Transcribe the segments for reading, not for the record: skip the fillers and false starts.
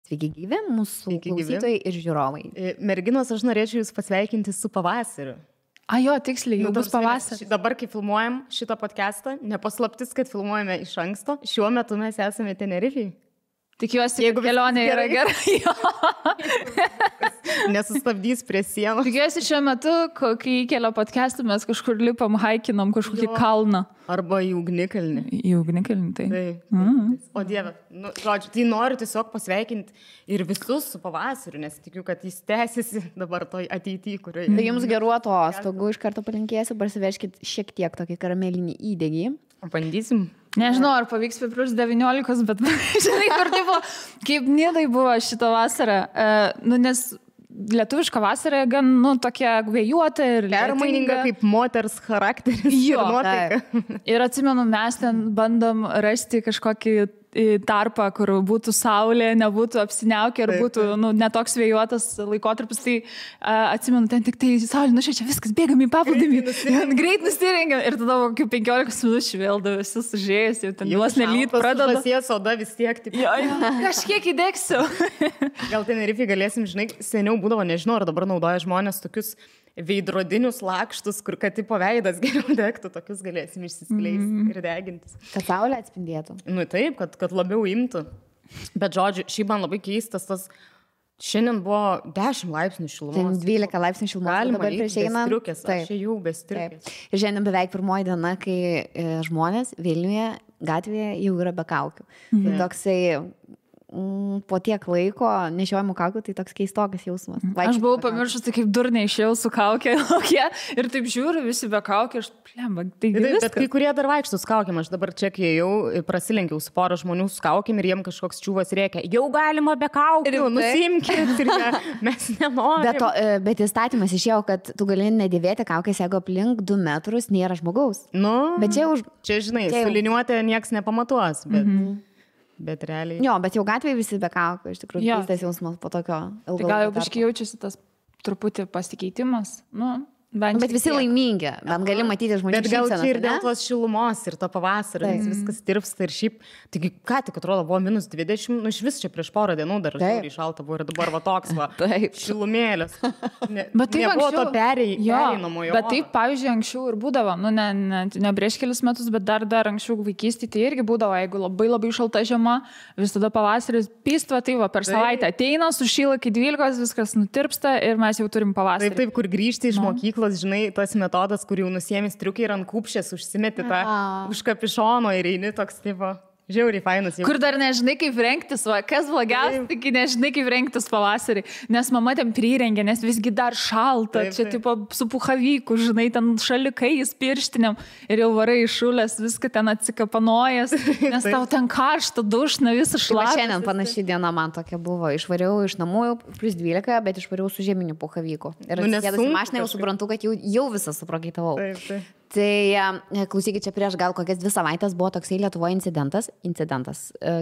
Sveiki gyvi, mūsų klausytojai ir žiūrovai. Merginos, aš norėčiau jūs pasveikinti su pavasariu. Jo, tiksliai, jau bus pavasaris. Dabar, kai filmuojam šitą podcastą, nepaslaptis, kad filmuojame iš anksto, šiuo metu mes esame Tenerifėje. Tikiuosi, jeigu kelionė yra gerai. Nesustabdys prie sienos. Tikiuosi, šiuo metu, kai įkelia podcastą, mes kažkur lipam, haikinam kažkokį kalną. Arba į ugnikalnį. Į ugnikalnį, tai. O Dieve, žodžiu, tai noriu tiesiog pasveikinti ir visus su pavasariu, nes tikiu, kad jis tęsiasi dabar toj ateityje, kurioje... Tai jums gerų atostogų iš karto palinkėsiu, parsiveškit šiek tiek tokį karamelinį įdegį. Bandysim. Nežinau, ar pavyks prie plus 19, bet žinai, kur tipo, kaip Nidai buvo šitą vasarą, nes lietuviška vasara gan, tokia vėjuota ir permaininga kaip moters charakteris ir nuotaika. Ir atsimenu, mes ten bandom rasti kažkokį tarpą, kur būtų saulė, nebūtų apsiniaukę ir būtų netoks vėjuotas laikotarpis. Tai atsimenu, ten tik tai saulė nušviečia, viskas, bėgam į paplūdimį, greit nusirengiam ir tada kokių 15 minučių vėl visi sužėjęs, jau ten juos nelyt pradeda. Pasies oda vis tiek. Kažkiek įdegsiu. Gal Tenerifėje galėsim, žinai, seniau būdavo, nežinau, ar dabar naudoja žmonės tokius veidrodinius lakštus, kur kad tipo veidas geriau degtų, tokius galėsim išsiskleisti ir degintis. Kad saulė atspindėtų. Taip, kad labiau imtų. Bet žodžiu, šiaip man labai keistas tas, šiandien buvo 10 laipsnių šilumos. 12 laipsnių šilumos. Galima dabar prieš einant. Aš jau be striukės. Ir šiandien beveik pirmoji diena, kai žmonės Vilniuje gatvėje jau yra be kaukių. Tai toksai... po tiek laiko nešiojamų kaukių, tai toks keistokas jausmas. Aš buvau pamiršus, tai kaip durniai išėjau su kaukė ir taip žiūriu, visi be kaukė, aš plemba, tai viskas. Bet kai kurie dar vaikštų su kaukėm, aš dabar čia, kai jau prasilenkiau su pora žmonių su kaukėm ir jiem kažkoks čiūvas rėkia, jau galima be kaukių, nusimkit ir mes nenorim. Bet įstatymas išėjo, kad tu gali nedėvėti kaukės, jeigu aplink 2 metrus nėra žmogaus. Bet čia žinai, su liniuotė nieks nepamatuos, bet realiai. Jo, bet jau gatvėje visi be kaukų, iš tikrųjų, keistas jausmas po tokio ilgo. Tai gal jau biškai jaučiasi tas truputį pasikeitimas, Bet visi laimingi, bet gali matyti žmonių šypseną. Bet gal čia ir dėl tos šilumos ir to pavasario, nes viskas tirpsta ir šiaip, taigi ką tik atrodo buvo minus 20, iš vis čia prieš porą dienų dar žiūrį šalta buvo ir dabar va toks va, šilumėlės. Nebuvo to pereinamojo. Bet taip, pavyzdžiui, anksčiau ir būdavo, ne prieš kelis metus, bet dar anksčiau vaikystėje tai irgi būdavo, jeigu labai šalta žiema, vis tada pavasaris pystva, tai va per savaitę ateina, sušyla iki 12, viskas nutirpsta ir mes jau turim pavasarį. Taip, kur grįžti iš mokyklos, žinai, tas metodas, kur jau nusėmė striukai ir ant kupšės užsimeti tą už kapišono ir eini toks tipo. Žiauriai fainas. Kur dar nežinai, kaip rengtis, kas blogiausia, tik nežinai, kaip rengtis pavasarį, nes mama ten prirengė, nes visgi dar šalta, čia tipo su puhavyku, žinai, ten šalikais, pirštiniam ir jau varai išulės, viską ten atsikapanojas, nes tau ten karšta, dušna, visas šlapas. Šiandien panaši diena man tokia buvo, išvariau iš namų plus 12, bet išvariau su žieminiu puhavyku. Ir atsisėdus į mašiną jau suprantu, kad jau visą suprakaitavau. Tai klausykit, čia prieš gal kokias 2 savaitės buvo toksai Lietuvoje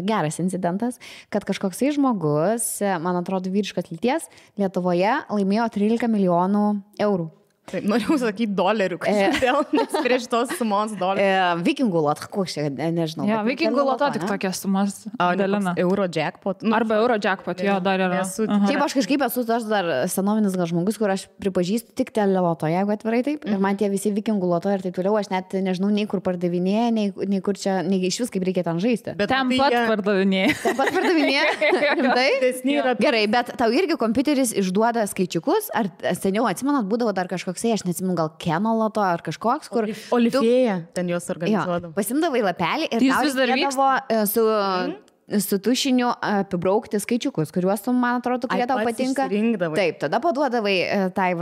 geras incidentas, kad kažkoksai žmogus, man atrodo vyriškos lyties, Lietuvoje laimėjo 13 milijonų eurų. Taip, norėjau sakyti dolerių, kažkodėl, nes prieš tos sumos dolerių. Vikingų loto, koks čia, nežinau. Jo, vikingų loto tik tokias sumas dalina. Euro jackpot. Arba euro jackpot, jo, dar yra. Šiaip aš kažkaip esu aš dar senovinis gal žmogus, kur aš pripažįstu tik teleloto, jeigu atvirai taip. Ir man tie visi vikingų loto ir taip toliau, aš net nežinau, nei kur pardavinėja, nei kur čia, nei iš vis kaip reikia ten žaisti. Bet ten pat pardavinėja. Ten pat pardavinėja? Gerai, bet tau irgi kompiuteris išduoda skaičiukus, ar seniau atsimenat, būdavo dar kažkoksai, aš neatsimenu, gal Keno loto ar kažkoks, kur... Olifėja, ten jos organizuodavo. Pasimdavai lapelį ir tau reikėdavo su tušiniu apibraukti skaičiukus, kuriuos tu, man atrodo, kurie tau patinka. Taip, tada paduodavai tai,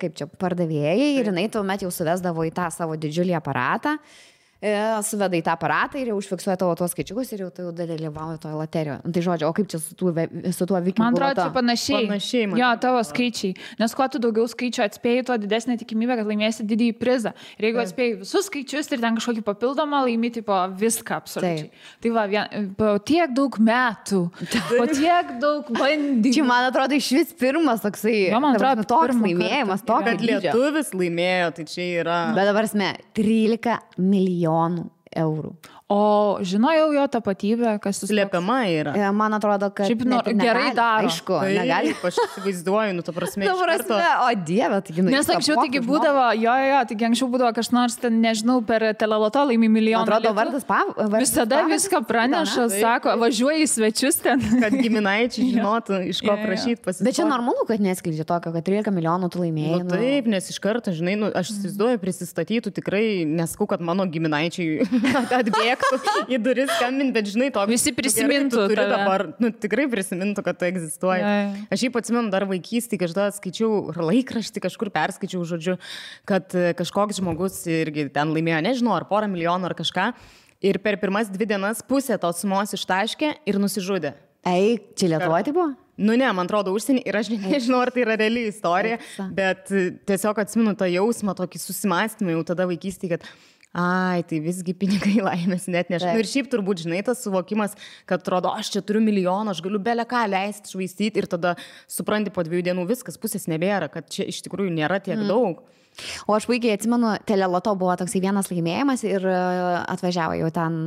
kaip čia, pardavėjai ir jinai tuomet jau suvesdavo į tą savo didžiulį aparatą. Suveda į tą aparatą ir jau užfiksuoja tavo tuos skaičiukus ir jau tu dalyvauji toje loterijoje. Tai žodžiu, o kaip čia su tuo vikingų Man atrodo, loto? čia panašiai. Jo, tavo skaičiai. Nes kuo tu daugiau skaičių atspėjai, tuo didesnė tikimybė, kad laimėsi didįjį prizą. Ir jeigu atspėjai visus skaičius ir ten kažkokį papildomą laimi, tipo viską absoliučiai. Tai va, po tiek daug metų, po tiek daug bandymų. Čia, man atrodo, iš vis pirmas toksai, man atrodo, toks laimėjimas, tokio dydžio. Kad lietuvis laimėjo, tai čia yra... Bet dabar 13 milijonų eurų. O žinojau jo tapatybę, kas jis slepiama yra. Man atrodo, kad šiaip gerai daro. Aišku, tai, negali. Aš įsivaizduoju, ta prasme. O Dieve, taigi nu. Nes anksčiau taigi būdavo, taigi anksčiau būdavo kažkas ten, nežinau, per teleloto laimi milijoną. Atrodo, vardas visada viską praneša, sako, važiuoji į svečius ten. Kad giminaičiai žinotų, iš ko prašyti pasisakyti. Bet čia normalu, kad neskleidžia tokio, kad 13 milijonų tu laimėjai. Taip, nes iš karto, žinai, aš įsivaizduoju, prisistatytų tikrai, nesakau, kad mano giminaičiai atbėgtų į duris skambinti, bet žinai, to visi prisimintų dabar, tikrai prisimintų, kad tu egzistuoji. Aš jį atsimenu dar vaikystėje, kažkada skaičiau laikraštį, kažkur perskaičiau, žodžiu, kad kažkoks žmogus irgi ten laimėjo, nežinau, ar porą milijonų ar kažką, ir per pirmas 2 dienas pusę tos sumos ištaškė ir nusižudė. Čia Lietuvoje tai buvo? Nu ne, man atrodo užsienį ir aš nežinau, ar tai yra reali istorija, bet tiesiog atsimenu tą jausmą, tokį susimąstymą jau tada vaikystėje, kad tai visgi pinigai laimės net neša. Ir šiaip turbūt, žinai, tas suvokimas, kad atrodo, aš čia turiu milijoną, aš galiu bele ką leisti, švaistyti ir tada supranti po 2 dienų viskas, pusės nebėra, kad čia iš tikrųjų nėra tiek daug. O aš puikiai atsimenu, teleloto buvo toksai vienas laimėjimas ir atvažiavo jau ten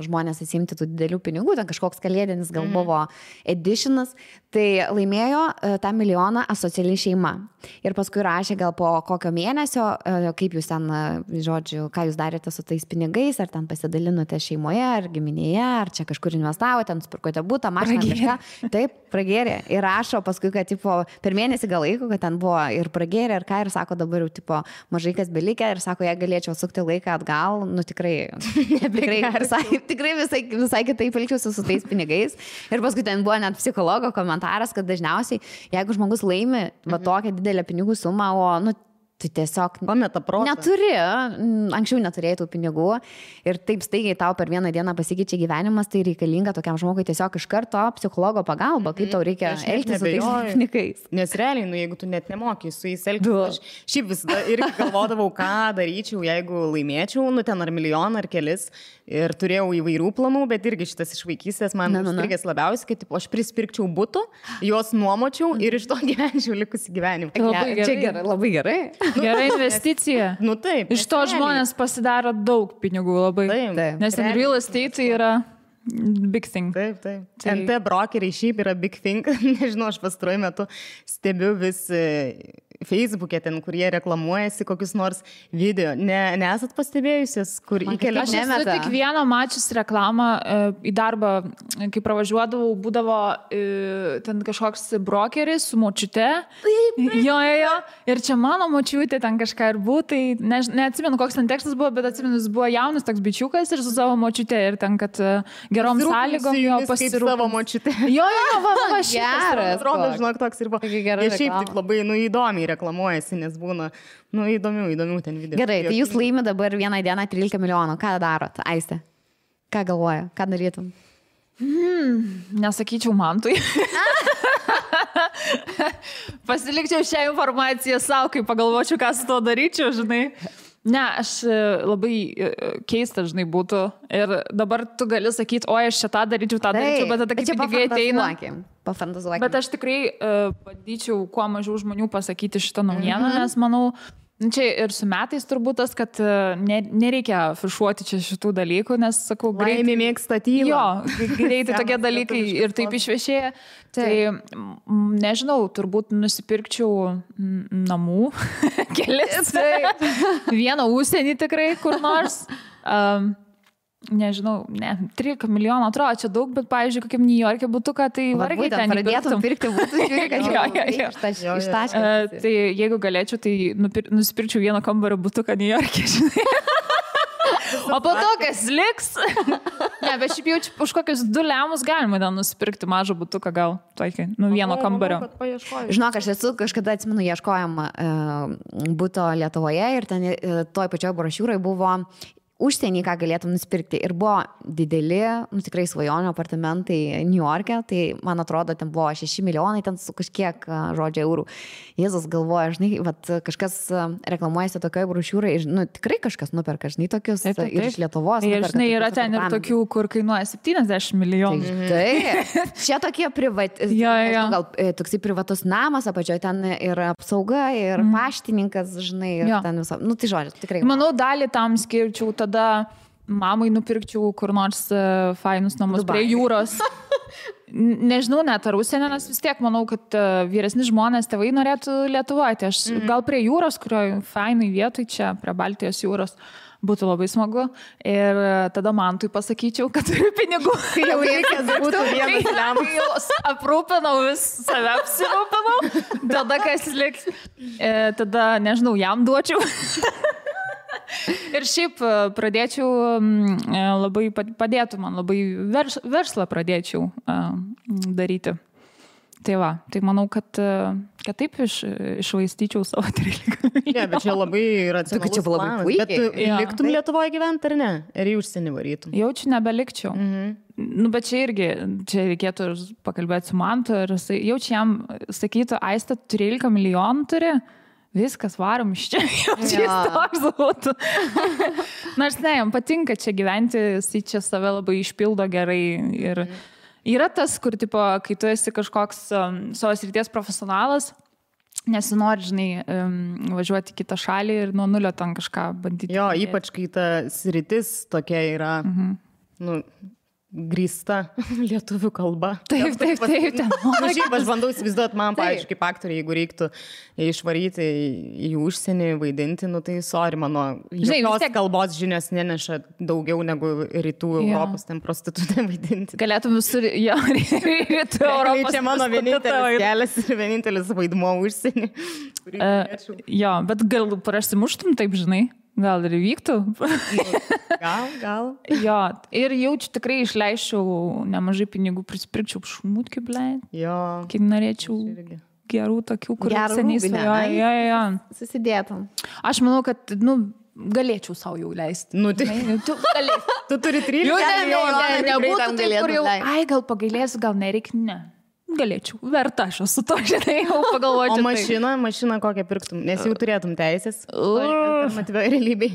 žmonės atsimti tų didelių pinigų, ten kažkoks kalėdinis gal buvo editionas, tai laimėjo tą milijoną asociali šeima. Ir paskui rašė gal po kokio mėnesio, kaip jūs ten, žodžiu, ką jūs darėte su tais pinigais, ar ten pasidalinote šeimoje, ar giminėje, ar čia kažkur investavote, ten nusipirkote butą, mašiną, kažką. Taip, pragėrė. Ir rašo paskui, kad tipo, per mėnesį gal laiko, kad ten buvo ir pragėrė, ir ką, ir sako dabar jau tipo, mažai kas belikė, ir sako, jei galėčiau sukti laiką atgal, nu tikrai visai kitaip elgčiausi su tais pinigais. Ir paskui ten buvo net psichologo komentaras, kad dažniausiai, jeigu žmogus laimi va tokią didelę pinigų sumą, o nu tu tiesiog neturi, anksčiau neturėjai tų pinigų ir taip staigiai tau per vieną dieną pasikeičia gyvenimas, tai reikalinga tokiam žmogui tiesiog iš karto psichologo pagalba, kaip tau reikia elgtis su tais pinigais. Nes realiai, jeigu tu net nemoki su jais elgtis, aš šiaip visada irgi galvodavau, ką daryčiau, jeigu laimėčiau, ten ar milijoną, ar kelis, ir turėjau įvairių planų, bet irgi šitas iš vaikystės man užstrigęs labiausiai, kad aš prispirkčiau butų, juos nuomočiau ir iš to gyvenčiau likusį gyvenimą. Čia labai gerai. Gera investicija. Taip. Iš to žmonės pasidaro daug pinigų labai. Taip. Nes ten real estate yra big thing. Taip. NT brokeriai šiaip yra big thing. Nežinau, aš pastaruoju metu stebiu vis Facebook'e ten, kurie reklamuojasi kokius nors video. Nesat pastebėjusios, kur įkelia? Aš esu tik vieną mačius reklamą į darbą, kai pravažiuodavau, būdavo ten kažkoks brokeris su močiute. Jo. Ir čia mano močiutė ten kažką ir buvo, tai neatsimenu, koks ten tekstas buvo, bet atsimenu, jis buvo jaunas toks bičiukas ir su savo močiute ir ten, kad gerom sąlygom jo pasirūpinti. Savo močiute. Jo, geras. Atrodo, žinok, toks ir buvo. Jie šiaip taip labai įdomiai reklamuojasi, nes būna įdomių ten video. Gerai, tai jūs laimi dabar vieną dieną 13 milijonų. Ką darot, Aiste? Ką galvoja? Ką darytum? Nesakyčiau Mantui. Pasilikčiau šią informaciją savo, kai pagalvočiau, ką su to daryčiau, žinai. Ne, aš labai keista, žinai, būtų. Ir dabar tu gali sakyti, oi, aš čia tą daryčiau, bet tada kaip pinigai ateina. Pafantazuokim. Bet aš tikrai bandyčiau kuo mažiau žmonių pasakyti šitą naujieną, nes manau, čia ir su metais turbūt tas, kad nereikia afišuoti čia šitų dalykų, nes, sakau, greitai mėgsta tylą. Jo, greitai tokie dalykai ir taip išviešėja. Tai nežinau, turbūt nusipirkčiau namų kelis. Vieną užsienį tikrai kur nors. Nežinau, 13 milijonų atrodo, čia daug, bet, pavyzdžiui, kokiam New York'e butuką, tai vargiai ten pradėtum pirkti butus. Tai jeigu galėčiau, tai nusipirkčiau vieną kambario butuką New York'e, žinai. O po to, kas liks? Ne, bet šiaip jau už kokius 2 lemus galima ten nusipirkti mažą butuką gal, tokį, vieno kambario. Žinok, aš esu kažkada, atsimenu, ieškojom buto Lietuvoje ir ten toj pačioj brošiūrai buvo užsienį, ką galėtum nusipirkti. Ir buvo dideli, tikrai svajonių apartamentai New York'e, tai man atrodo, ten buvo 6 milijonai, ten su kažkiek, žodžio, eurų. Jėzus galvoja, žinai, kažkas reklamuojasi tokioje brošiūrai, tikrai kažkas nuperka, žinai, tokius ir iš Lietuvos. Ir žinai, yra ten ir tokių, kur kainuoja 70 milijonų. Tai, čia tokie gal toksai privatus namas, apačioje ten ir apsauga, ir paštininkas, žinai, ir ten viso. Tai žodžiu, tikrai. Manau, dalį tam skirčiau tada mamai nupirkčiau kur nors fainus namus prie jūros. Nežinau, net ar užsienio, nes vis tiek manau, kad vyresni žmonės, tėvai norėtų Lietuvoje. Aš gal prie jūros, kurioje fainai vietoj čia, prie Baltijos jūros, būtų labai smagu. Ir tada man tai pasakyčiau, kad turiu pinigų. Kai jau reikės būtų vienas lemas. Jau aprūpinau, save apsirūpinau. Tada kas liks, tada, nežinau, jam duočiau. Ir šiaip pradėčiau labai, padėtų man labai verslą pradėčiau daryti. Tai va, tai manau, kad taip išvaistyčiau savo 13 milijonų. Ne, bet čia labai racionalus planas. Bet liktum Lietuvoje gyventi ar ne? Ar į užsienį varytum? Jaučiu nebelikčiau. Nu, bet čia irgi, čia reikėtų pakalbėti su Mantu ir jaučiu jam sakytų, Aiste, 13 milijonų turi? Viskas, varom iš čia, jis toks būtų. Nors ne, jam patinka čia gyventi, jis čia save labai išpildo gerai. Ir yra tas, kur, tipo, kai tu esi kažkoks savo srities profesionalas, nesinori, žinai, važiuoti į kitą šalį ir nuo nulio ten kažką bandyti. Jo, ypač kai ta sritis tokia yra, grįsta lietuvių kalba. Taip. Aš bandau įsivaizduoti man, pavyzdžiui, kaip aktoriai, jeigu reiktų išvaryti į užsienį, vaidinti, nu tai sorry, mano jokios kalbos žinios neneša daugiau negu rytų Europos, ten prostitutė vaidinti. Galėtum visur, jo, rytų Europos. Čia mano vienintelis kelias ir vienintelis vaidmuo užsienį. Jo, bet gal prasimuštum taip, žinai? Gal ir vyktų? Gal. Jo, ir jaučiu tikrai išleiščiau nemažai pinigų, prisipirkčiau šmutkių, blei. Jo. Kaip norėčiau gerų tokių, kur seniai svajoju. Jo. Susidėtum. Aš manau, kad, galėčiau savo jau leisti. Tu galėsi. Tu turi 13 milijonų. Nebūtų taip, kur jau, gal pagailėsiu, gal nereik, ne. Galėčiau, verta aš esu to, žinai, jau pagalvočiau. O mašiną kokią pirktum, nes jau turėtum teisės alternatyvioj realybėj.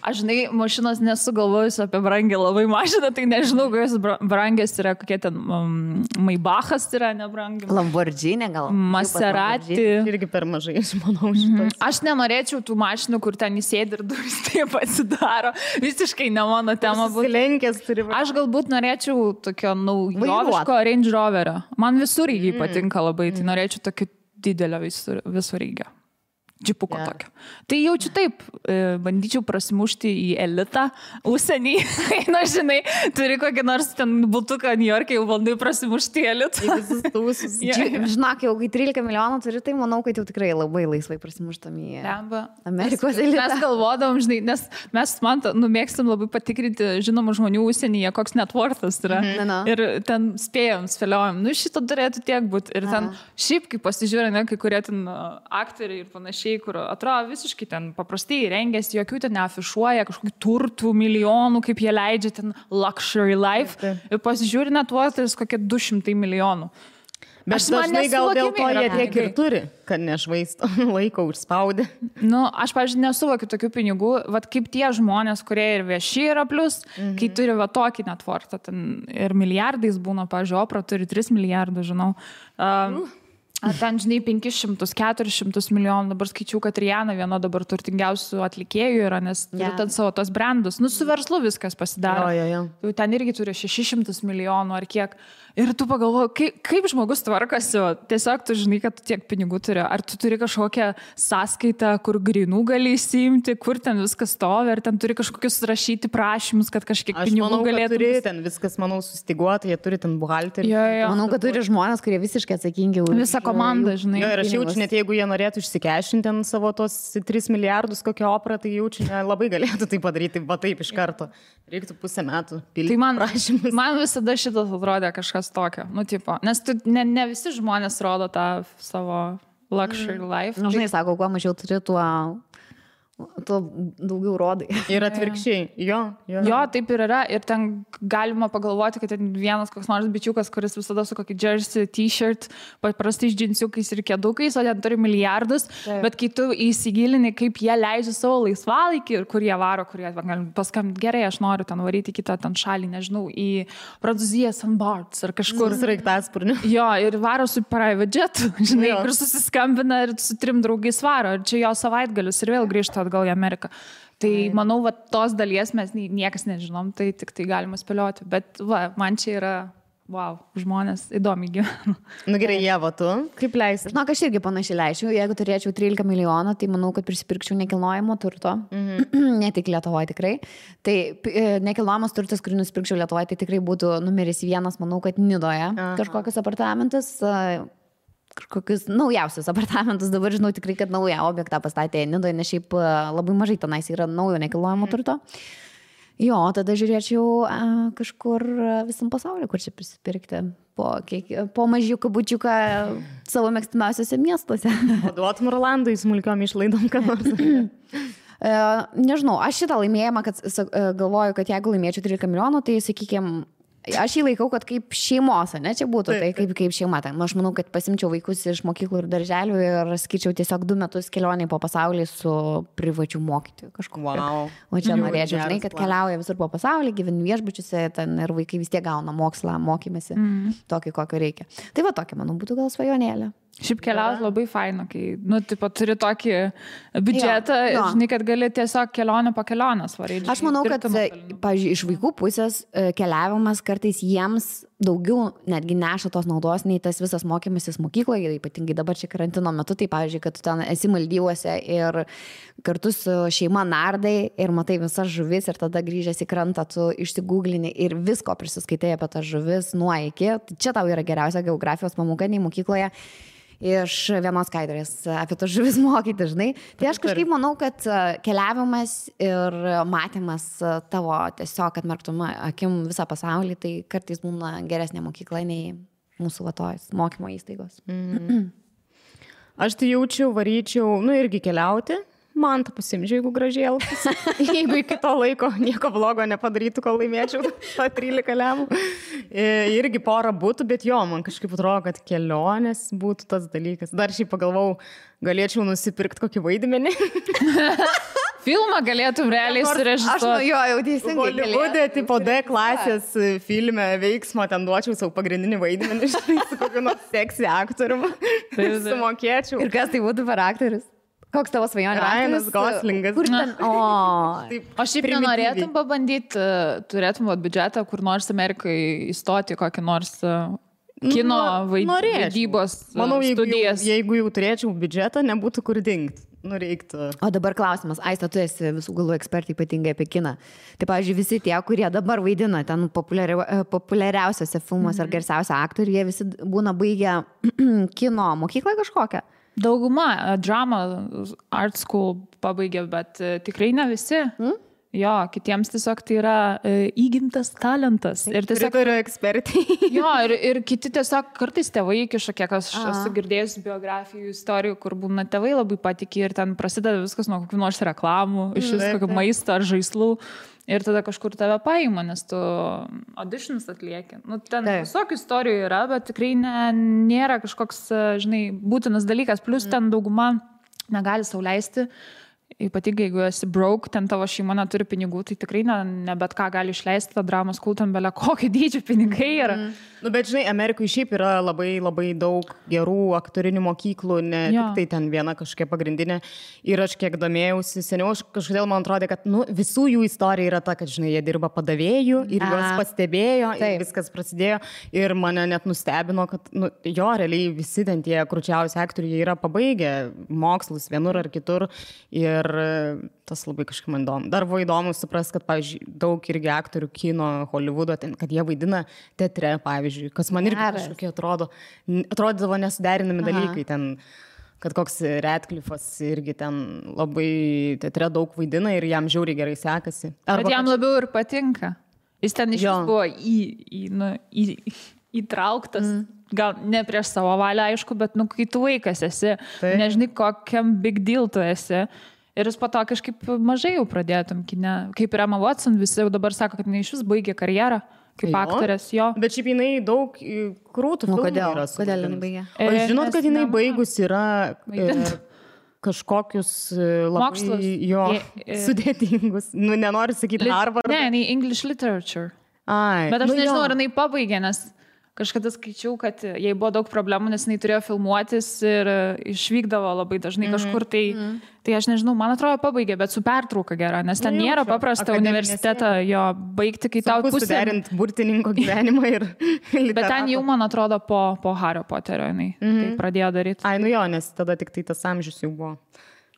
Aš, žinai, mašinos nesugalvojusiu apie brangę labai mašiną, tai nežinau, kokios brangės yra, kokie ten Maybachas yra nebrangi. Lamborghini gal. Maserati. Irgi per mažai, aš manau, šitas. Aš nenorėčiau tų mašinų, kur ten įsėdi ir durys taip atsidaro. Visiškai ne mano tema būtų. Aš galbūt norėčiau tokio naujoviško Range Roverio. Man visureigiai patinka labai, tai norėčiau tokio didelio visureigio. Džipuko tokio. Tai jaučiu taip, bandyčiau prasimušti į elitą, užsienį, žinai, turi kokį nors ten butuką New York'e, jau bandai prasimušti į elitą. Žinok, jau kai 13 milijonų turi, tai manau, kad jau tikrai labai laisvai prasimuštam į Amerikos elitą. Mes galvodavom, žinai, nes mes, man, mėgstam labai patikrinti žinomų žmonių užsienyje, koks net worthas yra. Ir ten spėliojom, šito turėtų tiek būti. Ir ten šiaip, kai pasižiūrė, kai kurie ten aktoriai ir panašiai, kur atrodo visiškai ten paprastai rengiasi, jokių ten neafišuoja, kažkokių turtų, milijonų, kaip jie leidžia ten luxury life. Ir pasižiūri net tuos kokie 200 milijonų. Bet dažnai gal dėl to jie tiek ir turi, kad nešvaisto laiko užspaudė. Aš, pavyzdžiui, nesuvokiu tokių pinigų, vat kaip tie žmonės, kurie ir vieši yra plus, kai turi va tokį netvortą, ten ir milijardais būna, pavyzdžiui, Opra turi 3 milijardus, žinau. Ten, žinai, 500-400 milijonų, dabar skaičiau, kad Rihanna viena dabar turtingiausių atlikėjų yra, nes turi ten savo tos brandus. Su verslu viskas pasidaro. Ten irgi turi 600 milijonų ar kiek. Ir tu pagalvoji, kaip žmogus tvarkasi, tiesiog tu žinai, kad tu tiek pinigų turi. Ar tu turi kažkokią sąskaitą, kur grinų gali įsiimti, kur ten viskas stovi, ar ten turi kažkokius rašyti prašymus, kad kažkiek pinigų galėtų. Aš manau, kad turi ten viskas, manau, sustiguota, jie turi ten buhalterį. Manau, kad turi žmonės, kurie visiškai atsakingi už visą komandą, žinai. Ir aš jaučiu, net jeigu jie norėtų išsikešinti ten savo tos 3 milijardus kokią Oprą, tai jaučiu, labai galėtų tai padaryti, va taip iš karto. Reiktų pusę metų pildyti prašymus. Man visada šitas atrodė kažkas tokio, tipo, nes ne visi žmonės rodo tą savo luxury life. Žinai, sako, kuo mažiau turi, tuo daugiau rodai. Ir atvirkščiai. Jo, taip ir yra. Ir ten galima pagalvoti, kad ten vienas koks nors bičiukas, kuris visada su kokį jersey, t-shirt, paprastai džinsiukais ir kėdukais, o ten turi milijardus. Bet kai tu įsigilini, kaip jie leidžia savo laisvalaikį ir kur jie varo, kur jie paskambinti, gerai, aš noriu ten varyti kitą ten šalį, nežinau, į Prancūziją, St. Barts ar kažkur. Sraigtasparniu. Jo, ir varo su private jetu, žinai, kur susiskambina ir su 3 draugais varo. Ir čia jo savaitgalius ir vėl grįžta atgal į Ameriką. Tai manau, va, tos dalies mes niekas nežinom, tai tik tai galima spėlioti. Bet va, man čia yra, wow, žmonės įdomiai gyvena. Nu gerai, Ieva, tu kaip leisi? Žinok, aš irgi panašiai leisčiau. Jeigu turėčiau 13 milijonų, tai manau, kad prisipirkčiau nekilnojamo turto. Ne tik Lietuvoje tikrai. Tai nekilnojamas turtas, kurį nusipirkčiau Lietuvoje, tai tikrai būtų numeris 1, manau, kad Nidoje kažkokius apartamentus. Kažkokius naujausius apartamentus, dabar žinau tikrai, kad naują objektą pastatė Nidoje, nes šiaip labai mažai tenais yra naujo nekilnojamo turto. Jo, tada žiūrėčiau kažkur visam pasaulyje, kur čia prisipirkti po mažiuką bučiuką savo mėgstamiausiuose miestuose. O duotum Rolandui smulkiom išlaidom, ką nors? Nežinau, aš šitą laimėjimą, kad galvoju, kad jeigu laimėčiau 13 milijonų, tai sakykime, aš jį laikau, kad kaip šeimos, ne, čia būtų, tai kaip šeima. Tai aš manau, kad pasimčiau vaikus iš mokyklų ir darželių ir skaičiau tiesiog 2 metus kelionį po pasaulį su privačiu mokytoju kažkokiu. Wow. O čia norėčiau, žinai, kad keliauja visur po pasaulį, gyvenu viešbučiuose ten ir vaikai vis tiek gauna mokslą, mokymėsi, tokį, kokio reikia. Tai va tokia, manau, būtų gal svajonėlė. Šiaip keliauti labai faina, kai, nu, tipo, turi tokį biudžetą, žinai, kad gali tiesiog kelionę po kelionės varyti. Aš manau, kad, pavyzdžiui, iš vaikų pusės keliavimas kartais jiems daugiau netgi neša tos naudos, nei tas visas mokymasis mokykloje, ypatingai dabar čia karantino metu, tai pavyzdžiui, kad tu ten esi Maldyvuose ir kartu su šeima nardai ir matai visas žuvis ir tada grįžęs į krantą tu išsigūglini ir visko prisiskaitai apie tas žuvis nuo iki. Čia tau yra geriausia geografijos pamoka nei mokykloje. Iš vienos skaidrės apie to žuvis mokyti, žinai. Tai aš kažkaip manau, kad keliavimas ir matymas tavo tiesiog atmerktum akim visą pasaulį, tai kartais būna geresnė mokykla nei mūsų vatojus mokymo įstaigos. Aš tai jaučiau, varyčiau, nu irgi keliauti. Man tą pasimdžiu, jeigu gražiai elgtųsi. Jeigu iki to laiko nieko blogo nepadarytų, kol laimėčiau tą 13 lemų. Irgi porą būtų, bet jo, man kažkaip atrodo, kad kelionės būtų tas dalykas. Dar šiaip pagalvau, galėčiau nusipirkti kokį vaidmenį. Filmą galėtum realiai surežisuoti. Aš jau teisingai. Hollywoode, tipo D klasės filme veiksmo, ten duočiau savo pagrindinį vaidmenį, su kokiu nors seksy aktoriumi. Sumokėčiau. Ir kas tai būtų per aktorius? Koks tavo svajonė? Ryanas Goslingas. Kur ten? O šiaip nenorėtum pabandyti, turėtum biudžetą, kur nors Amerikai įstoti kokį nors kino vaidybos studijas. Jeigu jau turėčiau biudžetą, nebūtų kur dingti. Reiktų. O dabar klausimas, Aista, tu esi visų galų ekspertai ypatingai apie kiną. Tai, pavyzdžiui, visi tie, kurie dabar vaidina ten populiariausiose filmuose ar garsiausia aktoriai, jie visi būna baigę kino mokyklą kažkokią. Dauguma drama art school pabaigė, bet tikrai ne visi. Jo, kitiems tiesiog tai yra įgimtas talentas. Ir tiesiog yra ekspertai. Jo, ir kiti tiesiog kartais tėvai įkiša, kiek aš esu girdėjus biografijų, istorijų, kur būna tėvai labai patikė ir ten prasideda viskas nuo kokių nors reklamų, iš kokio maisto ar žaislų. Ir tada kažkur tave paima, nes tu auditions atlieki. Nu, ten visokių istorijų yra, bet tikrai nėra kažkoks, žinai, būtinas dalykas. Plus ten dauguma negali sau leisti. Ypatingai, jeigu esi broke, ten tavo šeima neturi pinigų, tai tikrai ne bet ką gali išleisti tą dramos kultą, belia kokio dydžio pinigai yra. Nu, bet žinai, Amerikoje šiaip yra labai, labai daug gerų aktorinių mokyklų, ne tik tai ten viena kažkokia pagrindinė. Ir aš kiek domėjausi, seniau kažkodėl man atrodė, kad visų jų istorija yra ta, kad, žinai, jie dirba padavėjų ir juos pastebėjo ir viskas prasidėjo. Ir mane net nustebino, kad, jo, realiai visi ten tie kručiausi aktoriai yra pabaigę mokslus vienur ar kitur. Ir tas labai kažkaip man įdomu. Dar buvo įdomu suprast, kad, pavyzdžiui, daug irgi aktorių kino, Hollywoodo, kad jie vaidina teatre, pavyzdžiui, kas man irgi kažkokie atrodydavo nesuderinami dalykai. Ten, kad koks Radcliffe'as irgi ten labai teatre daug vaidina ir jam žiauriai gerai sekasi. Bet jam labiau ir patinka. Jis ten iš vis buvo įtrauktas. Gal ne prieš savo valią, aišku, bet kai tu vaikas esi, nežinai, kokiam big deal tu esi. Ir jis po to kažkaip mažai jau pradėtum kine. Kaip ir Emma Watson, visi jau dabar sako, kad jinai iš vis baigė karjerą kaip aktorės. Jo. Bet šiaip jinai daug krūtų filmų yra. Kodėl jinai baigė? O žinot, kad jinai baigus yra kažkokius labai sudėtingus. Nenoriu sakyti Harvard. Ne, jinai English literature. Ai. Bet aš nežinau, ar jinai pabaigė, nes kažkada skaičiau, kad jai buvo daug problemų, nes jinai turėjo filmuotis ir išvykdavo labai dažnai kažkur, tai aš nežinau, man atrodo pabaigė, bet su pertrauka gera, nes ten nėra paprasta universitetą jo baigti, kai tau pusė. Suderinti burtininko gyvenimą ir literatūrą. Bet ten jau, man atrodo, po Hario Poterio jinai tai pradėjo daryti. Ai, nu jo, nes tada tik tai tas amžius jau buvo.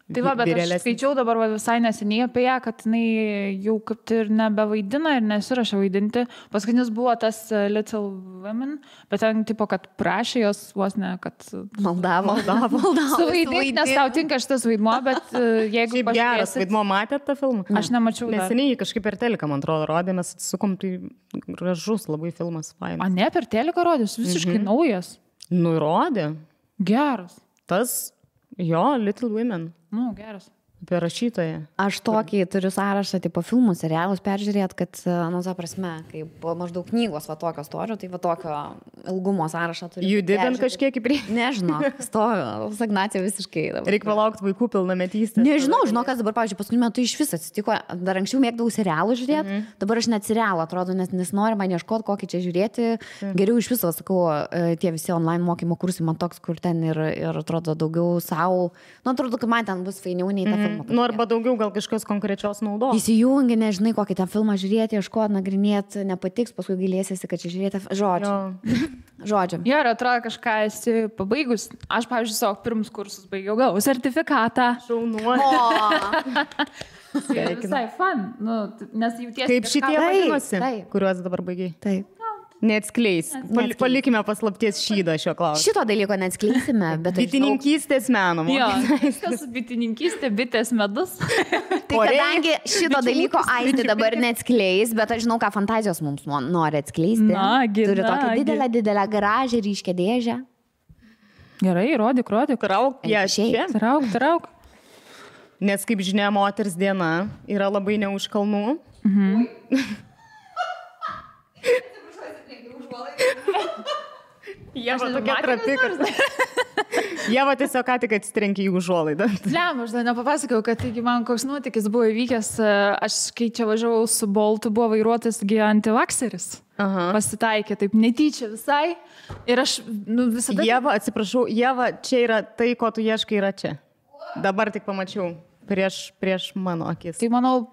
Tai va, bet aš skaičiau dabar visai neseniai apie ją, kad jinai jau kaip ir nebevaidina ir nesirašė vaidinti. Paskutinis buvo tas Little Women, bet ten tipo, kad prašė jos vos ne, kad maldavo. Suvaidinti, nes tau tinka šitas vaidmuo, bet jeigu pažiūrėsit... Geras vaidmuo, matėt tą filmą? Aš nemačiau. Neseniai kažkaip per teliką, man atrodo, rodė, mes atsisukom, tai gražus labai filmas, fainas. A ne, per teliką rodės, visiškai naujas. Nu, rodė. Geras. Tas, jo, Little Women. Nu, geras. Apie rašytoją. Aš tokį turiu sąrašą, tipo filmų, serialus peržiūrėt, kad, nu, ta prasme, kaip maždaug knygos va tokio storio, tai va tokio ilgumo sąrašą turiu. Judidant kažkiek į priekį? Nežinau, stoviu, stagnacija visiškai. Reikia palaukti vaikų pilnametystės. Nežinau, žinau, kas dabar, pavyzdžiui, paskutiniu metu iš viso atsitiko. Dar anksčiau mėgdavau serialų žiūrėti, dabar aš net serialą atrodo, nes noriu man ieškoti, kokį čia žiūrėti. Geriau iš viso, sakau, tie visi online mokymo kursai man toks, kur ten ir atrodo daugiau savo. Nu, atrodo, kad man ten bus fainiau nei ta filmą. Nu, arba daugiau gal kažkokios konkrečios naudos. Įsijungi, nežinai, kokį tą filmą žiūrėti, ieškoti, nagrinėti, nepatiks, paskui gailėsiesi, kad čia žiūrėti. Žodžiu. Jo, ir atrodo, kažką esi pabaigus. Aš, pavyzdžiui, savo pirmus kursus baigiau, gavau sertifikatą. Šaunuolė. Visai fun. Nu, nes jautiesi... Kaip šitie vadinosi, kuriuos dabar baigiai? Taip. Neatskleis. Palikime paslapties šydą šio klausimą. Šito dalyko neatskleisime, bet... Bitininkystės meno. Jo, kas bitininkystė, bitės medus. Tai kadangi šito dalyko Aistė dabar neatskleis, bet aš žinau, ką fantazijos mums nori atskleisti. Turi tokią didelę garažę, ryškę dėžę. Gerai, rodyk. Trauk. Nes, kaip žinia, moters diena yra labai ne už kalnų. Jeva tokia trapi, kad... Jeva tiesiog ką tik atsitrenkė į užuolaidą. Lem, aš dar nepapasakau, kad taigi man koks nuotykis buvo įvykęs. Aš kai čia važiavau su Boltu, buvo vairuotas antivakseris. Pasitaikė taip netyčia visai. Ir aš visada... Jeva, atsiprašau, Jeva, čia yra tai, ko tu ieškai, yra čia. Dabar tik pamačiau prieš mano akis. Tai manau,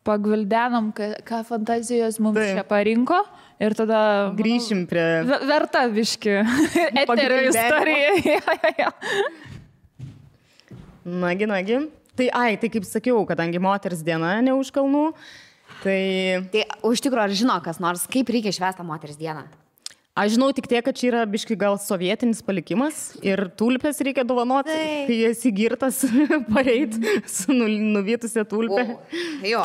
pagvildenom, ką fantazijos mums čia parinko ir tada... Grįšim prie... Verta viški. Eterio istorija. Nagi. Tai kaip sakiau, kadangi moters diena ne už kalnų, tai... Tai už tikrųjų, ar žino kas nors, kaip reikia švęsti moters dieną? Aš žinau tik tiek, kad čia yra biškai gal sovietinis palikimas ir tulpės reikia dovanoti, kai esi girtas pareit su nuvytusią tulpę.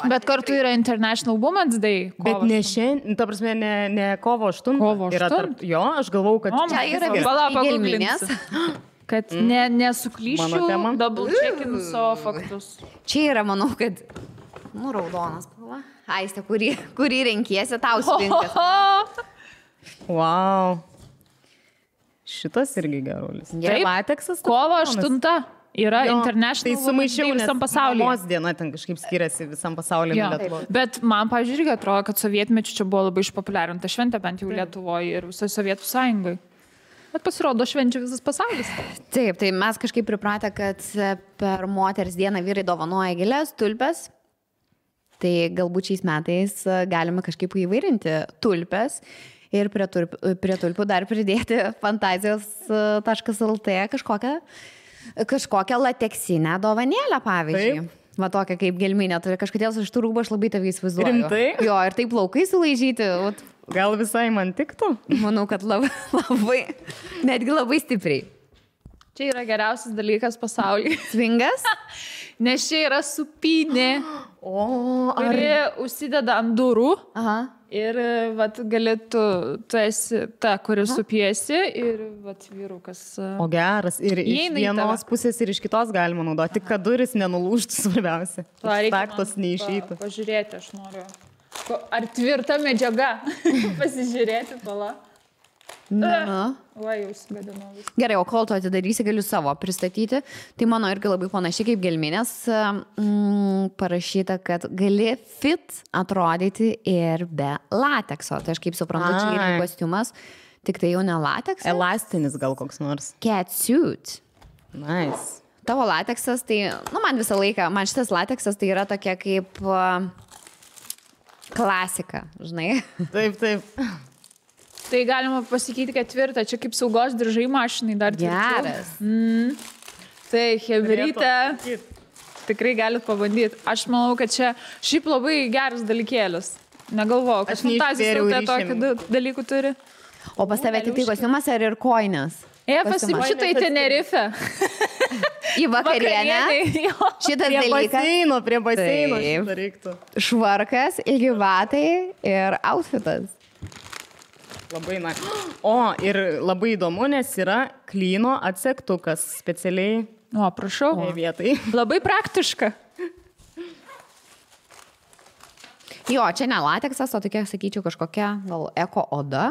Bet kartu yra International Women's Day. Bet ne šiandien, ta prasme, ne kovo 8. Kovo 8? Jo, aš galvau, kad... Čia yra gelminės. Kad nesuklyščiau, double checkinu savo faktus. Čia yra, manau, kad... raudonas spalva. Aistė, kurį renkiesi, tau spinkas. Wow. Šitas irgi gerulis. Taip, lateksas. Kovo 8 yra International Women's Day visam pasaulyje. Mamos diena ten kažkaip skiriasi visam pasaulyje. Bet man, pavyzdžiui, irgi atrodo, kad sovietmečiu čia buvo labai išpopuliarinta šventė, bent jau Lietuvoje ir visoje Sovietų sąjungai. Bet pasirodo švenčia visas pasaulis. Taip, tai mes kažkaip pripratę, kad per moters dieną vyrai dovanoja gėles, tulpes. Tai galbūt šiais metais galime kažkaip įvairinti tulpes. Ir prie tulpių dar pridėti fantazijos.lt kažkokią lateksinę dovanėlę, pavyzdžiui. Taip. Va tokia kaip gelminė, turi kažkodėl iš tų rūbų aš labai tavai įsivaizduoju. Rimtai? Jo, ir taip plaukai sulaižyti. Gal visai man tiktų? Manau, kad labai, netgi labai stipriai. Čia yra geriausias dalykas pasaulyje. Svingas? Nes čia yra supynė, kuri užsideda ant durų. Ir vat, galėtų, tu esi ta, kuri supiesi ir vat, vyrukas. O geras, ir iš vienos pusės ir iš kitos galima naudoti, tik kad duris nenulūžtų svarbiausia. Staktos neišeitų. Pažiūrėti, aš noriu. Ar tvirta medžiaga? Pasižiūrėti, pala. Va, jau sugadinau viską. Gerai, o kol tu atidarysi, galiu savo pristatyti. Tai mano irgi labai panašiai kaip gelminės parašyta, kad gali fit atrodyti ir be latekso. Tai aš kaip suprantu, čia yra kostiumas. Tik tai jau ne lateksas? Elastinis gal koks nors. Catsuit. Nice. Tavo lateksas, tai, man visą laiką, man šitas lateksas tai yra tokia kaip klasika, žinai. Taip. Tai galima pasakyti, kad tvirta, čia kaip saugos diržai mašinai dar tvirčiau. Geras. Tai hebrytė, tikrai galit pabandyti. Aš manau, kad čia šiaip labai geras dalykėlis. Negalvoju, kad fantazijos tautė tokių dalykų turi. O pas tave tik tai kostiumas ar ir koinės? Šitą į Tenerife. Į vakarienę. Šitas dalykas. Prie baseino šitą reiktų. Švarkas, ilgi batai ir outfitas. Labai O, ir labai įdomu, nes yra klyno atsektukas specialiai. O, prašau. Vietai. Labai praktiška. Jo, čia ne lateksas, o tokia, sakyčiau, kažkokia gal eko oda.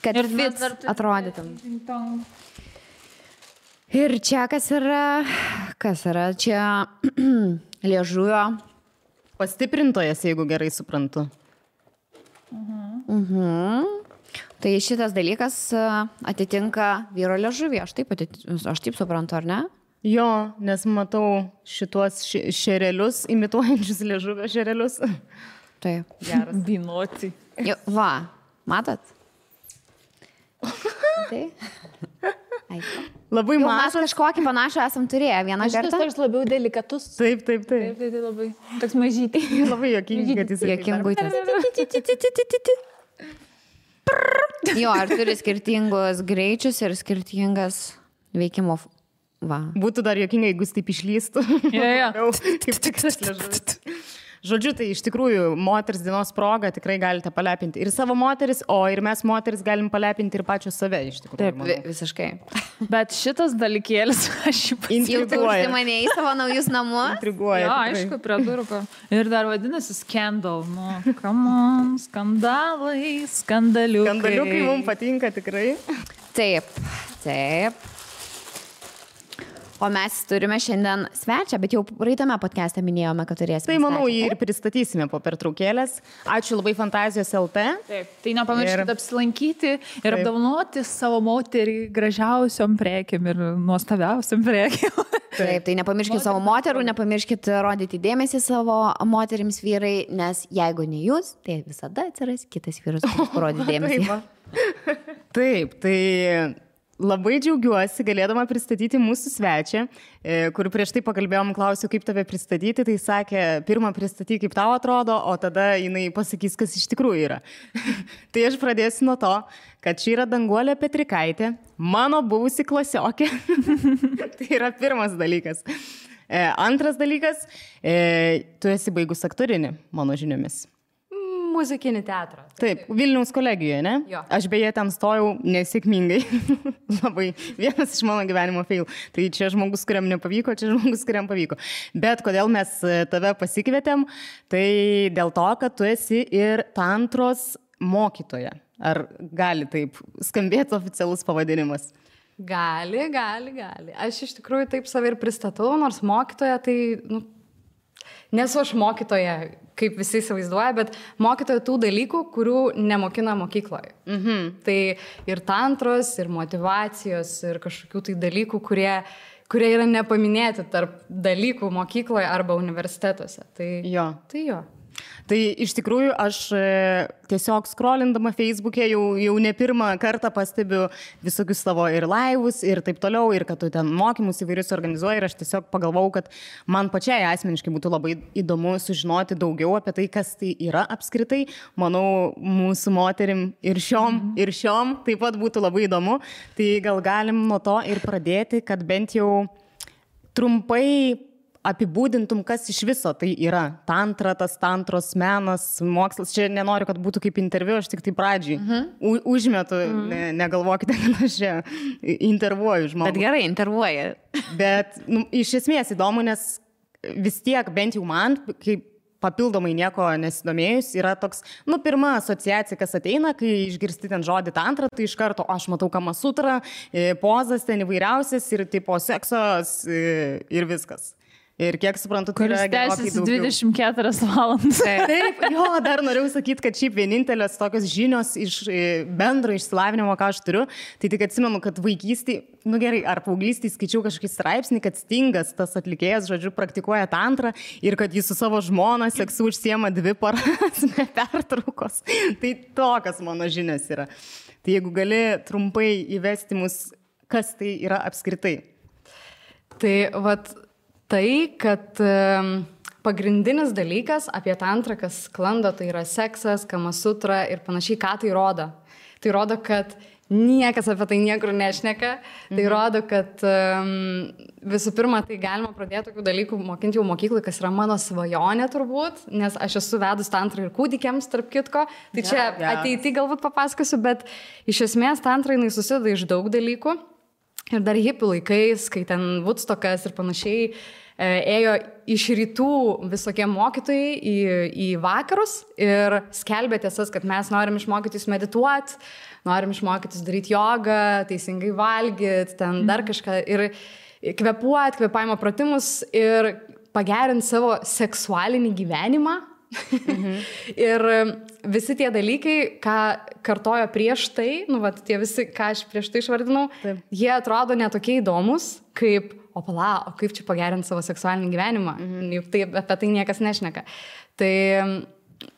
Kad fit atrodytum. Ir čia kas yra? Čia liežuvio. Pastiprintojas, jeigu gerai suprantu. Tai šitas dalykas atitinka vyro liežuvį. Aš taip suprantu, ar ne? Jo, nes matau šituos šerelius, imituojančius liežuvio šerelius. Taip. Geras. Binoti. Va, matot? Tai. Labai mažas. Mes kažkokį panašų esam turėję vieną kartą. Šitas toks labiau delikatus. Taip. Tai labai toks mažytį. Labai jokingai, kad jis Jokingutės. Jo, ar turi skirtingus greičius ir skirtingas veikimo. Va. Būtų dar jokingai, jeigu jis taip išlystų. Jo. Kaip tikras liežuvis. Žodžiu, tai iš tikrųjų moters dienos proga tikrai galite palepinti ir savo moteris, o ir mes moteris galim palepinti ir pačios save iš tikrųjų. Taip, visiškai. Bet šitas dalykėlis aš jį Jau tu užsimanėjai savo naujus namus? Intriguoja. Jo, aišku, prie durų. Ir dar vadinasi Scandal. Nu, come on, skandalai, skandaliukai. Skandaliukai mums patinka tikrai. Taip. O mes turime šiandien svečią, bet jau praeitame podcast'e minėjome, kad turėsime. Tai manau, jį ir pristatysime po pertraukėlės. Ačiū labai Fantazijos LT. Taip, tai nepamirškite apsilankyti ir apdovanoti savo moterį gražiausiom prekėm ir nuostabiausiam prekėm. Taip, tai nepamirškite savo moterų, nepamirškite rodyti dėmesį savo moterims vyrai, nes jeigu ne jūs, tai visada atsiras kitas vyras, kuris parodys dėmesį. Taip, tai labai džiaugiuosi galėdama pristatyti mūsų svečią, kur prieš tai pakalbėjom, klausiau, kaip tave pristatyti, tai sakė, pirmą pristatyk, kaip tau atrodo, o tada jinai pasakys, kas iš tikrųjų yra. Tai aš pradėsiu nuo to, kad čia yra Danguolė Petrikaitė, mano buvusi klasiokė. Tai yra pirmas dalykas. Antras dalykas, tu esi baigus aktorinį, mano žiniomis. Muzikinį teatrą. Taip, Vilniaus kolegijoje, ne? Jo. Aš beje ten stojau nesėkmingai. Labai vienas iš mano gyvenimo fail. Tai čia žmogus, kuriam nepavyko, čia žmogus, kuriam pavyko. Bet kodėl mes tave pasikvietėm, tai dėl to, kad tu esi ir tantros mokytoja. Ar gali taip skambėti oficialus pavadinimas? Gali. Aš iš tikrųjų taip save ir pristatau, nors mokytoja tai, nesu aš mokytoja, kaip visi įsivaizduoja, bet mokytoja tų dalykų, kurių nemokina mokykloje. Tai ir tantros, ir motyvacijos, ir kažkokių tai dalykų, kurie yra nepaminėti tarp dalykų mokykloje arba universitetuose. Tai jo. Tai iš tikrųjų aš tiesiog scrollindama Facebook'e jau ne pirmą kartą pastebiu visokius savo ir laivus ir taip toliau, ir kad tu ten mokymus įvairius organizuoji, ir aš tiesiog pagalvojau, kad man pačiai asmeniškai būtų labai įdomu sužinoti daugiau apie tai, kas tai yra apskritai. Manau, mūsų moterim ir šiom taip pat būtų labai įdomu. Tai gal galim nuo to ir pradėti, kad bent jau trumpai apibūdintum, kas iš viso tai yra tantra, tas tantros menas, mokslas. Čia nenoriu, kad būtų kaip interviu, aš tik tai pradžiai užmetu, negalvokite, kad aš čia intervuoju žmogų. Bet gerai, intervuoja. Bet iš esmės įdomu, nes vis tiek, bent jau man, kaip papildomai nieko nesidomėjus, yra toks, pirma asociacija, kas ateina, kai išgirsti ten žodį tantra, tai iš karto, aš matau Kamasutrą, pozas ten įvairiausias ir tipo seksas ir viskas. Ir kiek suprantu, tai yra gerokai daugiau. 24 valandas. Taip, jo, dar norėjau sakyti, kad šiaip vienintelės tokios žinios iš bendro išsilavinimo, ką aš turiu, tai tik atsimenu, kad vaikystėje, gerai, ar paauglystėje skaičiau kažkokį straipsnį, kad Stingas, tas atlikėjas, žodžiu, praktikuoja tantrą ir kad jis su savo žmona seksu užsiema 2 paras be pertraukos. Tai tokios mano žinios yra. Tai jeigu gali trumpai įvesti mus, kas tai yra apskritai? Tai vat tai, kad pagrindinis dalykas apie tantrą, kas sklando, tai yra seksas, kamasutra ir panašiai, ką tai rodo. Tai rodo, kad niekas apie tai niekur nešneka. Tai rodo, kad visų pirma, tai galima pradėti tokių dalykų mokinti jau mokyklai, kas yra mano svajonė turbūt, nes aš esu vedus tantrą ir kūdikiams, tarp kitko. Tai čia ateity galbūt papasakosiu, bet iš esmės tantra jinai susideda iš daug dalykų. Ir dar hipių laikais, kai ten Woodstockas ir panašiai, ėjo iš rytų visokie mokytojai į vakarus ir skelbė tiesas, kad mes norim išmokytis medituoti, norim išmokytis daryti jogą, teisingai valgyti, ten dar kažką ir kvėpuoti, kvėpavimo pratimus ir pagerinti savo seksualinį gyvenimą. Ir visi tie dalykai, ką kartojo prieš tai, tie visi, ką aš prieš tai išvardinau, jie atrodo netokie įdomus, kaip o kaip čia pagerinti savo seksualinį gyvenimą, juk tai, apie tai niekas nešneka. Tai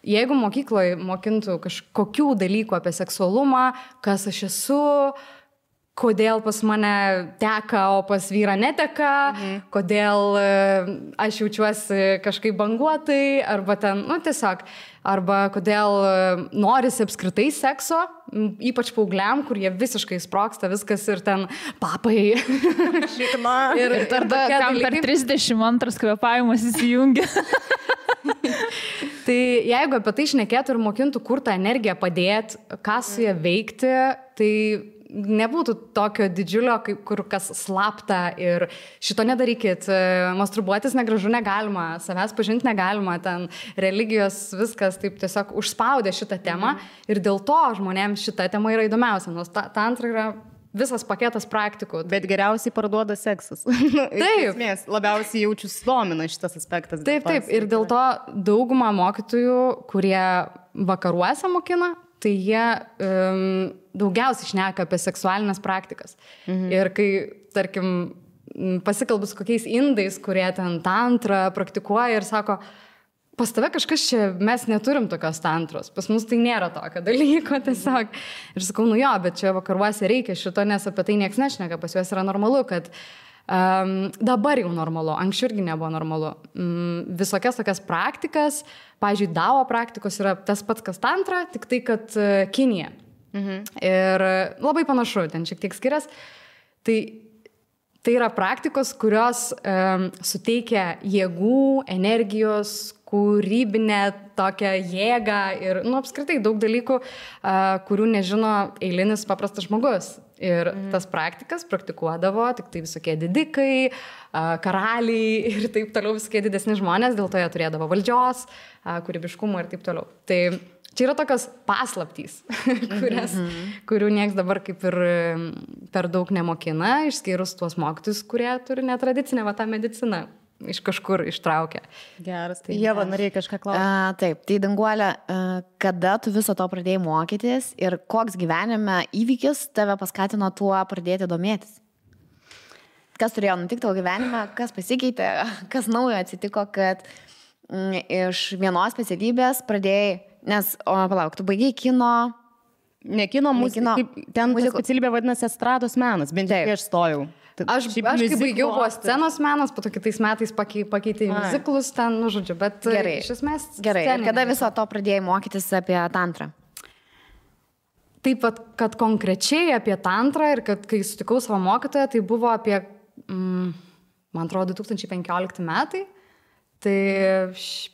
jeigu mokykloje mokintų kažkokių dalykų apie seksualumą, kas aš esu, kodėl pas mane teka, o pas vyrą neteka, kodėl aš jaučiuosi kažkaip banguotai, arba ten, tiesiog, arba kodėl norisi apskritai sekso, ypač paaugliam, kur jie visiškai sproksta viskas ir ten papai. Šikma. Ir tada kam per 32 kvėpavimas įsijungia. Tai jeigu apie tai šnekėtų ir mokintų, kur tą energiją padėti, ką su ją veikti, tai nebūtų tokio didžiulio, kur kas slapta ir šito nedarykit, masturbuotis negražu negalima, savęs pažinti negalima, ten religijos viskas taip tiesiog užspaudė šitą temą ir dėl to žmonėms šita tema yra įdomiausia, nes tantra yra visas paketas praktikų. Bet geriausiai parduoda seksas. Taip. Esmės, labiausiai jaučiu sudomina šitas aspektas. Taip, ir dėl to dauguma mokytojų, kurie vakaruose mokina, tai jie daugiausiai šneka apie seksualinės praktikas. Ir kai, tarkim, pasikalbu su kokiais indais, kurie ten tantrą praktikuoja ir sako, pas tave kažkas čia, mes neturim tokios tantros, pas mus tai nėra tokio dalyko tiesiog. Ir sakau, jo, bet čia vakaruose reikia šito, nes apie tai nieks nešneka, pas juos yra normalu, kad dabar jau normalu, anksčiau irgi nebuvo normalu. Visokias tokias praktikas, pavyzdžiui, Dao praktikos yra tas pats, kas tantra, tik tai, kad Kinija. Ir labai panašu, ten šiek tiek skiriasi. Tai yra praktikos, kurios suteikia jėgų, energijos, kūrybinę tokią jėgą ir, apskritai daug dalykų, kurių nežino eilinis paprastas žmogus. Ir tas praktikas praktikuodavo tik tai visokie didikai, karaliai ir taip toliau, visokie didesni žmonės, dėl to jie turėdavo valdžios, kūrybiškumo ir taip toliau. Tai čia yra tokios paslaptys, kurių nieks dabar kaip ir per daug nemokina, išskyrus tuos mokytojus, kurie turi netradicinę tą mediciną. Iš kažkur ištraukia. Geras. Tai Ieva, norėjai kažką klausyti? Taip, tai Danguolė, kada tu viso to pradėjai mokytis ir koks gyvenime įvykis tave paskatino tuo pradėti domėtis? Kas turėjo nutikti tavo gyvenime, kas pasikeitė, kas naujo atsitiko, kad iš vienos specialybės pradėjai, nes, palauk, tu baigei kino... Ne kino, ten specialybė vadinasi estrados menas, bent jau aš stojau. Aš kai baigiau buvo scenos menas, po to kitais metais pakeitė muziklus ten, žodžiu, bet gerai, iš esmės... Gerai, ir kada viso to pradėjai mokytis apie tantrą? Taip pat, kad konkrečiai apie tantrą ir kad kai sutikau savo mokytoją, tai buvo apie, man atrodo, 2015 metai, tai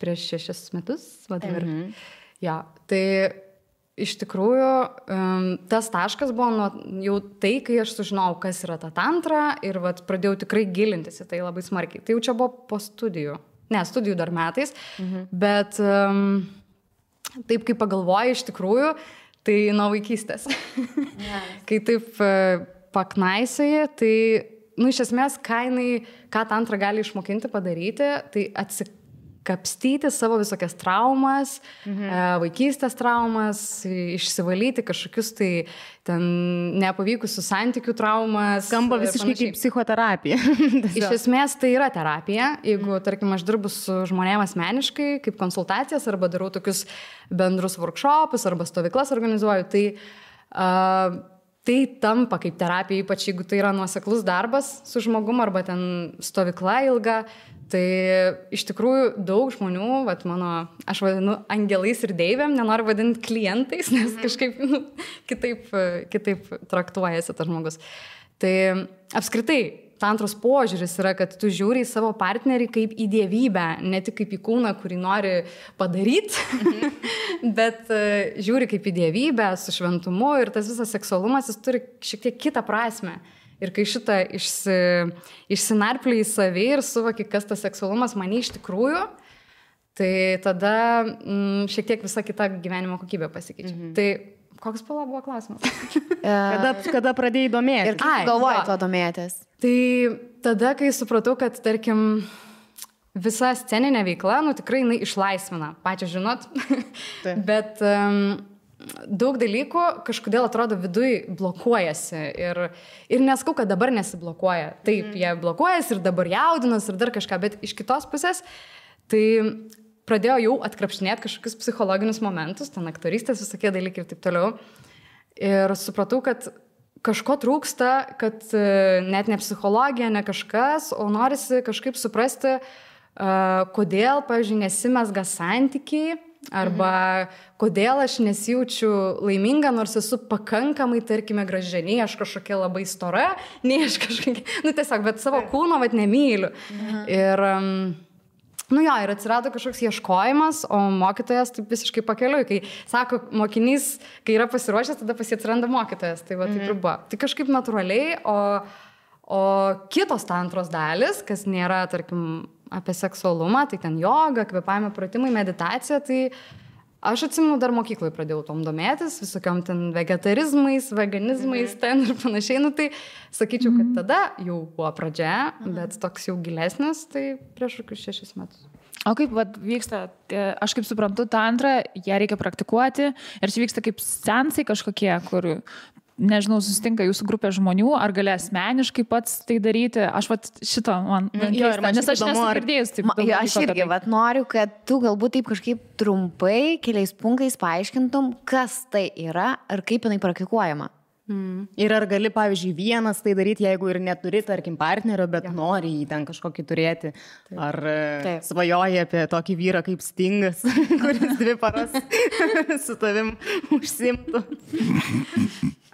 prieš 6 metus, ja, tai... Iš tikrųjų, tas taškas buvo jau tai, kai aš sužinojau, kas yra ta tantra ir pradėjau tikrai gilintis į tai labai smarkiai. Tai jau čia buvo po studijų. Ne, studijų dar metais, bet taip kaip pagalvoju iš tikrųjų, tai nuo vaikystės. Kai taip paknaisioji, tai iš esmės, ką tantra gali išmokinti padaryti, tai kapstyti savo visokias traumas, vaikystės traumas, išsivalyti kažkokius tai ten nepavykusių santykių traumas. Skamba visiškai kaip psichoterapija. Iš esmės tai yra terapija. Jeigu, tarkim, aš dirbu su žmonėmis asmeniškai, kaip konsultacijas, arba darau tokius bendrus workshopus, arba stovyklas organizuoju, tai tampa kaip terapija, ypač jeigu tai yra nuoseklus darbas su žmogum, arba ten stovykla ilga. Tai iš tikrųjų daug žmonių, aš vadinu angelais ir deivėm, nenoriu vadinti klientais, nes kažkaip kitaip traktuojasi tas žmogus. Tai apskritai, tantros požiūris yra, kad tu žiūri į savo partnerį kaip į dievybę, ne tik kaip į kūną, kurį nori padaryti, bet žiūri kaip į dievybę su šventumu ir tas visas seksualumas, jis turi šiek tiek kitą prasmę. Ir kai šitą išsinarpliai į savį ir suvoki, kas tas seksualumas mane iš tikrųjų, tai tada šiek tiek visa kita gyvenimo kokybė pasikeičia. Tai koks buvo klausimas? kada pradėjai domėtis? Ir kaip galvojai to domėtis? Tai tada, kai supratau, kad, tarkim, visa sceninė veikla, tikrai jinai išlaisvina, pačią žinot, bet daug dalykų kažkodėl atrodo viduj blokuojasi ir neskau, kad dabar nesiblokuoja. Taip, jie blokuojasi ir dabar jaudinas ir dar kažką, bet iš kitos pusės tai pradėjau jau atkrapštinėti kažkokius psichologinius momentus, ten aktorystės visokie dalykai ir taip toliau. Ir supratau, kad kažko trūksta, kad net ne psichologija, ne kažkas, o norisi kažkaip suprasti, kodėl, pavyzdžiui, nesimezga santykiai, arba kodėl aš nesijaučiu laiminga, nors esu pakankamai, tarkime, graži, nei aš kažkokia labai stora, nei aš kažkokia, tiesiog, bet savo kūno nemyliu. Ir, ir atsirado kažkoks ieškojimas, o mokytojas taip visiškai pakeliui, kai sako, mokinys, kai yra pasiruošęs, tada pas jį atsiranda mokytojas, tai taip ir buvo. Tai kažkaip natūraliai, o kitos tantros dalis, kas nėra, tarkim, apie seksualumą, tai ten joga, kvėpavimo pratimai, meditacija, tai aš atsimenu, dar mokykloje pradėjau tom domėtis, visokiom ten vegetarizmais, veganizmais ten ir panašiai, tai sakyčiau, kad tada jau buvo pradžia, bet toks jau gilesnis, tai prieš kokius 6 metus. O kaip vyksta, aš kaip suprantu, tantrą, ją reikia praktikuoti ir čia vyksta kaip seansai kažkokie, kur nežinau, susitinka jūsų grupė žmonių, ar gali asmeniškai pats tai daryti. Aš šito man keista, nes aš nesu girdėjus taip. Aš irgi noriu, kad tu galbūt taip kažkaip trumpai, keliais punktais paaiškintum, kas tai yra ir kaip jinai praktikuojama. Ir ar gali, pavyzdžiui, vienas tai daryti, jeigu ir neturi, tarkim, partnerio, bet nori jį ten kažkokį turėti. Ar svajoji apie tokį vyrą kaip Stingas, kuris 2 paras su tavim užsimtų.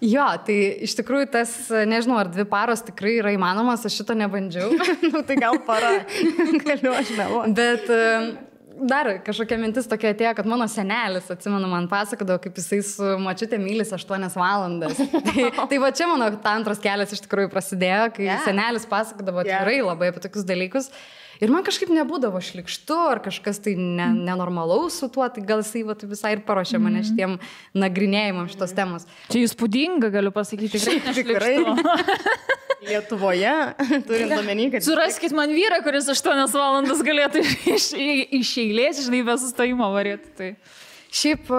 Jo, tai iš tikrųjų tas, nežinau, ar 2 paros tikrai yra įmanomas, aš šito nebandžiau. Tai gal para, galiu aš meluoti. Bet dar kažkokia mintis tokia atėjo, kad mano senelis, atsimenu, man pasakodavo, kaip jisai su močiute mylis 8 valandas. Tai va čia mano tantros kelias iš tikrųjų prasidėjo, kai senelis pasakodavo tikrai labai apie tokius dalykus. Ir man kažkaip nebūdavo šlikštu, ar kažkas tai nenormalaus su tuo, tai gal jisai visai ir paruošė mane šitiem nagrinėjimam šitos temos. Čia įspūdinga, galiu pasakyti, tikrai. Lietuvoje, turint omeny, kad... Suraskit man vyrą, kuris 8 valandas galėtų iš eilės, žinai, be sustojimo varėti. Tai. Šiaip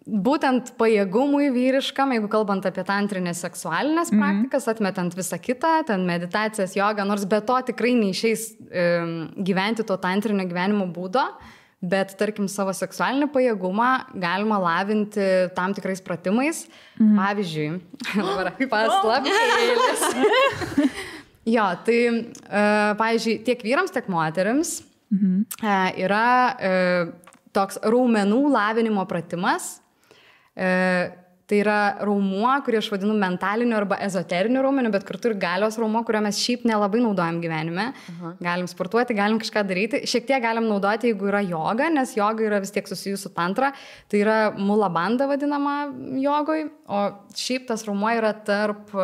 būtent pajėgumui vyriškam, jeigu kalbant apie tantrinės seksualinės praktikas, atmetant visą kitą, ten meditacijas, jogą, nors be to tikrai neišeis gyventi to tantrinio gyvenimo būdo, bet, tarkim, savo seksualinį pajėgumą galima lavinti tam tikrais pratimais. Pavyzdžiui, paslaptėlis. Jo, tai, pavyzdžiui, tiek vyrams, tiek moterims yra toks raumenų lavinimo pratimas. Tai yra raumuo, kurį aš vadinu mentaliniu arba ezoteriniu raumeniu, bet kartu ir galios raumuo, kurio mes šiaip nelabai naudojam gyvenime. Galim sportuoti, galim kažką daryti. Šiek tiek galim naudoti, jeigu yra joga, nes joga yra vis tiek susijus su tantra. Tai yra mula banda vadinama jogoj, o šiaip tas raumuo yra tarp...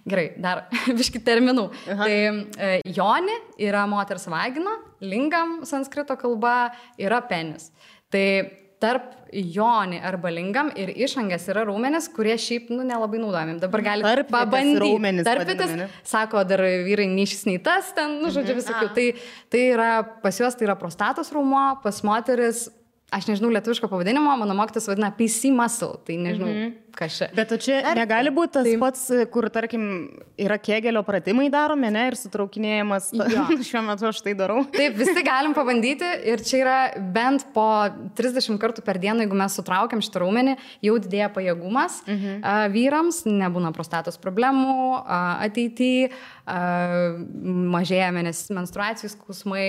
Gerai, dar biški terminų. Tai joni yra moters vagina, lingam sanskrito kalba yra penis. Tai tarp joni arba lingam ir išangės yra raumenis, kurie šiaip nelabai naudojami. Dabar galite pabandyti. Tarpitas, sako, dar vyrai nei šis, nei tas, ten, žodžiu, visokių. Tai yra, pas juos tai yra prostatos raumo, pas moteris, aš nežinau lietuviško pavadinimo, mano mokytas vadina PC muscle, tai nežinau, kas čia. Bet čia negali būti tas pats, kur, tarkim, yra Kegelio pratimai daromi, ne, ir sutraukinėjimas. Šiuo metu aš tai darau. Taip, visi galim pabandyti ir čia yra bent po 30 kartų per dieną, jeigu mes sutraukiam šitą raumenį, jau didėja pajėgumas vyrams, nebūna prostatos problemų ateityje, mažėja menstruacijų skausmai,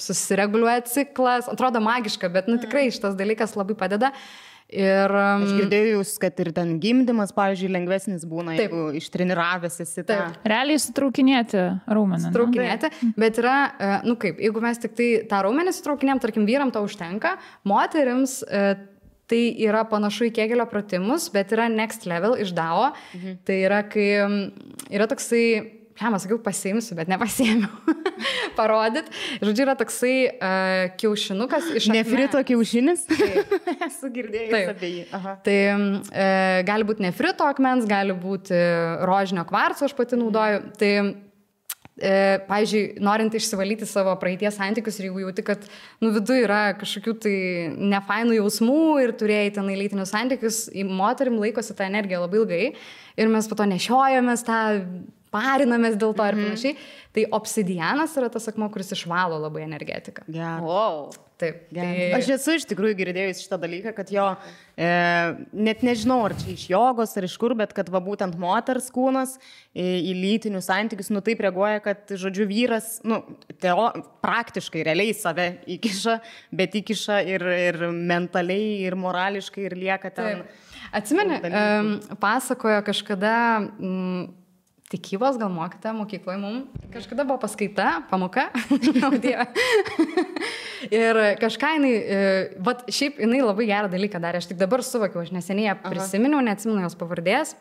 susireguliuoja ciklas, atrodo magiška, bet tikrai šitas dalykas labai padeda. Ir aš girdėjau jūs, kad ir ten gimdymas, pavyzdžiui, lengvesnis būna, jeigu ištreniravęs esi tą. Realiai sutraukinėti raumenį. Sutraukinėti, bet yra, kaip, jeigu mes tik tai tą raumenį sutraukinėm, tarkim, vyram to užtenka, moterims tai yra panašu į Kegelio pratimus, bet yra next level iš DAO. Tai yra, kai yra toksai, sakiau, pasiimsiu, bet nepasiėmiau. Parodyt. Žodžiu, yra toksai kiaušinukas iš akmens. Nefrito kiaušinis? Esu girdėjus apie jį. Tai gali būti nefrito akmens, gali būti rožinio kvarco, aš pati naudoju. Tai, pavyzdžiui, norint išsivalyti savo praeities santykius ir jeigu jauti, kad viduje yra kažkokių tai nefainų jausmų ir turėjai ten lytinius santykius, moterim laikosi tą energiją labai ilgai ir mes po to nešiojamės tą parinamės dėl to ir panašiai. Tai obsidianas yra tas akmuo, kuris išvalo labai energetiką. Wow. Taip. Aš esu iš tikrųjų girdėjus šitą dalyką, kad jo, net nežinau, ar čia iš jogos ar iš kur, bet kad būtent moters kūnas į lytinius santykius, taip reaguoja, kad, žodžiu, vyras, praktiškai, realiai save įkiša, bet įkiša ir mentaliai, ir morališkai, ir lieka ten. Taip. Atsimeni, pasakojo kažkada tikybos gal mokyta mokykloje mums. Kažkada buvo paskaita, pamoka. Ir kažką jinai, šiaip jinai labai gerą dalyką darė. Aš tik dabar suvokiau, aš neseniai ją prisiminiau, neatsimenu jos pavardės.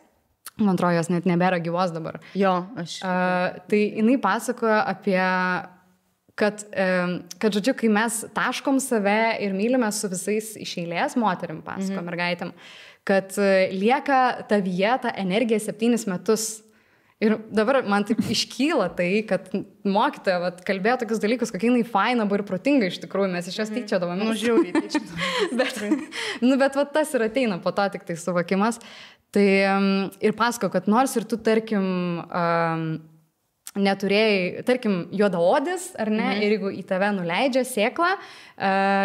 Man atrodo, jos net nebėra gyvos dabar. Jo, aš. Tai jinai pasakojo apie, kad, žodžiu, kai mes taškom save ir mylime su visais iš eilės, moterim pasako, mergaitėm, kad lieka tavyje ta energija 7 metus. Ir dabar man taip iškyla tai, kad mokytoja kalbėjo tokius dalykus, kokia jinai faina buvo ir protinga iš tikrųjų, mes iš jos tyčiodavome. Žiauriai tyčiodavome. Bet tas ir ateina po to tik tai suvokimas. Tai ir pasako, kad nors ir tu, tarkim, neturėjai, tarkim, juodaodis, ar ne, ir jeigu į tave nuleidžia sėklą,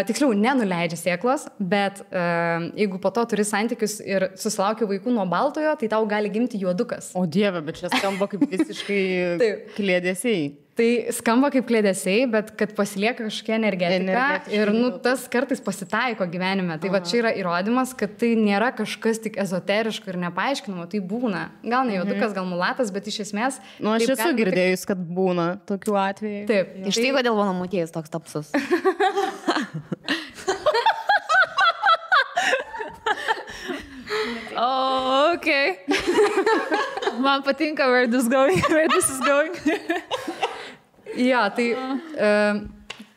tiksliau, nenuleidžia sėklos, bet jeigu po to turi santykius ir susilaukia vaikų nuo baltojo, tai tau gali gimti juodukas. O Dieve, bet čia skamba kaip visiškai kliedesiai. Tai skamba kaip kliedesiai, bet kad pasilieka kažkokia energetika ir tas kartais pasitaiko gyvenime. Tai čia yra įrodymas, kad tai nėra kažkas tik ezoteriško ir nepaaiškinamo, tai būna. Gal ne juodukas, gal mulatas, bet iš esmės... Aš esu girdėjus, kad būna tokių atvejų. Taip. Iš tai kodėl mano motiejus toks tapsus. Oh, okay. Man patinka where this is going. Jo, tai...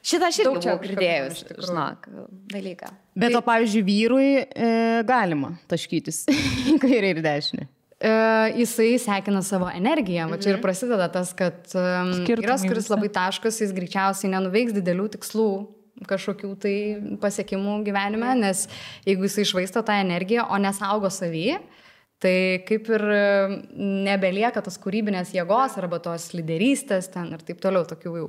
Šitą aš irgi buvau girdėjus, žinok, dalyką. Bet o, pavyzdžiui, vyrui galima taškytis į kairę ir dešinę. Jisai sekina savo energiją. Čia ir prasideda tas, kad vyras, kuris labai taškas, jis greičiausiai nenuveiks didelių tikslų kažkokių tai pasiekimų gyvenime, nes jeigu jisai išvaisto tą energiją, o nesaugo savį, tai kaip ir nebelieka tos kūrybinės jėgos arba tos lyderystės ten ir taip toliau tokių jau.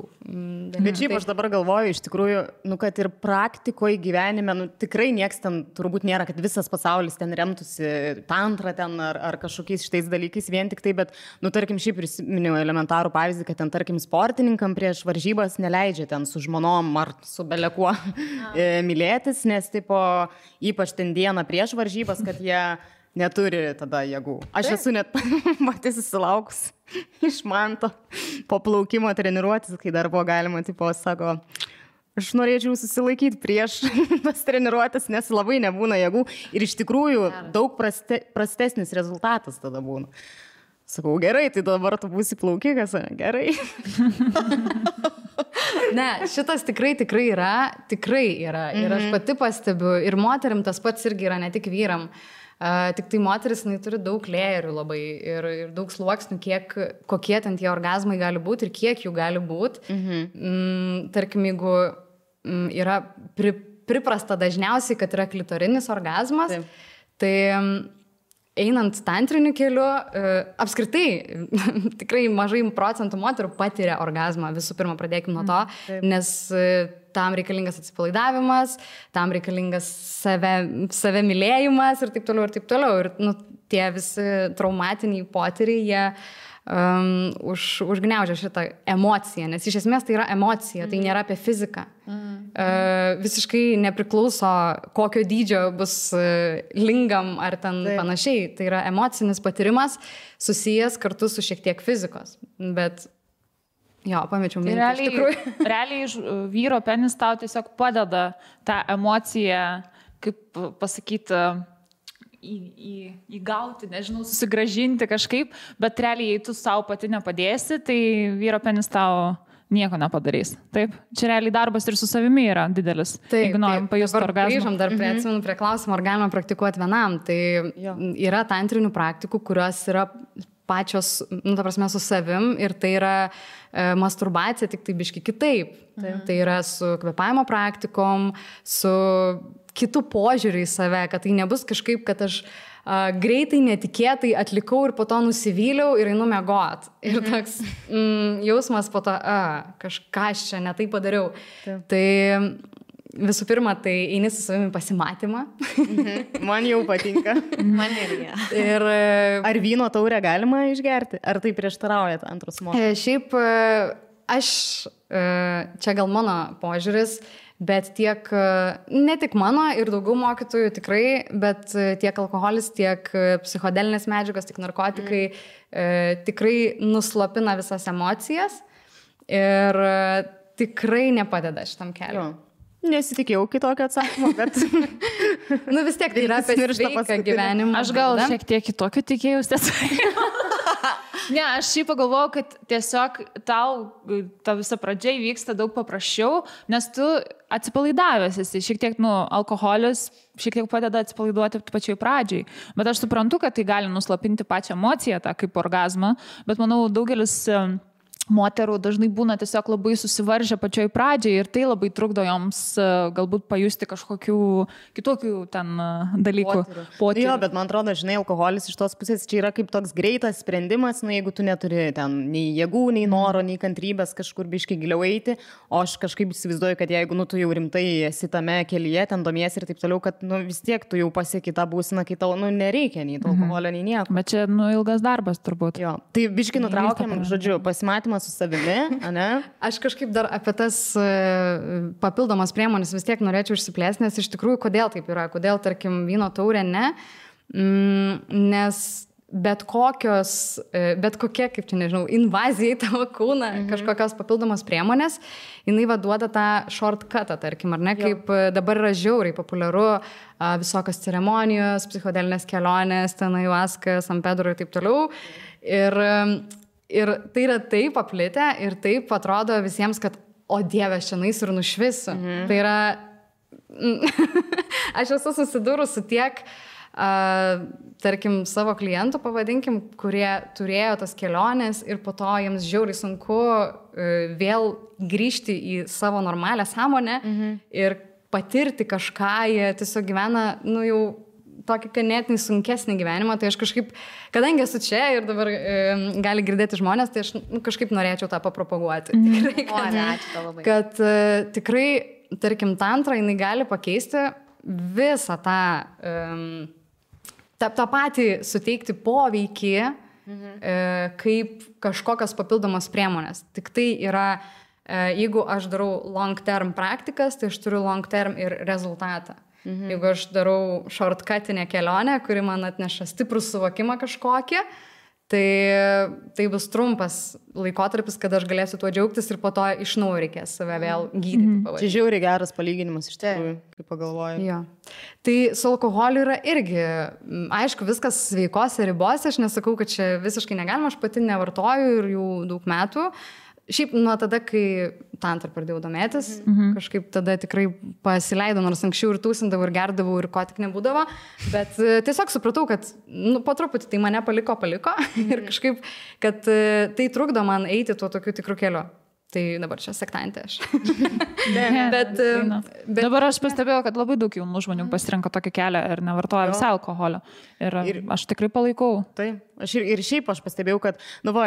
Bet šiaip aš dabar galvoju, iš tikrųjų, kad ir praktikoje gyvenime, tikrai nieks ten turbūt nėra, kad visas pasaulis ten remtųsi tantra ten ar kažkokiais šitais dalykais vien tik tai, bet, tarkim, šiaip prisiminiau elementarų pavyzdį, kad ten, tarkim, sportininkam prieš varžybas neleidžia ten su žmonom ar su belekuo mylėtis, nes, tipo, ypač ten dieną prieš varžybas, kad jie neturi tada jėgų. Aš esu net matys susilaukus iš manto po plaukimo treniruotis, kai dar buvo galima, tipo, sako, aš norėčiau susilaikyti prieš tas treniruotis, nes labai nebūna jėgų ir iš tikrųjų daug prastesnis rezultatas tada būna. Sakau, gerai, tai dabar tu būsi plaukikas, gerai. Ne, šitas tikrai yra. Ir aš pati pastebiu, ir moterim tas pats irgi yra, ne tik vyram. Tik tai moteris, jinai turi daug lėjerių labai ir daug sluoksnių, kokie ten tie orgazmai gali būti ir kiek jų gali būti. Tarkim, jeigu yra priprasta dažniausiai, kad yra klitorinis orgazmas, tai einant tantriniu keliu, apskritai tikrai mažai procentų moterų patiria orgazmą. Visų pirma, pradėkime nuo to, nes tam reikalingas atsipalaidavimas, tam reikalingas save mylėjimas ir taip toliau ir taip toliau. Ir tie visi traumatiniai potyriai, jie užgniaužia šitą emociją, nes iš esmės tai yra emocija, tai nėra apie fiziką. Visiškai nepriklauso, kokio dydžio bus lingam ar ten panašiai. Tai yra emocinis patyrimas susijęs kartu su šiek tiek fizikos. Bet jo, pamečiau mintį. Iš tikrųjų. Realiai vyro penis tau tiesiog padeda tą emociją, kaip pasakyti, įgauti, nežinau, susigražinti kažkaip, bet realiai, jei tu savo pati nepadėsi, tai vyro penis tau nieko nepadarys. Taip? Čia realiai darbas ir su savimi yra didelis. Taip, jeigu norim pajusti orgazmą. Grįžom dar atsimenu prie klausimo, ar galima praktikuoti vienam. Tai yra tantrinių praktikų, kurios yra pačios, ta prasme, su savim ir tai yra masturbacija, tik tai biški kitaip. Tai yra su kvėpavimo praktikom, su kitų požiūrį į save, kad tai nebus kažkaip, kad aš greitai, netikėtai atlikau ir po to nusivyliau ir einu miegot. Ir toks jausmas po to, kažką aš čia ne tai padariau. Tai visų pirma, tai eini su savimi pasimatymą. Man jau patinka. Man irgi. Ir ar vyno taurę galima išgerti? Ar tai prieštarauja antros moteris? Šiaip aš, čia gal mano požiūris, bet ne tik mano ir daugiau mokytojų tikrai, bet tiek alkoholis, tiek psichodelinės medžiagos, tiek narkotikai tikrai nuslopina visas emocijas ir tikrai nepadeda šitam keliu. Nesitikėjau kitokio atsakymo, bet vis tiek tai yra apie sveiką gyvenimą. Aš gal šiek tiek kitokio tikėjausi atsakymą. Ne, aš šiaip pagalvojau, kad tiesiog tau ta visa pradžia vyksta daug paprasčiau, nes tu atsipalaidavęs esi, šiek tiek, alkoholis šiek tiek padeda atsipalaiduoti pačioj pradžiai, bet aš suprantu, kad tai gali nuslopinti pačią emociją, tą kaip orgazmą, bet manau, daugelis moterų dažnai būna tiesiog labai susivaržę pačioj pradžiai ir tai labai trukdo joms galbūt pajusti kažkokių kitokių ten dalykų. Potyrių. Jo, bet man atrodo, žinai, alkoholis iš tos pusės čia yra kaip toks greitas sprendimas, jeigu tu neturi ten nei jėgų, nei noro, nei kantrybės kažkur biškai giliau eiti, o aš kažkaip įsivaizduoju, kad jeigu tu jau rimtai esi tame kelyje, ten domiesi ir taip toliau, kad vis tiek tu jau pasieki tą būseną, kai tau nereikia nei to alkoholio, nei nieko. Bet čia ilgas darbas turbūt. Jo, tai biškai nutraukiam, žodžiu, pasimatymą su savimi, ane? Aš kažkaip dar apie tas papildomas priemonės vis tiek norėčiau išsiplėsti, nes iš tikrųjų, kodėl taip yra, kodėl, tarkim, vyno taurė ne, nes bet kokia, kaip čia nežinau, invazija į tavo kūną, kažkokios papildomos priemonės, jinai duoda tą shortcutą, tarkim, ar ne, kaip dabar yra žiauriai populiaru visokios ceremonijos, psichodelinės kelionės, ten ayahuasca, San Pedro ir taip toliau. Ir tai yra taip paplitę ir taip atrodo visiems, kad, o Dieve, aš čia naisiu ir nušvisiu. Tai yra, aš esu susidūrus su tiek, tarkim, savo klientų, pavadinkim, kurie turėjo tas keliones ir po to jiems žiauriai sunku vėl grįžti į savo normalią sąmonę ir patirti kažką, jie tiesiog gyvena, jau tokį ganėtinai sunkesnį gyvenimą, tai aš kažkaip, kadangi esu čia ir dabar gali girdėti žmonės, tai aš kažkaip norėčiau tą papropaguoti. Tikrai, kad tikrai, tarkim, tantra, jinai gali pakeisti visą tą patį suteikti poveikį, kaip kažkokios papildomos priemonės. Tik tai yra, jeigu aš darau long term praktikas, tai aš turiu long term ir rezultatą. Jeigu aš darau shortcutinę kelionę, kuri man atneša stiprų suvokimą kažkokį, Tai bus trumpas laikotarpis, kada aš galėsiu tuo džiaugtis ir po to iš naujo reikės save vėl gydyti. Čia žiauriai geras palyginimas iš tikrųjų, kaip pagalvoju. Jo. Tai su alkoholiu yra irgi, aišku, viskas sveikose ribose, aš nesakau, kad čia visiškai negalima, aš pati nevartoju ir jau daug metų. Šiaip nuo tada, kai tantrą pradėjau domėtis, kažkaip tada tikrai pasileidau, nors anksčiau ir tūsindavau, ir gerdavau, ir ko tik nebūdavo, bet tiesiog supratau, kad po truputį tai mane paliko ir kažkaip, kad tai trukdo man eiti tuo tokiu tikru keliu. Tai dabar čia sektantė aš. bet dabar aš pastebėjau, kad labai daug jaunų žmonių pasirenka tokį kelią ir nevartoja visą alkoholio. Ir aš tikrai palaikau. Tai. Ir šiaip aš pastebėjau, kad,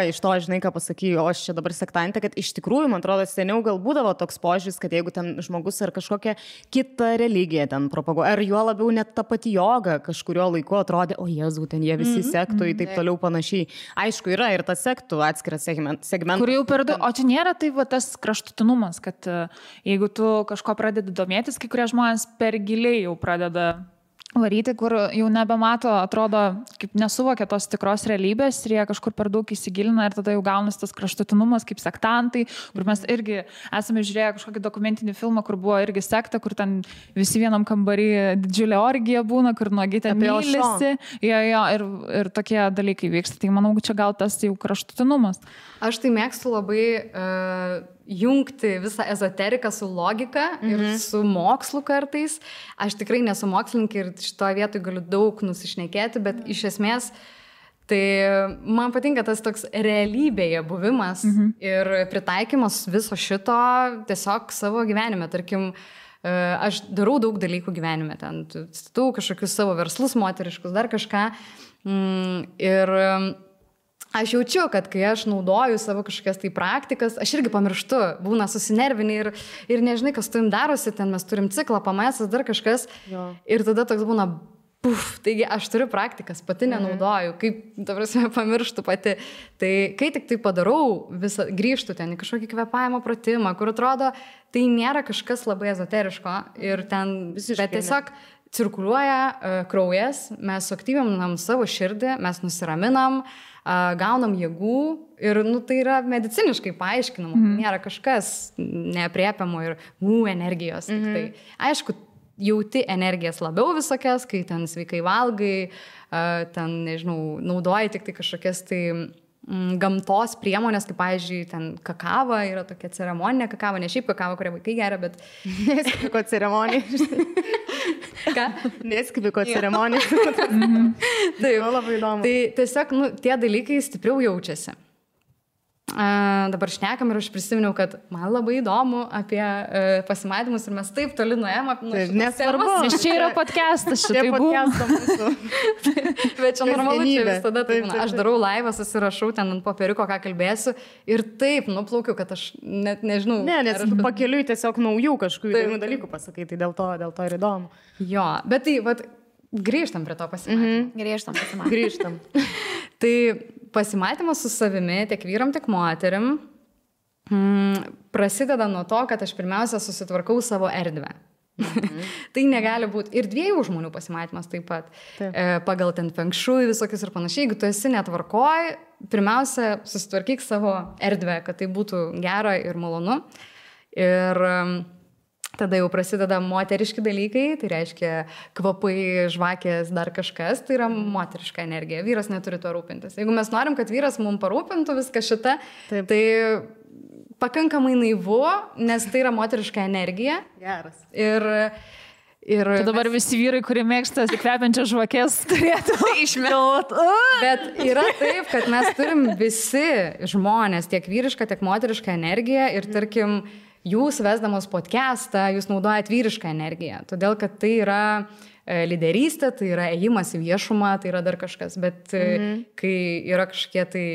iš to, žinai, ką pasakėjau, aš čia dabar sektantė, kad iš tikrųjų, man atrodo, seniau gal būdavo toks požiūris, kad jeigu ten žmogus ar kažkokią kitą religiją ten propaguoja, ar juo labiau net ta pati joga kažkurio laiku atrodė, o Jėzau, ten jie visi sektų ir taip toliau panašiai. Aišku, yra ir tas sektų atskiras segmentas. Kur jau per daug, o čia nėra tai tas kraštutinumas, kad jeigu tu kažko pradedi domėtis, kai kurie žmonės per giliai jau pradeda varyti, kur jau nebemato, atrodo, kaip nesuvokia tos tikros realybės ir jie kažkur per daug įsigilina ir tada jau gaunas tas kraštutinumas kaip sektantai, kur mes irgi esame žiūrėję kažkokį dokumentinį filmą, kur buvo irgi sekta, kur ten visi vienam kambarį didžiulė orgija būna, kur nuogi ten mylisi. Ir tokie dalykai vyksta. Tai manau, čia gal tas jau kraštutinumas. Aš tai mėgstu labai jungti visą ezoteriką su logika ir su mokslu kartais. Aš tikrai nesu mokslininkė ir šitoje vietoje galiu daug nusišnekėti, bet iš esmės tai man patinka tas toks realybėje buvimas ir pritaikymas viso šito tiesiog savo gyvenime. Tarkim, aš darau daug dalykų gyvenime, ten statau kažkokius savo verslus moteriškus, dar kažką. Ir aš jaučiu, kad kai aš naudoju savo kažkokias tai praktikas, aš irgi pamirštu, būna susinervinį ir nežinai, kas tu jums darosi, ten mes turim ciklą, pamėsas, dar kažkas. Jo. Ir tada toks būna, taigi aš turiu praktikas, pati nenaudoju, kaip, ta prasme, pamirštu pati. Tai kai tik tai padarau, grįžtu ten į kažkokį kvėpavimo pratimą, kur atrodo, tai nėra kažkas labai ezoteriško ir ten, bet tiesiog cirkuliuoja kraujas, mes suaktyvinam savo širdį, mes nusiraminam, gaunam jėgų ir tai yra mediciniškai paaiškinama, nėra kažkas neapriepiamo ir energijos. Tai, aišku, jauti energijas labiau visokias, kai ten sveikai valgai, ten, nežinau, naudoji tik tai kažkokias tai gamtos priemonės, kaip, pavyzdžiui, ten kakava, yra tokia ceremoninė kakava, ne šiaip kakava, kurią vaikai geria, bet... Neskipiko ceremonija. Ką? Neskipiko ceremonija. Taip, labai įdomu. Tai tiesiog, tie dalykai stipriau jaučiasi. Dabar šnekam ir aš prisiminiau, kad man labai įdomu apie pasimatymus ir mes taip toli nuėjom. Nesvarbu. Nes čia yra podcastas, šitai podcastą mūsų. Bet čia normalu, čia visada taip. Aš darau laivą, susirašau ten ant popieriuko, ką kalbėsiu ir taip nuplaukiu, kad aš net nežinau. Ne, nes pakeliui tiesiog naujų kažkokių įdomių dalykų pasakai, tai dėl to ir įdomu. Jo, bet tai, grįžtam prie to pasimatymo. Grįžtam. Tai pasimatymas su savimi, tiek vyram, tiek moterim, prasideda nuo to, kad aš pirmiausia susitvarkau savo erdvę. Tai negali būti. Ir dviejų žmonių pasimatymas taip pat. Pagal ten feng shui visokius ir panašiai. Jeigu tu esi netvarkoj, pirmiausia susitvarkyk savo erdvę, kad tai būtų gera ir malonu. Ir tada jau prasideda moteriški dalykai, tai reiškia kvapai, žvakės, dar kažkas, tai yra moteriška energija. Vyras neturi to rūpintis. Jeigu mes norim, kad vyras mums parūpintų viską šitą, tai pakankamai naivu, nes tai yra moteriška energija. Geras. Tai dabar visi vyrai, kurie mėgsta kvepiančias žvakės, turėtų išmėloti. Bet yra taip, kad mes turim visi žmonės, tiek vyrišką, tiek moterišką energiją ir tarkim, jūs vesdamos podcastą, jūs naudojat vyrišką energiją, todėl kad tai yra lyderystė, tai yra ėjimas į viešumą, tai yra dar kažkas, bet kai yra kažkokie tai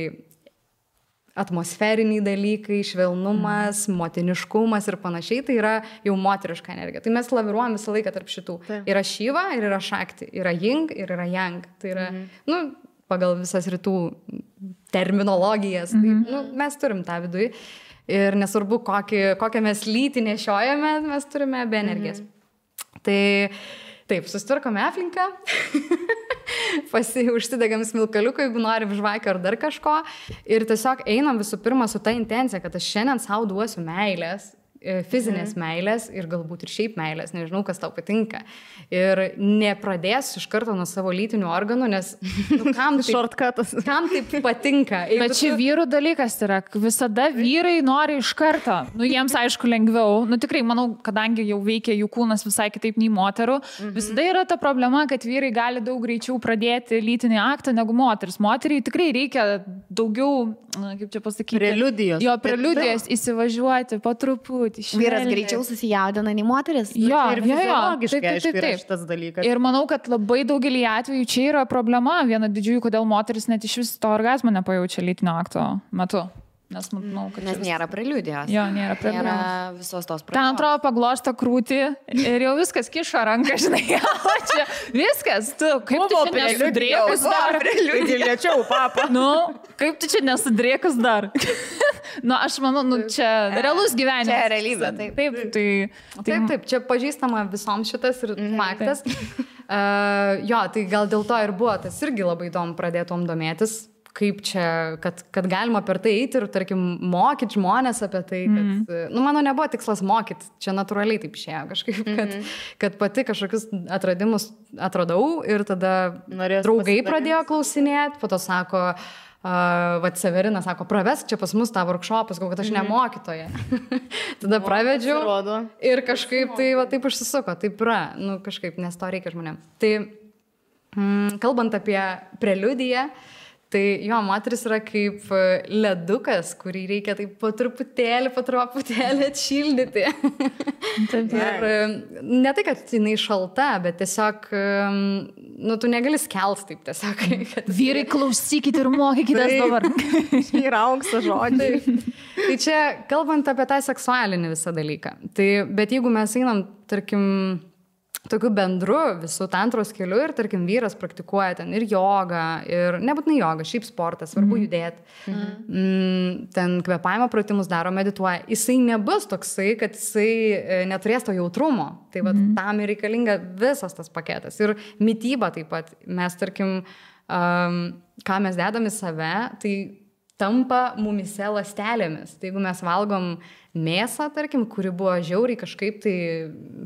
atmosferiniai dalykai, švelnumas, motiniškumas ir panašiai, tai yra jau moteriška energija. Tai mes laviruojam visą laiką tarp šitų. Yra Šiva ir yra Šakti, yra Jing ir yra Yang. Tai yra, pagal visas rytų terminologijas, tai, mes turim tą viduje. Ir nesvarbu, kokią mes lytį nešiojame, mes turime be energijas. Tai taip, susitvarkome aplinką. užsidegam smilkaliuką, jeigu norim žvakio ar dar kažko. Ir tiesiog einam visų pirma su ta intencija, kad aš šiandien savo duosiu meilės, fizinės meilės ir galbūt ir šiaip meilės, nežinau, kas tau patinka. Ir nepradėsiu iš karto nuo savo lytinių organų, nes kam taip patinka. Bet čia vyrų dalykas yra, visada vyrai nori iš karto, jiems aišku lengviau, tikrai manau, kadangi jau veikia jų kūnas visai kitaip nei moterų, visada yra ta problema, kad vyrai gali daug greičiau pradėti lytinį aktą negu moteris. Moteriai tikrai reikia daugiau, kaip čia pasakyti, preliudijos įsivažiuoti po truputį. Vyras greičiau susijaudina nei moteris. Jo, ir fiziologiškai aišku šitas dalykas. Ir manau, kad labai daugelį atvejų čia yra problema. Viena didžiųjų, kodėl moteris net iš vis to orgazmo nepajaučia lytinio akto metu. Nes nėra preliudijos. Jo, nėra preliudijos. Nėra visos tos pradžios. Ten atrodo paglosto krūtį ir jau viskas kišo ranką, žinai. Čia viskas, tu kaip tu čia nesudrėkus dar. Lėčiau, papa. Kaip tu čia nesudrėkus dar. Aš manau, čia realus gyvenimas. Čia realybė, taip. Taip, čia pažįstama visoms šitas ir faktas. Jo, tai gal dėl to ir buvo, tas irgi labai įdomu pradėtom domėtis. Kaip čia, kad galima per tai eiti ir, tarkim, mokyti žmonės apie tai, kad, mano nebuvo tikslas mokyti, čia natūraliai taip išėjo kažkaip, kad pati kažkokius atradimus atradau ir tada draugai pradėjo klausinėti, po to sako, Severinas sako, pravesk čia pas mus tą workshopą, sakau, kad aš ne mokytoja. Tada pravedžiau ir kažkaip tai taip užsisuko, taip yra, kažkaip, nes to reikia žmonėm. Tai, kalbant apie preliudiją, tai jo, moteris yra kaip ledukas, kurį reikia taip po truputėlį atšildyti. Ir ne tai, kad jinai šalta, bet tiesiog, tu negali skelt taip tiesiog. Vyrai, klausykit ir mokykitės dabar. Yra aukso žodžiai. Tai čia, kalbant apie tą seksualinį visą dalyką. Tai, bet jeigu mes einam, tarkim, tokiu bendru visų tantros keliu ir, tarkim, vyras praktikuoja ten ir jogą, ir nebūtinai jogą, šiaip sportas, svarbu judėti. Ten kvėpavimo pratimus daro, medituoja. Jisai nebus toksai, kad jisai neturės to jautrumo. Tai tam ir reikalinga visas tas paketas. Ir mityba taip pat. Mes, tarkim, ką mes dedam į save, tai tampa mumise ląstelėmis. Tai jeigu mes valgom mėsą, tarkim, kuri buvo žiauriai kažkaip tai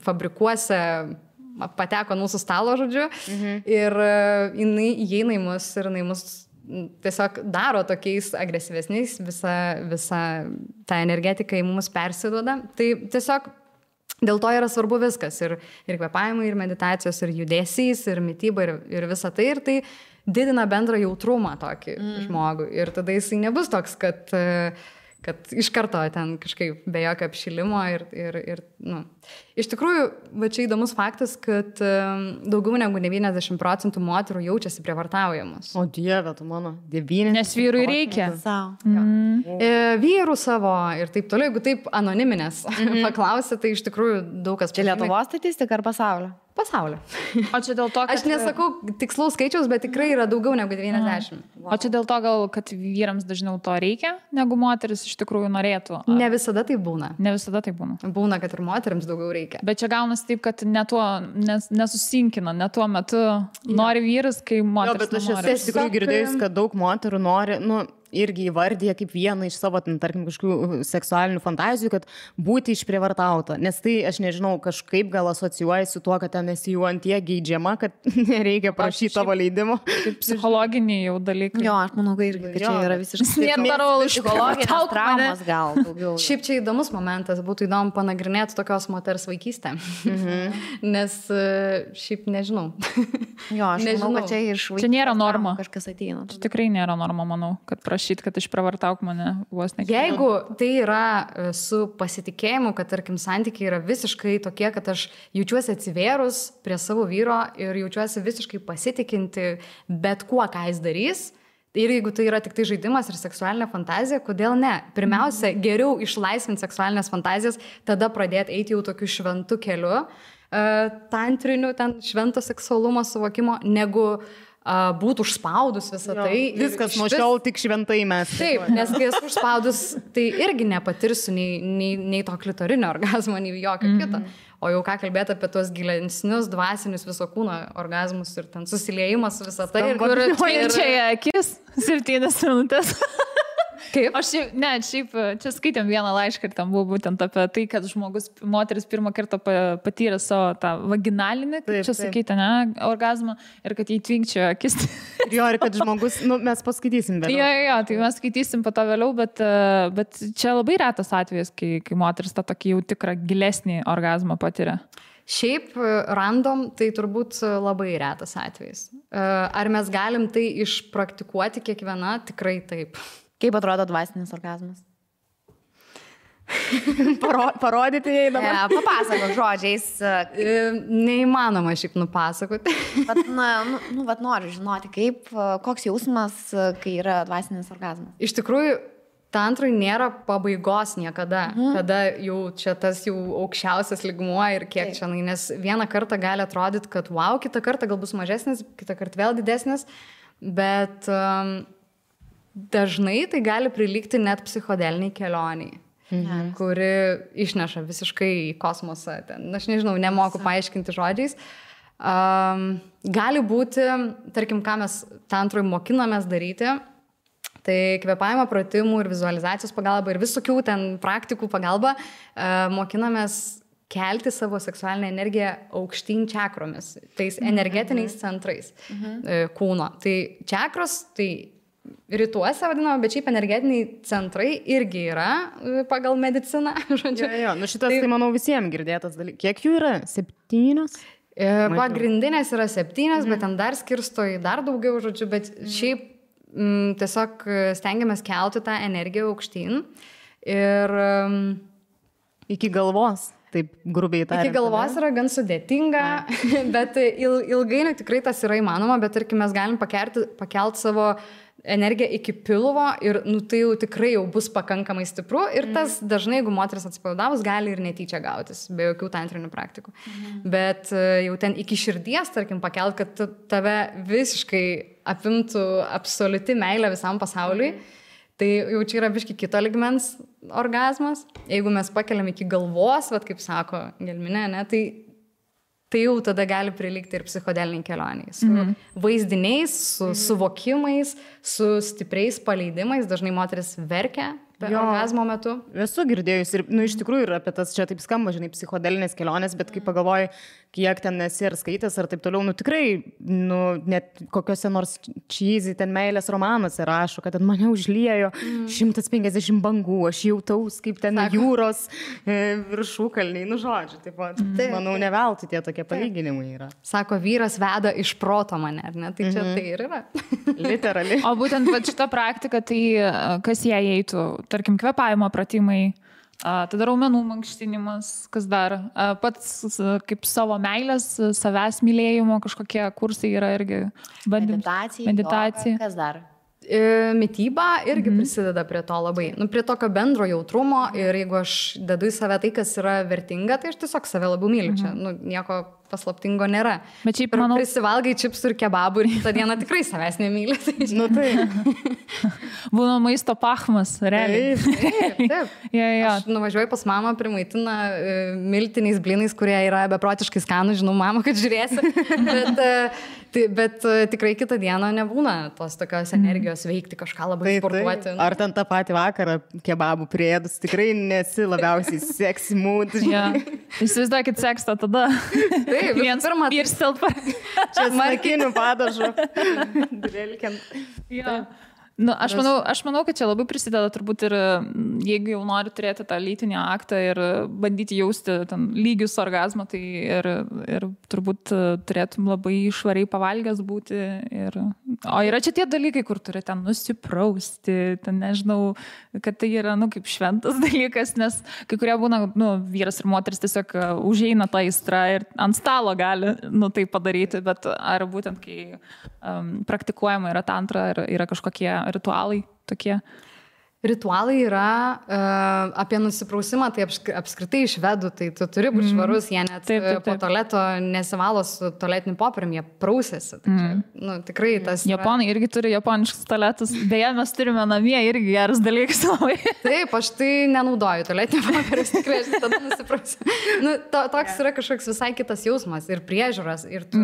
fabrikuose pateko mūsų stalo, žodžiu, ir jinai įeina į mus ir jinai mus tiesiog daro tokiais agresyvesniais, visa ta energetika į mus persiduoda. Tai tiesiog dėl to yra svarbu viskas. Ir kvėpavimai, ir meditacijos, ir judesys, ir mityba, ir visa tai. Ir tai didina bendrą jautrumą tokį žmogų. Ir tada jisai nebus toks, kad iš karto ten kažkaip be jokio apšilimo ir Iš tikrųjų, va čia įdomus faktas, kad daugiau negu 90% moterų jaučiasi prievartaujamos. O Dieve, tu mano, 90%. Nes vyrui reikia. Vyrų savo ir taip toliau, jeigu taip anoniminės paklausė, tai iš tikrųjų daug kas... Čia Lietuvos statistika ar pasaulio? Pasaulio. O čia dėl to, kad... Aš nesakau tikslaus skaičiaus, bet tikrai yra daugiau negu 90. O čia dėl to gal, kad vyrams dažniau to reikia, negu moteris iš tikrųjų norėtų? Ne visada tai būna. Ne visada tai būna. Būna, kad ir moteriams daugiau reikia. Bet čia gaunasi taip, kad nesusinkina, ne tuo metu nori vyras, kai moteris nenori. Jo, bet aš tikrųjų girdėjus, kad daug moterų nori, irgi įvardyja kaip vieną iš savo, tarkim, kažkokių seksualinių fantazijų, kad būti išprievartauta. Nes tai, aš nežinau, kažkaip gal asocijuoja su tuo, kad ten esi jau antie geidžiama, kad nereikia prašyti tavo leidimo. Kaip psichologiniai jau dalykai. Jo, aš manau, kad čia yra visiškai... Psichologinės traumos gal daugiau. Šiaip čia įdomus momentas, būtų įdomu panagrinėti tokios moters vaikystę. Nes šiaip nežinau. Jo, aš manau, kad čia iš vaikystės. Čia nėra norma. Kažkas ateina. Čia tikrai nėra norma, manau, kad kad išpravartauk mane vos ne. Jeigu tai yra su pasitikėjimu, kad, tarkim, santykiai yra visiškai tokie, kad aš jaučiuosi atsivėrus prie savo vyro ir jaučiuosi visiškai pasitikinti bet kuo, ką jis darys, ir jeigu tai yra tik tai žaidimas ir seksualinė fantazija, kodėl ne? Pirmiausia, geriau išlaisvinti seksualinės fantazijas, tada pradėti eiti jau tokiu šventu keliu, tantriniu, ten švento seksualumo suvokimo, negu būtų užspaudus visą tai. Viskas nuo šiol tik šventai mes. Taip, nes kai esu užspaudus, tai irgi nepatirsiu nei to klitorinio orgazmo, nei jokio kito. O jau ką kalbėti apie tuos gilesnius, dvasinius viso kūno orgazmus ir ten susiliejimas visą tai. Ir čia akis 7 minutės. Kaip? Šiaip čia skaitėm vieną laišką ir tam buvo būtent apie tai, kad moteris pirmą kartą patyrė savo tą vaginalinį, kaip čia sakyti, orgazmą ir kad jį tvinkčiojo akis. Ir kad žmogus, mes paskaitysim vėliau. Jo, tai mes skaitysim po to vėliau, bet čia labai retas atvejis, kai moteris tą tokį jau tikrą gilesnį orgazmą patiria. Šiaip random, tai turbūt labai retas atvejis. Ar mes galim tai išpraktikuoti kiekviena? Tikrai taip. Kaip atrodo dvasinis orgazmas? Parodyti jai dabar. Papasakok žodžiais. Neįmanoma šiaip nupasakoti. Bet noriu žinoti, koks jausmas, kai yra dvasinis orgazmas. Iš tikrųjų, tantrui nėra pabaigos niekada, kada jau čia tas jau aukščiausias lygmuo ir kiek čia, nes vieną kartą gali atrodyti, kad wow, kitą kartą gal bus mažesnis, kitą kartą vėl didesnis, bet dažnai tai gali prilygti net psichodeliniai kelioniai, kuri išneša visiškai į kosmosą. Aš nežinau, nemoku paaiškinti žodžiais. Gali būti, tarkim, ką mes tantrui mokinamės daryti, tai kvėpavimo pratimų ir vizualizacijos pagalba ir visokių ten praktikų pagalba mokinamės kelti savo seksualinę energiją aukštyn čakromis, tais energetiniais centrais kūno. Tai čakros, tai rytuose vadinama, bet šiaip energetiniai centrai irgi yra pagal mediciną. Šitas tai manau visiems girdėtas dalykas. Kiek jų yra? 7? Pagrindinės yra 7, bet ten dar skirsto į dar daugiau, bet šiaip tiesiog stengiamės kelti tą energiją aukštyn ir iki galvos. Taip grubiai tariant. Iki galvos yra gan sudėtinga, bet ilgainiui tikrai tas yra įmanoma, bet tarkim mes galim pakelt savo energiją iki pilvo ir tai jau tikrai jau bus pakankamai stipru ir tas dažnai, jeigu moteris atsipalaidavus, gali ir netyčia gautis, be jokių tantrinių praktikų. Bet jau ten iki širdies, tarkim, pakelt, kad tave visiškai apimtų absoliuti meilė visam pasauliui, tai jau čia yra biški kito lygmens orgazmas. Jeigu mes pakeliam iki galvos, kaip sako Gelminė, tai jau tada gali prilygti ir psichodeliniai kelioniai. Su vaizdiniais, su suvokimais, su stipriais paleidimais. Dažnai moteris verkia orgazmo metu. Esu girdėjus ir, iš tikrųjų, ir apie tas čia taip skamba, psichodelinės kelionės, bet kai pagalvoju, kiek ten esi ir skaitęs ar taip toliau, tikrai, net kokiuose nors cheesy ten meilės romanuose rašo, kad ten mane užliejo 150 bangų, aš jautaus kaip ten jūros viršūkalniai, žodžiu, taip pat, manau, ne veltui tie tokie palyginimai yra. Sako, vyras veda iš proto mane, ar ne? Tai čia tai ir yra. Literaliai. O būtent šita praktika, tai kas jie eitų, tarkim, kvėpavimo pratimai, tada raumenų mankštinimas, kas dar, pats kaip savo meilės, savęs mylėjimo kažkokie kursai yra irgi meditacija. Kas dar? Mityba irgi prisideda prie to labai, prie tokio bendro jautrumo ir jeigu aš dedu į save tai, kas yra vertinga, tai aš tiesiog save labiau myliu. Čia, nieko paslaptingo nėra. Bet šiaip, manau, prisivalgai čipsų ir kebabų ir kitą dieną tikrai savęs nemyli. Būna maisto pachmas, realiai. Taip. Aš nuvažiuoju pas mamą, primaitina miltiniais blynais, kurie yra beprotiškai skanų, žinau, mama, kad žiūrėsi. Bet tikrai kitą dieną nebūna tos tokios energijos veikti kažką labai sportuoti. Ar ten tą patį vakarą kebabų priedus, tikrai nesi labiausiai sexy mood. Įsivaizduokit sekstą tada. Taip, pirmą. Ir stilpa. Čia smarkinių padažų. Drilkiant. Aš manau, kad čia labai prisideda turbūt ir jeigu jau nori turėti tą lytinį aktą ir bandyti jausti ten lygius orgazmą, tai ir turbūt turėtum labai švariai pavalgęs būti. O yra čia tie dalykai, kur turi ten nusiprausti, ten nežinau, kad tai yra kaip šventas dalykas, nes kai kurie būna, vyras ir moteris tiesiog užeina tą aistrą ir ant stalo gali tai padaryti, bet ar būtent kai praktikuojama yra tantra, yra kažkokie ritualai tokie? Ritualai yra apie nusiprausimą, tai apskritai iš švedų, tai tu turi būti švarus, jie net po tualeto nesivalo su tualetiniu popieriumi, jie prausėsi. Tai tikrai tas... Japonai irgi turi japoniškus tualetus, beje, mes turime namie irgi geras dalykas labai. Taip, aš tai nenaudoju tualetinio popieriaus, tikrai aš tada nusiprausiu. Toks yra kažkoks visai kitas jausmas ir priežiūras, ir tu...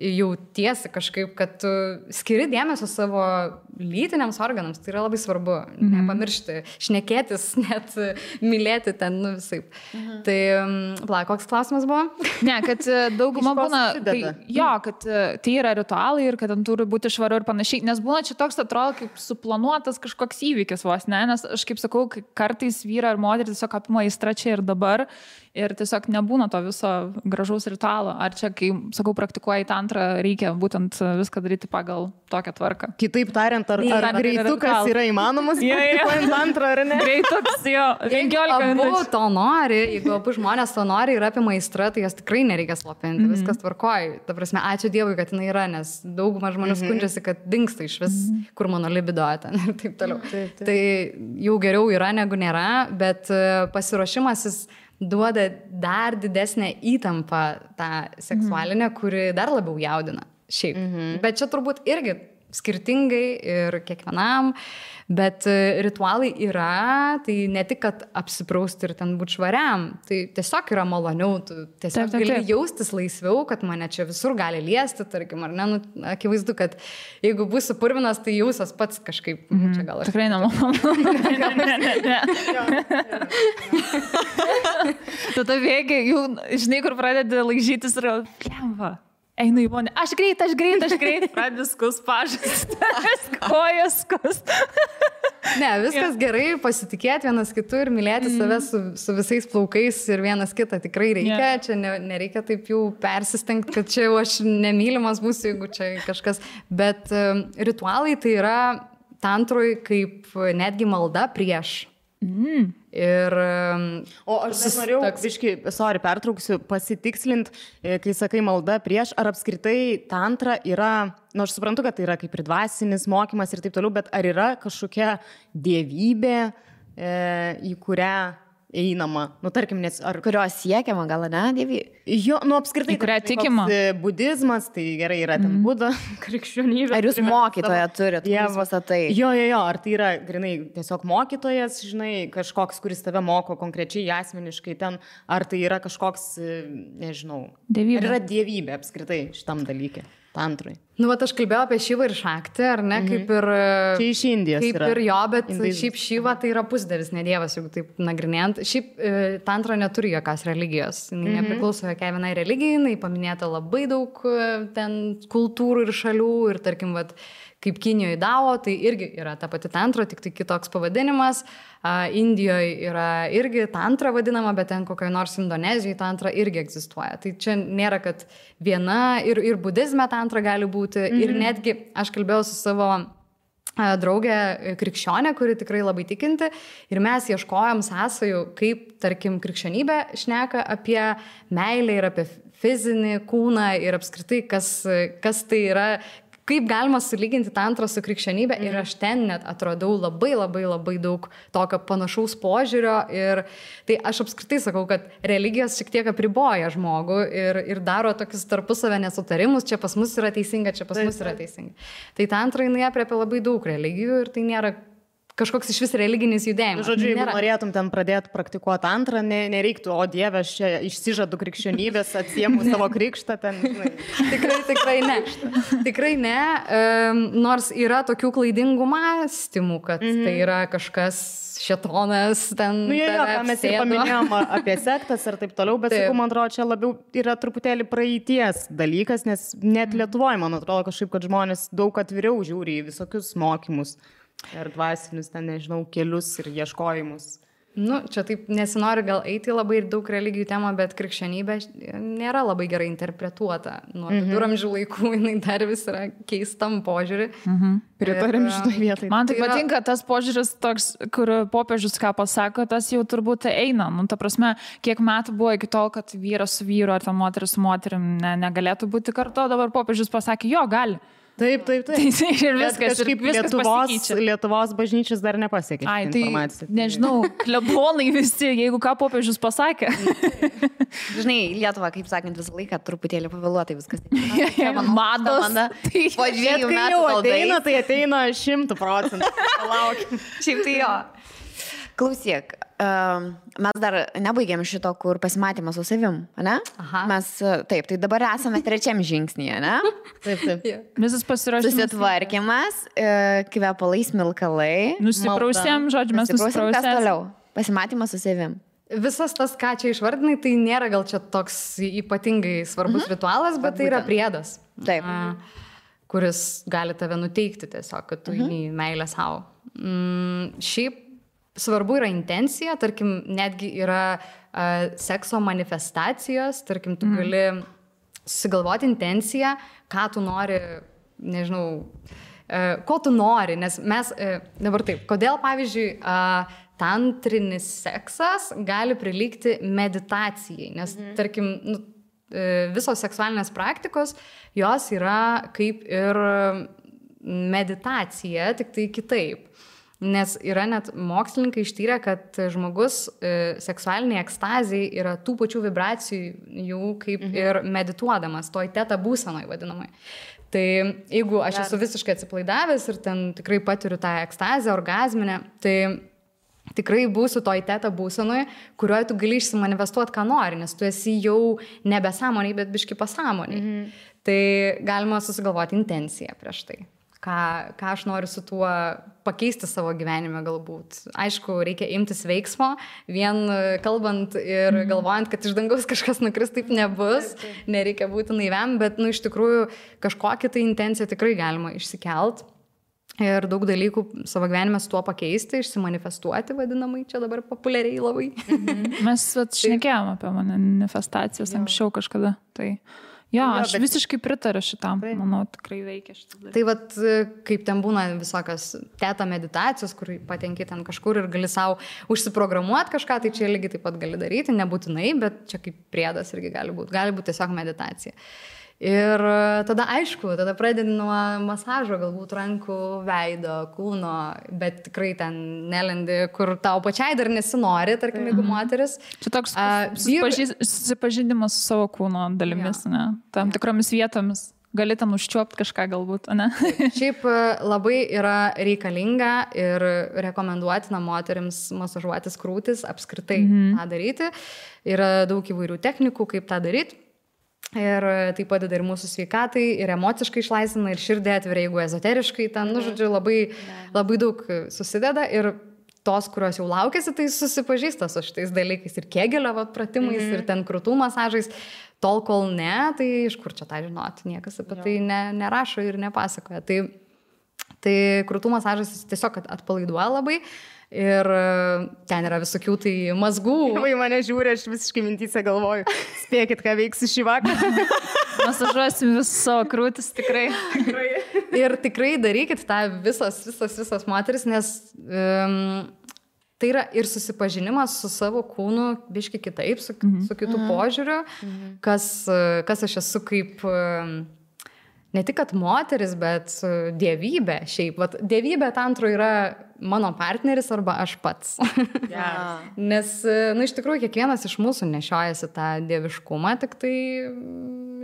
jautiesi kažkaip, kad tu skiri dėmesio savo lytiniams organams, tai yra labai svarbu, nepamiršti, šnekėtis, net mylėti ten, visaip. Tai, koks klausimas buvo? Ne, kad dauguma būna, kad tai yra ritualai ir kad ten turi būti švaru ir panašiai, nes būna čia toks atrodo kaip suplanuotas kažkoks įvykis vos, ne, nes aš kaip sakau, kartais vyra ar moterį tiesiog apima aistra čia ir dabar ir tiesiog nebūna to viso gražaus ritualo. Ar čia, kai, sakau, praktikuoji tantrą, reikia būtent viską daryti pagal tokią tvarką? Kitaip tariant, ar greitukas yra įmanomas praktikuojant tantrą, ar ne? Greitukas, jo, 15 minučių. Abu to nori, jeigu abu žmonės to nori ir apima aistrą, tai jas tikrai nereikia slopinti, viskas tvarkoja. Ta prasme, ačiū Dievui, kad jinai yra, nes dauguma žmonių skundžiasi, kad dingsta iš vis, kur mano libido ten ir taip toliau. Tai jau geriau yra negu nėra, bet pasiruošimasis duoda dar didesnę įtampą tą seksualinę, kuri dar labiau jaudina šiaip. Bet čia turbūt irgi skirtingai ir kiekvienam, bet ritualai yra, tai ne tik, kad apsiprausti ir ten būti švariam, tai tiesiog yra maloniau, tu tiesiog gali jaustis laisviau, kad mane čia visur gali liesti, tarkim, ar ne, akivaizdu, kad jeigu būsiu purvinas, tai jausias pats kažkaip, čia gal aš... Tikrai nemalonu. Tu to vėgi, jau, žinai, kur pradedi laižytis ir lemva. Einu į vonę, aš greit, pradedi skus pažas, kojas skus. Ne, viskas gerai, pasitikėti vienas kitu ir mylėti save su visais plaukais ir vienas kitą tikrai reikia. Čia nereikia taip jau persistengti, kad čia jau aš nemylimas būsiu, jeigu čia kažkas. Bet ritualai tai yra tantroj kaip netgi malda prieš. Ir... O aš norėjau, pertrauksiu, pasitikslint, kai sakai malda prieš, ar apskritai tantra yra, aš suprantu, kad tai yra kaip ir dvasinis mokymas ir taip toliau, bet ar yra kažkokia dievybė, į kurią einama, tarkim, nes ar... Kurios siekiama, gal ne, dievybė? Jo, apskritai, kurią tikima. Budizmas, tai gerai yra ten Buda, krikščionybė. Ar jūs mokytoją turit? Jo, ar tai yra, grinai, tiesiog mokytojas, žinai, kažkoks, kuris tave moko konkrečiai, asmeniškai ten, ar tai yra kažkoks, nežinau, dievybė. Ar yra dievybė apskritai šitam dalykė? Tantrai. Aš kalbėjau apie Šivą ir Šaktį, ar ne, kaip ir... Čia iš Indijos kaip yra. Ir jo, bet šiaip Šiva tai yra pusdievis, ne dievas, jeigu taip nagrinėjant. Šiaip tantra neturi jokios religijos. Nepriklauso jokiai vienai religijai, jinai paminėta labai daug ten kultūrų ir šalių ir tarkim, kaip Kinijoje Dao, tai irgi yra ta pati tantra, tik tai kitoks pavadinimas. Indijoje yra irgi tantra vadinama, bet ten kokioje nors Indonezijoje tantra irgi egzistuoja. Tai čia nėra, kad viena ir budizme tantra gali būti. Ir netgi aš kalbėjau su savo draugė krikščionė, kuri tikrai labai tikinti. Ir mes ieškojom sąsajų, kaip, tarkim, krikščionybė šneka apie meilę ir apie fizinį kūną ir apskritai, kas tai yra. Kaip galima sulyginti tantrą su krikščionybė ir aš ten net atradau labai daug tokio panašaus požiūrio ir tai aš apskritai sakau, kad religijos šiek tiek apriboja žmogų ir daro tokius tarpusavę nesutarimus, čia pas mus yra teisinga, čia pas mus yra teisinga. Tai tantra jinai apriepia labai daug religijų ir tai nėra kažkoks iš vis religinis judėjimas. Žodžiu, jeigu norėtum ten pradėti praktikuoti antrą, nereiktų, o Dieve, aš čia išsižadu krikščionybės, atsiemu savo krikštą ten. Tikrai ne. Tikrai ne, nors yra tokių klaidingų mąstymų, kad tai yra kažkas šėtonas ten. Mes ir paminėjom apie sektas ir taip toliau, bet sakau, man atrodo, čia labiau yra truputėlį praeities dalykas, nes net Lietuvoje, man atrodo, kažkaip, kad žmonės daug atviriau žiūri į visokius mokymus. Ir dvasinius, ten, nežinau, kelius ir ieškojimus. Čia taip nesinori gal eiti labai ir daug religijų temą, bet krikščionybė nėra labai gerai interpretuota. Nuo viduramžių laikų jinai dar vis yra keistam požiūrį. Pritarėm šitoj vietai. Man tai patinka tas požiūris toks, kur popiežius ką pasako, tas jau turbūt eina. Ta prasme, kiek metų buvo iki tol, kad vyras su vyru ar ten moteris su moterim negalėtų būti kartu, dabar popiežius pasakė, jo, gali. Taip. Ir viskas, kažkaip Lietuvos bažnyčios dar nepasiekė. Ai, tai nežinau, klebonai visi, jeigu ką popiežius pasakė. Žinai, Lietuva, kaip sakant, visą laiką truputėlį pavėluotai viskas. Mados. Po 2 metų tai ateina 100%. Palaukim. Šiaip tai jo. Klausyk, mes dar nebaigėm šito, kur pasimatymas su savim, ne? Aha. Mes, taip, tai dabar esame 3 žingsnyje, ne? Taip. Visas pasiruošimas. Susitvarkymas, kvepalai, smilkalai. Nusiprausėm, žodžiu, mes nusiprausėm. Kas toliau? Pasimatymas su savim. Visas tas, ką čia išvardinai, tai nėra gal čia toks ypatingai svarbus ritualas, bet tai yra priedas. Taip. Kuris gali tave nuteikti tiesiog, kad tu į meilę savo. Šiaip svarbu yra intencija, tarkim, netgi yra sekso manifestacijos, tarkim, tu gali susigalvoti intenciją, ką tu nori, nežinau, ko tu nori, nes mes, dabar taip, kodėl, pavyzdžiui, tantrinis seksas gali prilygti meditacijai, nes, tarkim, visos seksualinės praktikos, jos yra kaip ir meditacija, tik tai kitaip. Nes yra net mokslininkai ištyrę, kad žmogus seksualiniai ekstazijai yra tų pačių vibracijų kaip ir medituodamas, toj teta būsenoj vadinamai. Tai jeigu aš esu visiškai atsipalaidavęs ir ten tikrai patiriu tą ekstazę, orgazminę, tai tikrai būsiu toj teta būsenoj, kurioje tu gali išsimanifestuoti, ką nori, nes tu esi jau nebesąmoniai, bet biški pasąmoniai. Tai galima susigalvoti intenciją prieš tai. Ką aš noriu su tuo pakeisti savo gyvenime galbūt. Aišku, reikia imtis veiksmo, vien kalbant ir galvojant, kad iš dangaus kažkas nukris, taip nebus, nereikia būti naiviam, bet iš tikrųjų kažkokią tai intenciją tikrai galima išsikelt ir daug dalykų savo gyvenime su tuo pakeisti, išsimanifestuoti vadinamai, čia dabar populiariai labai. Mes šnekėjom apie manifestacijas anksčiau kažkada, tai... Jo, aš visiškai pritariu šitam, manau, tikrai veikia šitas dalykas. Tai vat, kaip ten būna visokios teta meditacijos, kur patenki ten kažkur ir gali savo užsiprogramuoti kažką, tai čia lygiai taip pat gali daryti, nebūtinai, bet čia kaip priedas irgi gali būti tiesiog meditacija. Ir tada aišku, tada pradedi nuo masažo, galbūt rankų, veido, kūno, bet tikrai ten nelendi, kur tau pačiai dar nesinori, tarkim, jeigu moteris. Čia toks susipažinimas su savo kūno dalimis, ne? Tam tikromis vietomis. Gali ten užčiuopti kažką galbūt, ne? Šiaip labai yra reikalinga ir rekomenduotina moterims masažuotis krūtis, apskritai tą daryti. Yra daug įvairių technikų, kaip tą daryti. Ir tai padeda ir mūsų sveikatai, ir emociškai išlaisvina, ir širdį atveria, jeigu ezoteriškai ten, žodžiu, labai daug susideda. Ir tos, kurios jau laukėsi, tai susipažįsta su šitais dalykais ir Kegelio pratimais, ir ten krūtų masažais. Tol, kol ne, tai iš kur čia tą žinoti, niekas apie tai nerašo ir nepasakoja. Tai krūtų masažas tiesiog atpalaiduoja labai. Ir ten yra visokių tai mazgų. Į mane žiūri, aš visiškai mintyse galvoju, spėkit, ką veiksiu šį vakarą. Masažuosim visus savo krūtis, tikrai. Ir tikrai darykit tą visas moteris, nes tai yra ir susipažinimas su savo kūnu biški kitaip, su kitų požiūriu, kas aš esu kaip... Ne tik, kad moteris, bet dievybė šiaip. Vat, dievybė tantro yra mano partneris arba aš pats. Nes, iš tikrųjų, kiekvienas iš mūsų nešiojasi tą dieviškumą, tik tai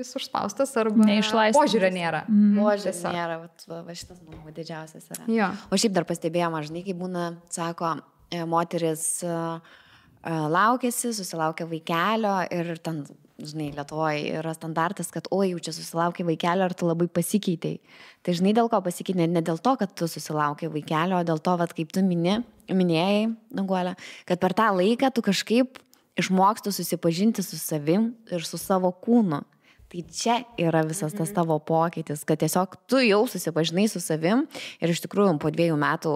jis užspaustas arba požiūrio nėra. Požiūrio nėra, va šitas, manau, didžiausias yra. Jo. O šiaip dar pastebėjom, žinai, kai būna, sako, moteris laukėsi, susilaukė vaikelio ir ten... Žinai, Lietuvoje yra standartas, kad oi, jau čia susilaukia vaikelio, ar tu labai pasikeitei. Tai žinai, dėl ko pasikeitei? Ne dėl to, kad tu susilaukia vaikelio, o dėl to, vat, kaip tu minėjai, Danguolė, kad per tą laiką tu kažkaip išmoksti susipažinti su savim ir su savo kūnu. Tai čia yra visas tas tavo pokytis, kad tiesiog tu jau susipažinai su savim ir iš tikrųjų po 2 metų,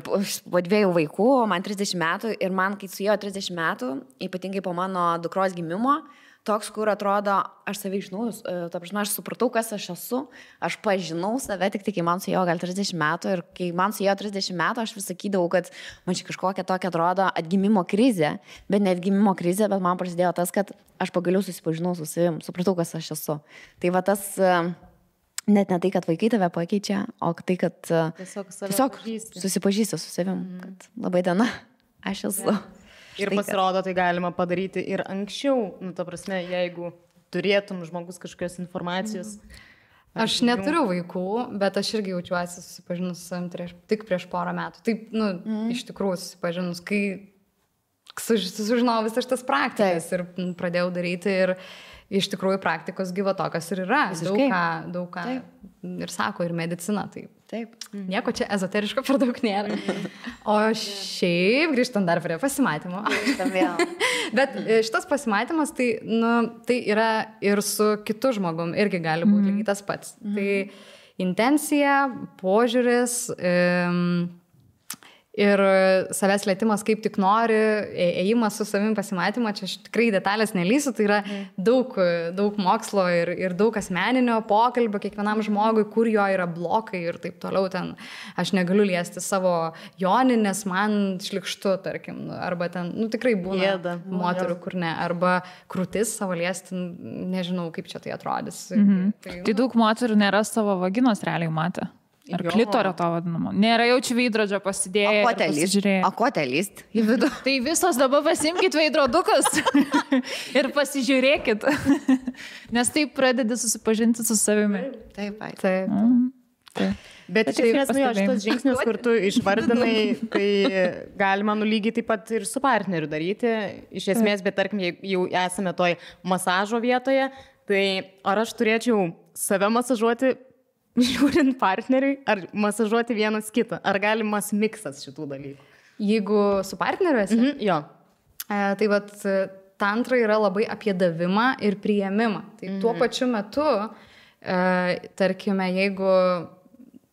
po 2 vaikų, man 30 metų ir man, kai suėjo 30 metų, ypatingai po mano dukros gimimo, toks, kur atrodo, aš save žinau, ta prasme, aš supratau, kas aš esu, aš pažinau save tik kai man suėjo gal 30 metų ir kai man suėjo 30 metų, aš vis sakydavau, kad man čia kažkokia tokia atrodo atgimimo krizė, bet ne atgimimo krizė, bet man prasidėjo tas, kad aš pagaliau susipažinau su savim, supratau, kas aš esu. Tai va tas net ne tai, kad vaikai tave pakeičia, o tai, kad tiesiog susipažįsti su savim, kad labai diena, aš esu. Ir pasirodo, tai galima padaryti ir anksčiau, ta prasme, jeigu turėtum žmogus kažkokios informacijos. Aš neturiu vaikų, bet aš irgi jaučiuosi susipažinus su savim tik prieš porą metų. Taip, iš tikrųjų susipažinus, kai sužinojau visas šitas praktikas ir pradėjau daryti ir iš tikrųjų praktikos gyvo tokios ir yra. Daug ką ir sako, ir medicina. Taip. Nieko čia ezoteriško per daug nėra. O šiaip, grįžtant dar prie pasimatymo. Bet šitas pasimatymas, tai yra ir su kitu žmogum, irgi gali būti lygiai tas pats. Tai intencija, požiūris ir savęs lietimas kaip tik nori, ėjimas su savim pasimatymą, čia aš tikrai detalės nelysiu, tai yra daug mokslo ir daug asmeninio pokalbio kiekvienam žmogui, kur jo yra blokai ir taip toliau ten. Aš negaliu liesti savo joninės, man šlikštu, tarkim, arba ten, tikrai būna moterų, kur ne, arba krūtis savo liesti, nežinau, kaip čia tai atrodys. Tai daug moterų nėra savo vaginos realiai matę. Ar klitorio to vadinamo. Nėra jaučiu veidrodžio pasidėję. Akotelist į vidų. Tai visos dabar pasimkit veidrodukus ir pasižiūrėkit. Nes taip pradedi susipažinti su savimi. Taip. Bet iš esmės, šitas žingsnis, kur tu išvardinai, tai galima lygiai taip pat ir su partneriu daryti. Iš esmės, bet tarkim, jau esame toj masažo vietoje, tai ar aš turėčiau save masažuoti žiūrint partneriui, ar masažuoti vienas kitą? Ar galimas miksas šitų dalykų? Jeigu su partneriu esi? Jo. Tai vat tantra yra labai apie davimą ir priėmimą. Tai tuo pačiu metu, tarkime, jeigu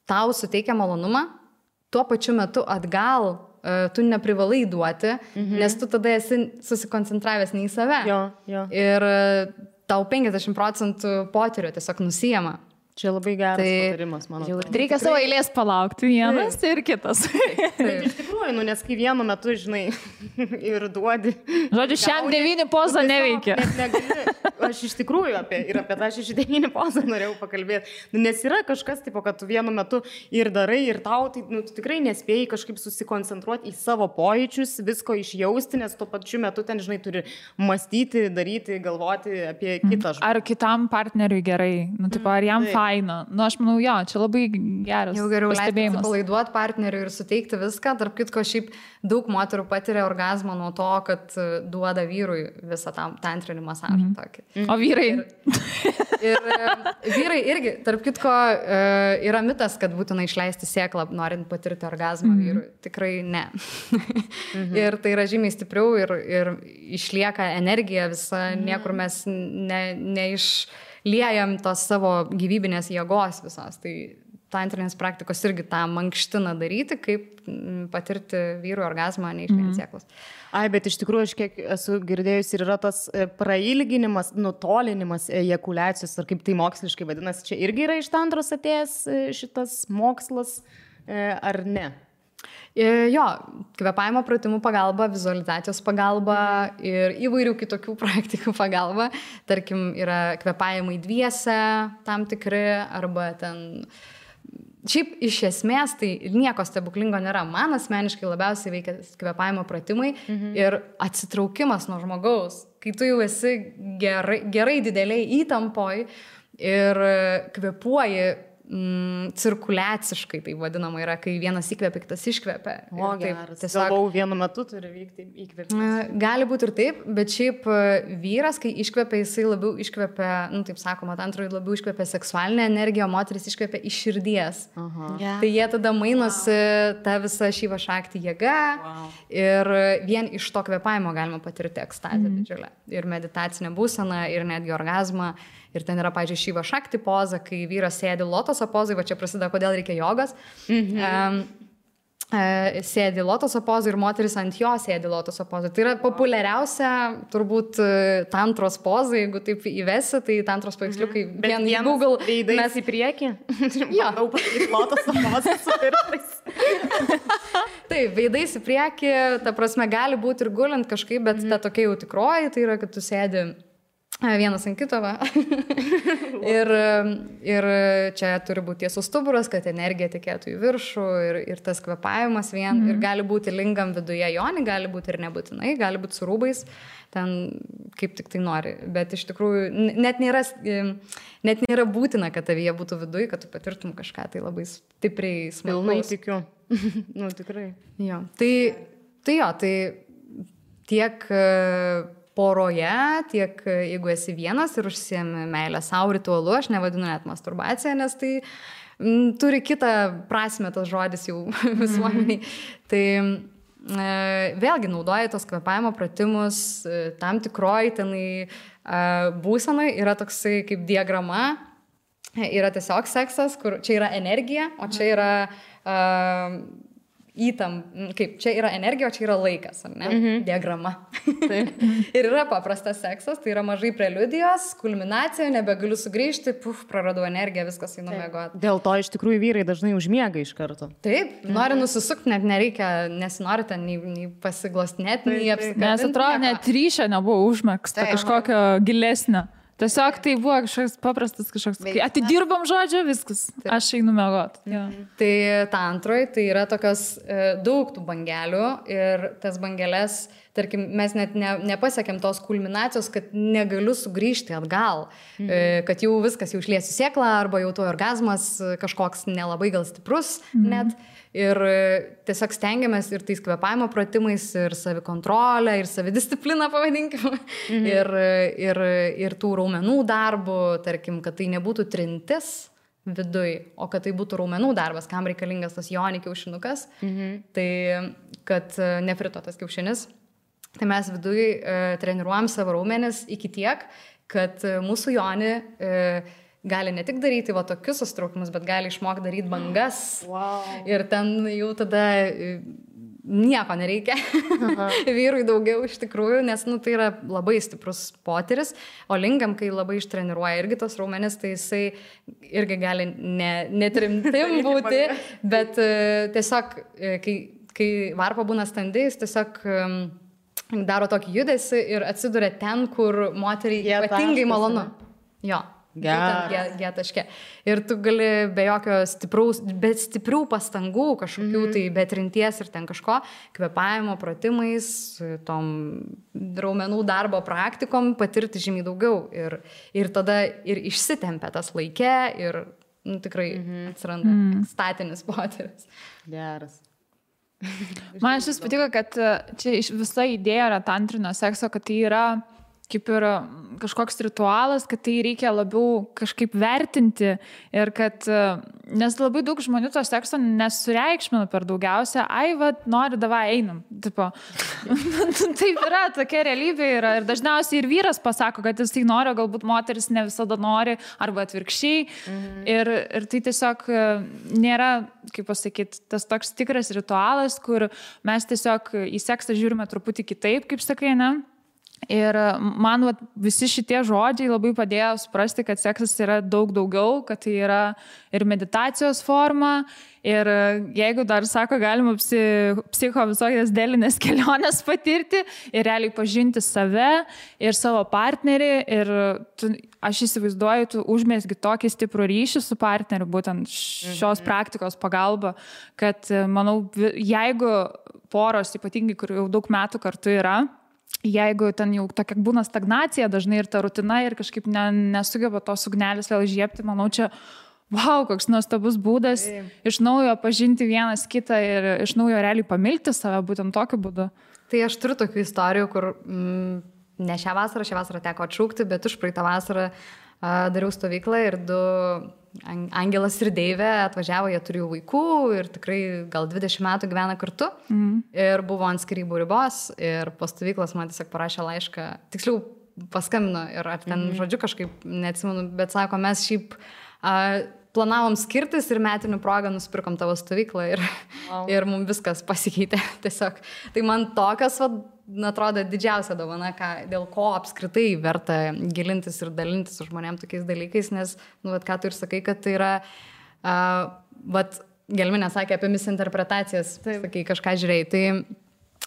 tau suteikia malonumą, tuo pačiu metu atgal tu neprivalai duoti, nes tu tada esi susikoncentravęs ne į save. Jo. Ir tau 50% potyrio tiesiog nusijama. Čia labai geras patarimas, manau. Reikia savo eilės palaukti vienas ir kitas. Iš tikrųjų, nes kai vienu metu, žinai, ir duodi. Žodžiu, šiam 9 poza neveikia. Aš iš tikrųjų apie tą 9 pozą norėjau pakalbėti. Nes yra kažkas, tipo, kad tu vienu metu ir darai, ir tau, tai tu tikrai nespėjai kažkaip susikoncentruoti į savo pojūčius, visko išjausti, nes tuo pačiu metu ten, žinai, turi mąstyti, daryti, galvoti apie kitą žmogų. Ar kitam partneriui gerai? Ar jam faina? Aš manau, jo, čia labai geras. Jau geriau leisti palaiduoti partneriui ir suteikti viską. Tarp kitko, šiaip daug moterų patiria orgazmą nuo to, kad duoda vyrui visą tą tantrinį masažą. O vyrai? Ir vyrai irgi, tarp kitko, yra mitas, kad būtina išleisti sėklą, norint patirti orgazmą vyrui. Tikrai ne. Ir tai yra žymiai stipriau ir išlieka energija visa, niekur mes neišliejam tos savo gyvybinės jėgos visos. Tai tantrinės praktikos irgi tą mankština daryti, kaip patirti vyrų orgazmą, neišliejant sėklos. Bet iš tikrųjų, aš kiek esu girdėjus, ir yra tas prailginimas, nutolinimas ejakuliacijos, ar kaip tai moksliškai vadinasi, čia irgi yra iš tantros atėjęs šitas mokslas, ar ne? Jo, kvėpavimo pratimų pagalba, vizualizacijos pagalba ir įvairių kitokių praktikų pagalba. Tarkim, yra kvėpavimai dviese tam tikri, arba ten... Šiaip iš esmės tai nieko stebuklingo nėra. Man asmeniškai labiausiai veikia kvėpavimo pratimai ir atsitraukimas nuo žmogaus. Kai tu jau esi gerai dideliai įtampoj ir kvėpuoji cirkuliaciškai, tai vadinama yra, kai vienas įkvėpia, kitas iškvėpia. O, geras. Galvau, vienu metu turi vykti įkvėpimas. Gali būti ir taip, bet šiaip vyras, kai iškvėpia, jisai labiau iškvėpia, taip sakoma, tantroje labiau iškvėpia seksualinę energiją, o moteris iškvėpia iš širdies. Tai jie tada mainosi tą visą šyvą šaktį jėgą ir vien iš to kvėpavimo galima patirti ekstazę didžiulę. Ir meditacinę būseną, ir netgi orgazmą. Ir ten yra, pavyzdžiui, šyva šakti poza, kai vyras sėdi lotoso pozai, va čia prasideda, kodėl reikia jogos. Sėdi lotoso pozai ir moteris ant jo sėdi lotoso pozai. Tai yra populiariausia, turbūt, tantros poza, jeigu taip įvesi, tai tantros paveiksliukai vien į Google. Veidais į priekį? Jo. Daug padaryti lotoso pozą su pirštais. Taip, veidais į priekį, ta prasme, gali būti ir gulint kažkaip, bet ta tokia jau tikroji, tai yra, kad tu sėdi vienas ant kito, va. ir čia turi būti tiesus stuburas, kad energija tekėtų į viršų ir tas kvėpavimas vien. Ir gali būti lingam viduje joni, gali būti ir nebūtinai, gali būti su rūbais, ten kaip tik tai nori. Bet iš tikrųjų net nėra būtina, kad tavyje būtų viduje, kad tu patirtum kažką tai labai stipriai smalsaus. Pilnai tikiu. Tikrai. Jo. Tai tiek poroje, tiek jeigu esi vienas ir užsiemi meilę savo ritualu, aš nevadinu net masturbacija, nes tai turi kitą prasme tas žodis jau visuomeniai. Tai vėlgi naudoja tos kvėpavimo pratimus, tam tikroj tenai būsenai yra toksai kaip diagrama, yra tiesiog seksas, kur čia yra energija, o čia yra kaip čia yra energija, o čia yra laikas, ar ne? Diagrama. Ir yra paprastas seksas, tai yra mažai preliudijos, kulminacija, nebegaliu sugrįžti, praradau energiją, viskas einu miegoti. Dėl to iš tikrųjų vyrai dažnai užmiega iš karto. Taip, nori nusisukti, net nereikia, nesinori ten nei pasiglostinėti, nei apsikabinti. Nes atrodo, net ryšio nebuvo užmegsta, kažkokio gilesnio. Tiesiog tai buvo kažkoks paprastas kai atidirbam žodžiu, viskas, aš einu miegot. Tai tantroj, tai yra tokios daug tų bangelių ir tas bangelės, tarkim, mes net nepasiekėm tos kulminacijos, kad negaliu sugrįžti atgal, kad jau viskas, jau išliesiu sėklą arba jau to orgazmas kažkoks nelabai gal stiprus net. Ir tiesiog stengiamės ir tais kvėpavimo pratimais, ir savikontrolę, ir savidiscipliną, pavadinkime, ir tų raumenų darbų, tarkim, kad tai nebūtų trintis viduj, o kad tai būtų raumenų darbas, kam reikalingas tas joni kiaušinukas, tai kad nefrito tas kiaušinis. Tai mes viduj treniruojam savo raumenis iki tiek, kad mūsų joni gali ne tik daryti va tokius sustraukimus, bet gali išmokti daryti bangas. Wow. Ir ten jau tada nieko nereikia. Vyrui daugiau iš tikrųjų, nes tai yra labai stiprus potyris. O lingam, kai labai ištreniruoja irgi tos raumenis, tai jisai irgi gali netrimtim būti, bet tiesiog, kai varpa būna standi, jis tiesiog daro tokį judesį ir atsiduria ten, kur moteriai ypatingai malonu. Jo. G taške. Ir tu gali be jokio stiprių pastangų kažkokių, tai be trinties ir ten kažko, kvėpavimo pratimais, tom raumenų darbo praktikom patirti žymiai daugiau. Ir tada ir išsitempia tas laike ir tikrai atsiranda statinis potyris. Geras. Man šis patiko, kad čia visa idėja yra tantrinio sekso, kad tai yra kaip ir kažkoks ritualas, kad tai reikia labiau kažkaip vertinti ir kad, nes labai daug žmonių to sekso nesureikšmina per daugiausia, nori, davai, einam. Tipo, taip yra, tokia realybė yra ir dažniausiai ir vyras pasako, kad jis tai nori, galbūt moteris ne visada nori, arba atvirkščiai. Ir tai tiesiog nėra, kaip pasakyti, tas toks tikras ritualas, kur mes tiesiog į seksą žiūrime truputį kitaip, kaip sakai, ne? Ir man visi šitie žodžiai labai padėjo suprasti, kad seksas yra daug daugiau, kad tai yra ir meditacijos forma. Ir jeigu dar sako, galima psicho visokias dėlinės kelionės patirti ir realiai pažinti save ir savo partnerį. Ir aš įsivaizduoju, tu užmesgi tokį stiprų ryšį su partneriu, būtent šios praktikos pagalba, kad manau, jeigu poros, ypatingai, kur jau daug metų kartu yra, jeigu ten jau tokia būna stagnacija dažnai ir ta rutina ir kažkaip nesugeba tos ugnelės vėl žiepti, manau, čia koks nuostabus būdas iš naujo pažinti vienas kitą ir iš naujo realiai pamilti save būtent tokiu būdu. Tai aš turiu tokių istorijų, kur ne šią vasarą teko atšaukti, bet už praeitą vasarą dariau stovyklą ir du Angelas ir Deivė atvažiavo, jie turėjo vaikų ir tikrai gal 20 metų gyvena kartu ir buvo ant skyrybų ribos ir po stovyklos man tiesiog parašė laišką, tiksliau paskambino ir ar ten žodžiu kažkaip neatsimenu, bet sako, mes šiaip planavom skirtis ir metinių progą nusipirkom tavo stovyklą ir mums viskas pasikeitė tiesiog. Tai man tokias, atrodo, didžiausia dovana, dėl ko apskritai verta gilintis ir dalintis su žmonėm tokiais dalykais, nes, ką tu ir sakai, kad tai yra, Gelminė sakė apie misinterpretacijas, sakai, kažką žiūrėjai, tai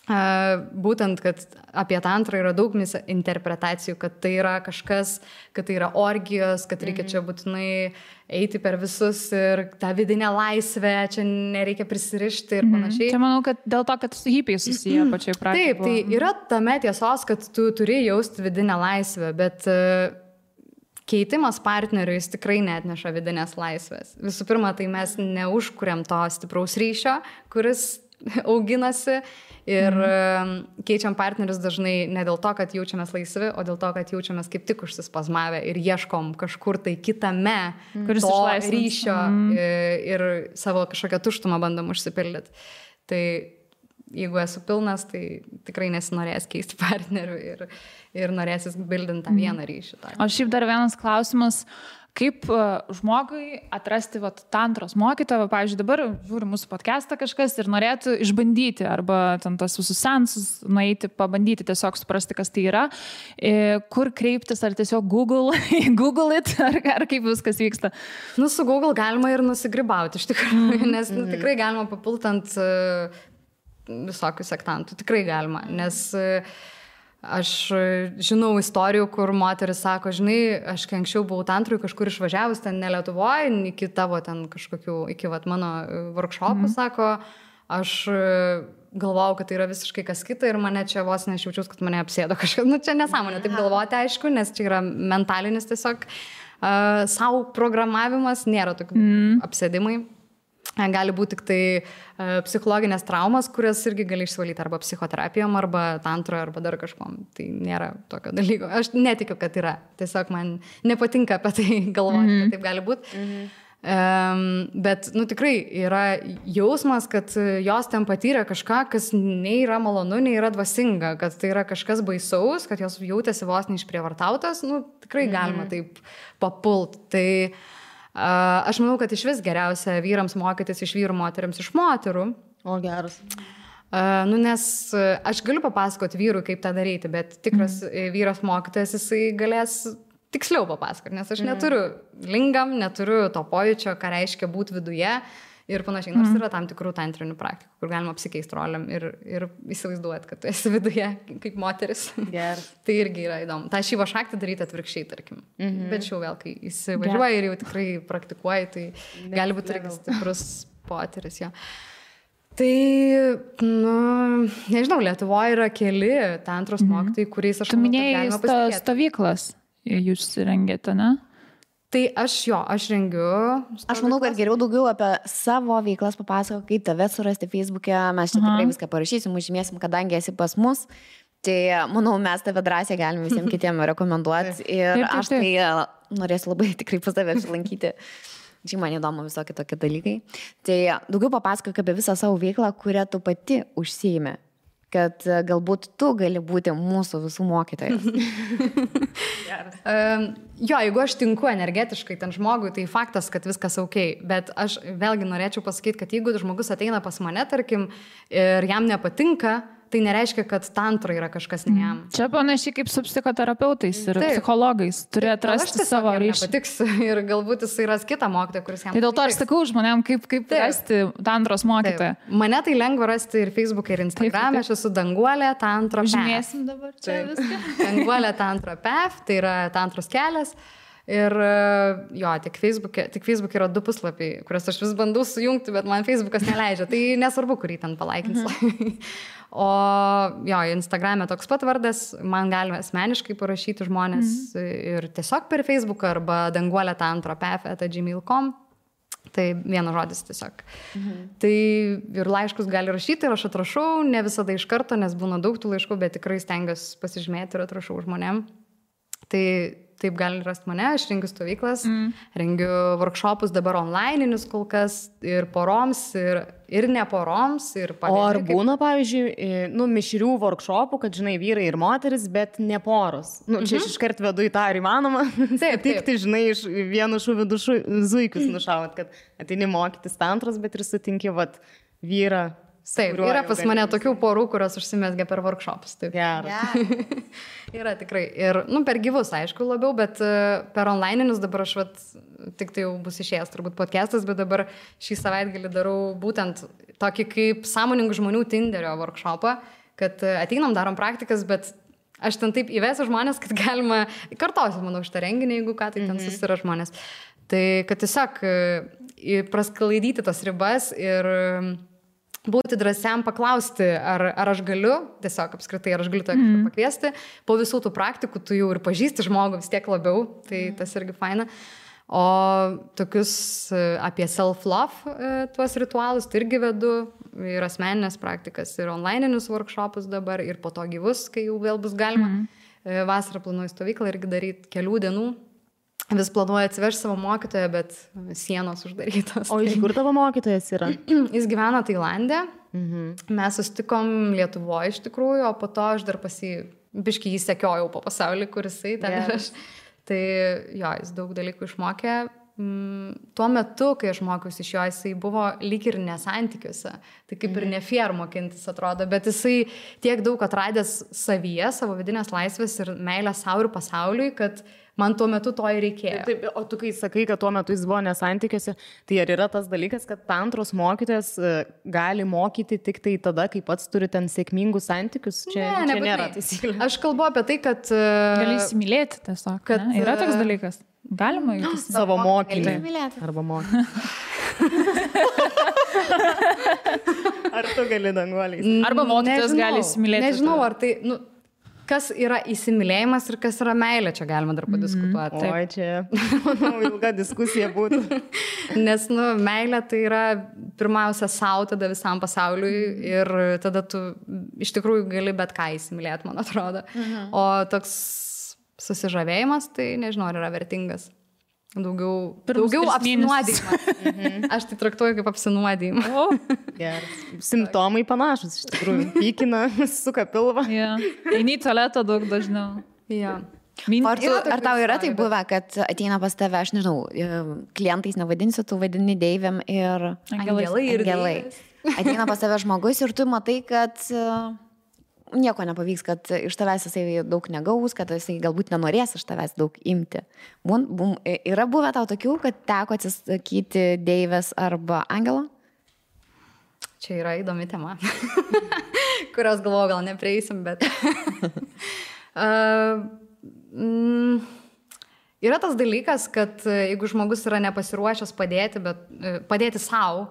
būtent, kad apie tantrą yra daug interpretacijų, kad tai yra kažkas, kad tai yra orgijos, kad reikia čia būtinai eiti per visus ir tą vidinę laisvę, čia nereikia prisirišti ir panašiai. Čia manau, kad dėl to, kad su hipiai susiję pačiai pradžioje. Taip, tai yra tame tiesos, kad tu turi jausti vidinę laisvę, bet keitimas partnerių jis tikrai neatneša vidinės laisvės. Visų pirma, tai mes neužkuriam to stipraus ryšio, kuris auginasi ir keičiam partnerius dažnai ne dėl to, kad jaučiamės laisvi, o dėl to, kad jaučiamės kaip tik užsispazmavę ir ieškom kažkur tai kitame to ryšio ir savo kažkokią tuštumą bandom užsipildyti. Tai jeigu esu pilnas, tai tikrai nesinorės keisti partnerių ir norėsis bildinti tą vieną ryšį. O šiaip dar vienas klausimas. Kaip žmogui atrasti tantros mokytoją, pavyzdžiui, dabar žiūri mūsų podcastą kažkas ir norėtų išbandyti arba ten tos visus seansus nueiti, pabandyti tiesiog suprasti, kas tai yra, kur kreiptis, ar tiesiog Google it, ar kaip viskas vyksta? Su Google galima ir nusigribauti, iš tikrųjų, nes tikrai galima papult ant visokių sektantų, tikrai galima, nes aš žinau istorijų, kur moteris sako, žinai, aš kai anksčiau buvau tantrui kažkur išvažiavus, ten ne Lietuvoje, iki tavo ten kažkokių, iki mano workshopų, sako, aš galvojau, kad tai yra visiškai kas kita ir mane čia vos nešjaučiaus, kad mane apsėdo kažkas. Čia nesąmonė taip galvoti, aišku, nes čia yra mentalinis tiesiog savo programavimas, nėra tokių apsėdimai. Gali būti tik tai psichologinės traumas, kurias irgi gali išsivalyti arba psichoterapijom, arba tantroje, arba dar kažkom. Tai nėra tokio dalyko. Aš netikiu, kad yra. Tiesiog man nepatinka apie tai galvoti, kad taip gali būti. Bet, tikrai yra jausmas, kad jos ten patyrė kažką, kas nei yra malonu, nei yra dvasinga, kad tai yra kažkas baisaus, kad jos jautėsi vos neišprievartautas, tikrai galima taip papult. Tai aš manau, kad iš vis geriausia vyrams mokytis iš vyrų, moteriams iš moterų. O geras. Nes aš galiu papasakoti vyrui, kaip tą daryti, bet tikras vyras mokytojas, jisai galės tiksliau papasakoti, nes aš neturiu lingam, neturiu to pojūčio, ką reiškia būti viduje ir panašiai. Nors yra tam tikrų tantrinių praktikų, kur galima apsikeisti roliam ir įsivaizduoti, kad tu esi viduje kaip moteris. Tai irgi yra įdomu. Ta šyva šaktį daryti atvirkščiai, tarkim. Bet šiau vėl, kai įsivažiuoji ir jau tikrai praktikuoji, tai gali būti irgi stiprus potyris. Jo. Tai, nežinau, Lietuvoje yra keli tantros mokytojai, kuriais aš manau, kad galima pasitikėti. Stovyklas jūs rengėte, ne? Tai aš rengiu. Aš manau, kad geriau daugiau apie savo veiklas papasako, kaip tave surasti Facebook'e, mes čia tikrai viską parašysim, užžymėsim, kadangi esi pas mus. Tai manau, mes tave drąsiai galime visiems kitiems rekomenduoti ir aš tai norėsiu labai tikrai pas tave apsilankyti. Čia man įdomu visokie tokie dalykai. Tai daugiau papasakok apie visą savo veiklą, kurią tu pati užsiimi. Kad galbūt tu gali būti mūsų visų mokytojas. Jeigu aš tinku energetiškai ten žmogui, tai faktas, kad viskas ok, bet aš vėlgi norėčiau pasakyti, kad jeigu žmogus ateina pas mane, tarkim, ir jam nepatinka, tai nereiškia, kad tantra yra kažkas ne jam. Čia panašiai kaip su psichoterapeutais ir psichologais. Turi atrasti savo ryšį. Patiks ir galbūt jis ras kitą mokytoją, kuris jam. Tai dėl to aš sakau žmonėm, kaip rasti tantros mokytoją. Mane tai lengva rasti ir Facebook'e, ir Instagram'e. Aš esu Danguolė Tantra Path. Žymėsim dabar čia viską. Danguolė Tantra Path, tai yra tantros kelias. Ir tik Facebook'e yra 2 puslapiai, kuriuos aš vis bandau sujungti, bet man Facebook'as neleidžia. Tai nesvarbu, kurį ten palaikins. O Instagram'e toks pat vardas, man galima asmeniškai parašyti žmonės ir tiesiog per Facebook'ą arba Danguolė Tantra Path@gmail.com. Tai vienas žodis tiesiog. Tai ir laiškus gali rašyti ir aš atrašau, ne visada iš karto, nes būna daug tų laiškų, bet tikrai stengiuosi pasižymėti ir atrašau žmonėm. Tai taip gali rasti mane, aš rengiu stovyklas, rengiu workshopus dabar online'inius kol kas ir poroms, ir ne poroms. O ar būna, pavyzdžiui, mišrių workshopų, kad, žinai, vyrai ir moteris, bet ne poros? Čia aš iškart vedu į tą, ar įmanoma? Taip. Tai, žinai, iš vienu šūviu du zuikius nušaut, kad ateini mokytis tantros, bet ir sutinki, vyrą. Taip, yra pas mane tokių porų, kurios užsimesgia per workshopus. Taip. Geras. Yra tikrai. Ir, per gyvus, aišku, labiau, bet per online'inius dabar aš, tik tai jau bus išėjęs turbūt podcastas, bet dabar šį savaitgalį darau būtent tokį kaip sąmoningų žmonių Tinderio workshopą, kad ateinam, darom praktikas, bet aš ten taip įvesiu žmonės, kad galima, kartosiu, manau, šitą renginį, jeigu ką, tai ten susira žmonės. Tai kad tiesiog prasklaidyti tas ribas ir būti drąsiam paklausti, ar aš galiu, tiesiog apskritai, ar aš galiu kažką pakviesti. Po visų tų praktikų tu jau ir pažįsti žmogų vis tiek labiau, tai tas irgi faina. O tokius apie self-love tuos ritualus tai irgi vedu, ir asmeninės praktikas, ir online'inius workshopus dabar, ir po to gyvus, kai jau vėl bus galima. Vasarą planuoju stovyklą irgi daryti kelių dienų. Vis planuoju atsivežti savo mokytoją, bet sienos uždarytos. O iš kur tavo mokytojas yra? Jis gyvena Tailande. Mes susitikom Lietuvoje iš tikrųjų, o po to aš dar biškį jį sekiojau po pasaulį, kur jisai ten ir aš. Tai jo, jis daug dalykų išmokė. Tuo metu, kai aš mokiausi iš jo, jisai buvo lyg ir nesantykiuose. Tai kaip ir ne fair mokintis atrodo, bet jisai tiek daug atradęs savyje, savo vidinės laisvės ir meilę savo ir pasauliui, kad man tuo metu to ir reikėjo. Taip, o tu kai sakai, kad tuo metu jis buvo nesantykiuose, tai ar yra tas dalykas, kad tantros mokytojas gali mokyti tik tai tada, kai pats turi ten sėkmingus santykius? Čia nėra taisyklė. Aš kalbu apie tai, kad gali įsimylėti tiesiog. Kad yra toks dalykas. Galima įsimylėti savo mokinį. Arba mokinį. Ar tu gali danguoliais? Arba mokytojas gali įsimylėti. Nežinau, ar tai... Kas yra įsimylėjimas ir kas yra meilė, čia galima dar padiskutuoti. Oi, čia, manau, ilga diskusija būtų. Nes, meilė tai yra pirmiausia savo, tada visam pasauliui ir tada tu iš tikrųjų gali bet ką įsimylėti, man atrodo. O toks susižavėjimas, tai nežinau, ar yra vertingas. Daugiau apsinuodijimas. Aš tai traktuoju kaip apsinuodijimą. Geras. Simptomai panašus, iš tikrųjų. Pykina, suka pilvą. Eini į tualetą daug dažniau. Ar tau yra tai buvę, kad ateina pas tave, aš nežinau, klientais nevadinsiu, tu vadini deivėm ir angelai. Ateina pas tave žmogus ir tu matai, kad nieko nepavyks, kad iš tavęs jisai daug negaus, kad jisai galbūt nenorės iš tavęs daug imti. Yra buvę tau tokių, kad teko atsisakyti deivės arba angelo? Čia yra įdomi tema, kurios galvoju gal neprieisim, bet... Yra tas dalykas, kad jeigu žmogus yra nepasiruošęs padėti savo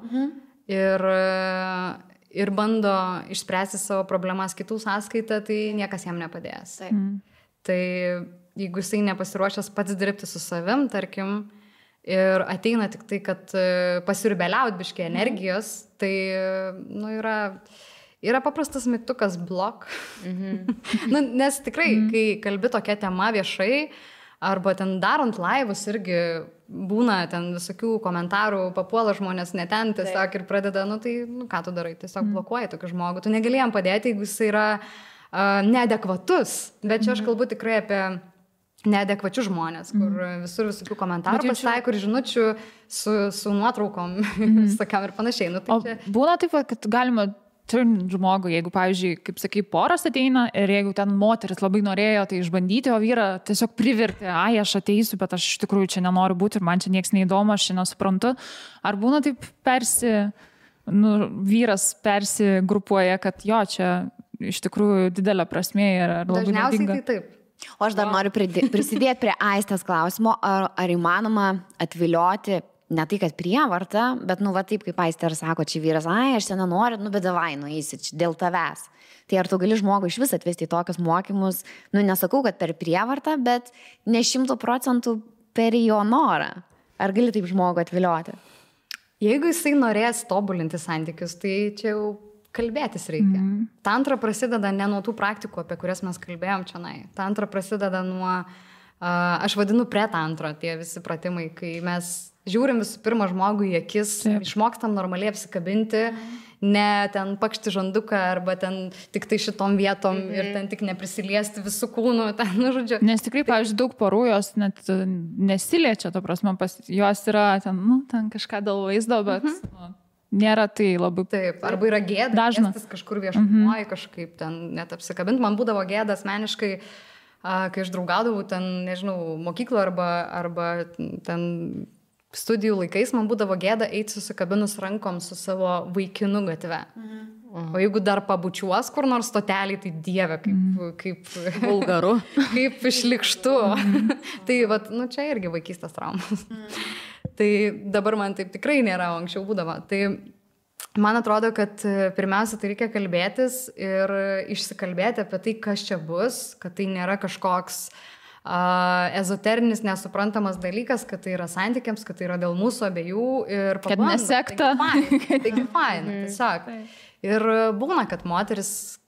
ir bando išspręsti savo problemas kitų sąskaitą, tai niekas jam nepadės. Tai jeigu jisai nepasiruošęs pats dirbti su savim, tarkim, ir ateina tik tai, kad pasirbeliaut biškai energijos, tai yra paprastas mygtukas blok. Nes tikrai, kai kalbi tokia tema viešai, arba ten darant laivus irgi būna ten visokių komentarų, papuola žmonės ne ten tiesiog ir pradeda, ką tu darai, tiesiog blokuoji tokį žmogų. Tu negali jam padėti, jeigu jis yra neadekvatus. Bet čia aš kalbu tikrai apie neadekvačius žmonės, kur visur visokių komentarų pasitaiko ir žinučių su nuotraukom visokiam ir panašiai. Būna taip, kad galima turint žmogų, jeigu, pavyzdžiui, kaip sakai, poras ateina ir jeigu ten moteris labai norėjo tai išbandyti, o vyra tiesiog privertė, aš ateisiu, bet aš iš tikrųjų čia nenoriu būti ir man čia nieks neįdomu, aš čia nesuprantu. Ar būna taip vyras persigrupuoja, kad jo, čia iš tikrųjų didelė prasmė ir labai naudinga? Dažniausiai tai taip. O aš dar noriu prisidėti prie Aistės klausimo, ar įmanoma atvilioti ne tai, kad prievarta, bet, taip kaip Aistė ir sako, čia vyras, aš čia nenoriu, bet davai, nueisi dėl tavęs. Tai ar tu gali žmogų iš vis atvesti į tokius mokymus, nesakau, kad per prievartą, bet ne 100% per jo norą. Ar gali taip žmogų atvilioti? Jeigu jisai norės tobulinti santykius, tai čia jau kalbėtis reikia. Tantra prasideda ne nuo tų praktikų, apie kurias mes kalbėjom čionai. Tantra prasideda nuo, aš vadinu pretantra, tie visi pratimai, kai mes žiūrim visų pirma žmogų į akis, išmokstam normaliai apsikabinti, ne ten pakšti žanduką arba ten tik tai šitom vietom ir ten tik neprisiliesti visų kūnų, žodžiu. Nes tikrai, pavyzdžiui, daug porų jos net nesiliečia, to prasme, jos yra ten kažką dėl vaizdo, bet nėra tai labai... Taip, arba yra gėda, gestas kažkur viešumoje kažkaip ten net apsikabinti. Man būdavo gėda asmeniškai, kai aš draugaudavau ten, nežinau, mokyklą arba ten studijų laikais, man būdavo gėda eiti susikabinus rankom su savo vaikinu gatve. O jeigu dar pabučiuos kur nors stotelį, tai dieve, kaip vulgaru, kaip šlikštu. Tai vat, nu, čia irgi vaikystės traumas. Tai dabar man taip tikrai nėra, anksčiau būdavo. Tai man atrodo, kad pirmiausia, tai reikia kalbėtis ir išsikalbėti apie tai, kas čia bus, kad tai nėra kažkoks ezoterinis, nesuprantamas dalykas, kad tai yra santykiams, kad tai yra dėl mūsų abiejų ir kad nesekta. Taigi faina, tiesiog. Ir būna, kad moteris,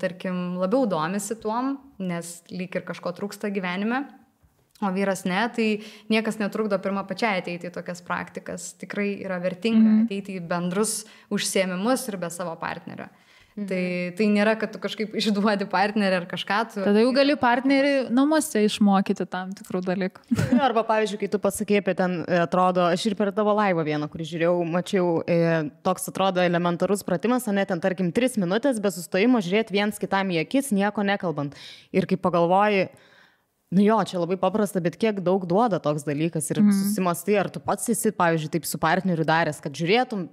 tarkim, labiau domisi tuom, nes lyg ir kažko trūksta gyvenime, o vyras ne, tai niekas netrukdo pirmą pačiai ateiti į tokias praktikas. Tikrai yra vertinga ateiti į bendrus užsiėmimus ir be savo partnerio. Tai nėra, kad tu kažkaip išduodi partnerį ar kažką. Tada jau gali partnerį namuose išmokyti tam tikrų dalykų. Arba, pavyzdžiui, kai tu pasakei apie ten, atrodo, aš ir per tavo laivą vieną, kurį žiūrėjau, mačiau, toks atrodo elementarus pratimas, o ne ten, tarkim, 3 minutės be sustojimo žiūrėti viens kitam į akis, nieko nekalbant. Ir kai pagalvoji, nu jo, čia labai paprasta, bet kiek daug duoda toks dalykas ir susimastai, ar tu pats esi, pavyzdžiui, taip su partneriu daręs, kad žiūrėtum,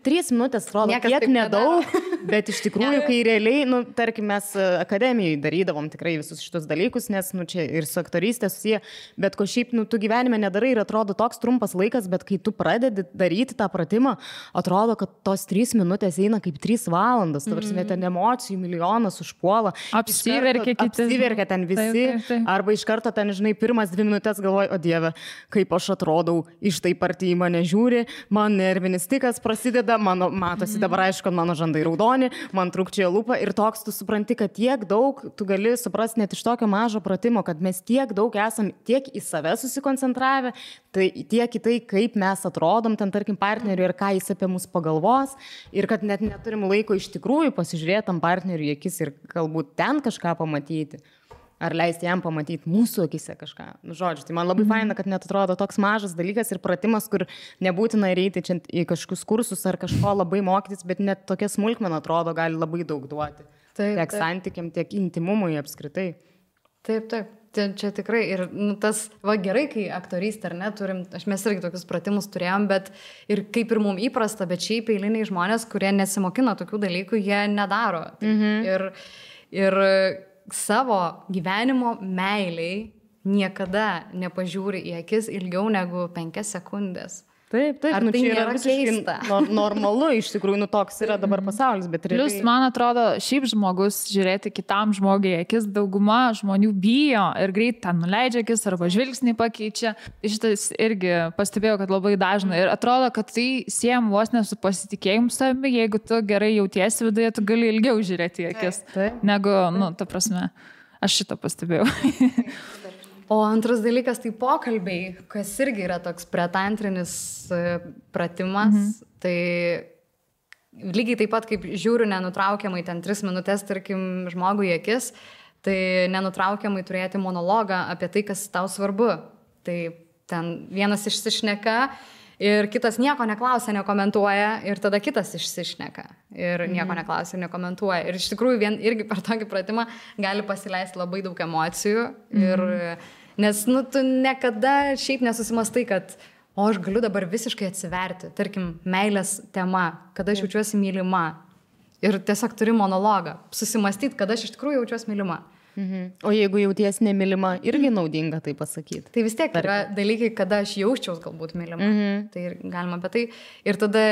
3 minutės atrodo, niekas kiek nedaug, bet iš tikrųjų, kai realiai, nu, tarkim, mes akademijai darydavom tikrai visus šitus dalykus, nes, nu, čia ir su aktorystė susiję, bet ko šiaip, nu, tu gyvenime nedarai ir atrodo toks trumpas laikas, bet kai tu pradedi daryti tą pratimą, atrodo, kad tos 3 minutės eina kaip 3 valandas, tavarsime, ten emocijų milijonas užpuola, apsiverkia ten visi, arba iš karto ten, žinai, pirmas 2 minutės galvoju, o dieve, kaip aš atrodau, iš taip arti į mane žiūri, man nervinis tikas prasideda, matosi dabar aišku, kad mano žandai raudoni, man trūkčioja lūpa ir toks tu supranti, kad tiek daug tu gali suprasti net iš tokio mažo pratimo, kad mes tiek daug esam tiek į save susikoncentravę, tai tiek į tai, kaip mes atrodom ten, tarkim, partneriui ir ką jis apie mus pagalvos ir kad net neturim laiko iš tikrųjų pasižiūrėti tam partneriui į akis ir galbūt ten kažką pamatyti. Ar leisti jam pamatyti mūsų akise kažką. Nu, žodžiu, tai man labai faina, kad net atrodo toks mažas dalykas ir pratimas, kur nebūtina eiti čia į kažkokius kursus ar kažko labai mokytis, bet net tokia smulkmena atrodo gali labai daug duoti. Tiek santykiam, tiek intimumui apskritai. Taip. Čia tikrai. Ir tas, gerai, kai aktorystė, ar ne, mes irgi tokius pratimus turėjom, bet ir kaip ir mums įprasta, bet šiaip eiliniai žmonės, kurie nesimokina tokių dalykų, jie nedaro. Ir savo gyvenimo meiliai niekada nepažiūri į akis ilgiau negu 5 sekundės. Taip, ar nu, tai čia yra keista? Normalu, iš tikrųjų, toks yra dabar pasaulis, bet realiai... Plius, man atrodo, šiaip žmogus žiūrėti kitam žmogui akis, dauguma žmonių bijo ir greit ten nuleidžia akis arba žvilgsnį pakeičia. Šitas irgi pastebėjau, kad labai dažnai. Ir atrodo, kad tai siejam vos ne su pasitikėjimu savimi, jeigu tu gerai jautiesi viduje, tu gali ilgiau žiūrėti į akis. Negu, nu, ta prasme, aš šitą pastebėjau. O antras dalykas tai pokalbiai, kas irgi yra toks pretantrinis pratimas. Tai lygiai taip pat, kaip žiūriu nenutraukiamai ten 3 minutės, tarkim, žmogui į akis, tai nenutraukiamai turėti monologą apie tai, kas tau svarbu. Tai ten vienas išsišneka ir kitas nieko neklausia, nekomentuoja ir tada kitas išsišneka ir nieko neklausia ir nekomentuoja. Ir iš tikrųjų irgi per tokį pratimą gali pasileisti labai daug emocijų ir... Nes, nu, tu niekada šiaip nesusimastai, kad, o aš galiu dabar visiškai atsiverti, tarkim, meilės tema, kada aš jaučiuosi mylima. Ir tiesiog turi monologą, susimastyti, kada aš iš tikrųjų jaučiuosi mylima. O jeigu jauties nemylima, irgi naudinga tai pasakyti. Tai vis tiek yra dalykai, kada aš jausčiaus galbūt mylima. Tai galima apie tai. Ir tada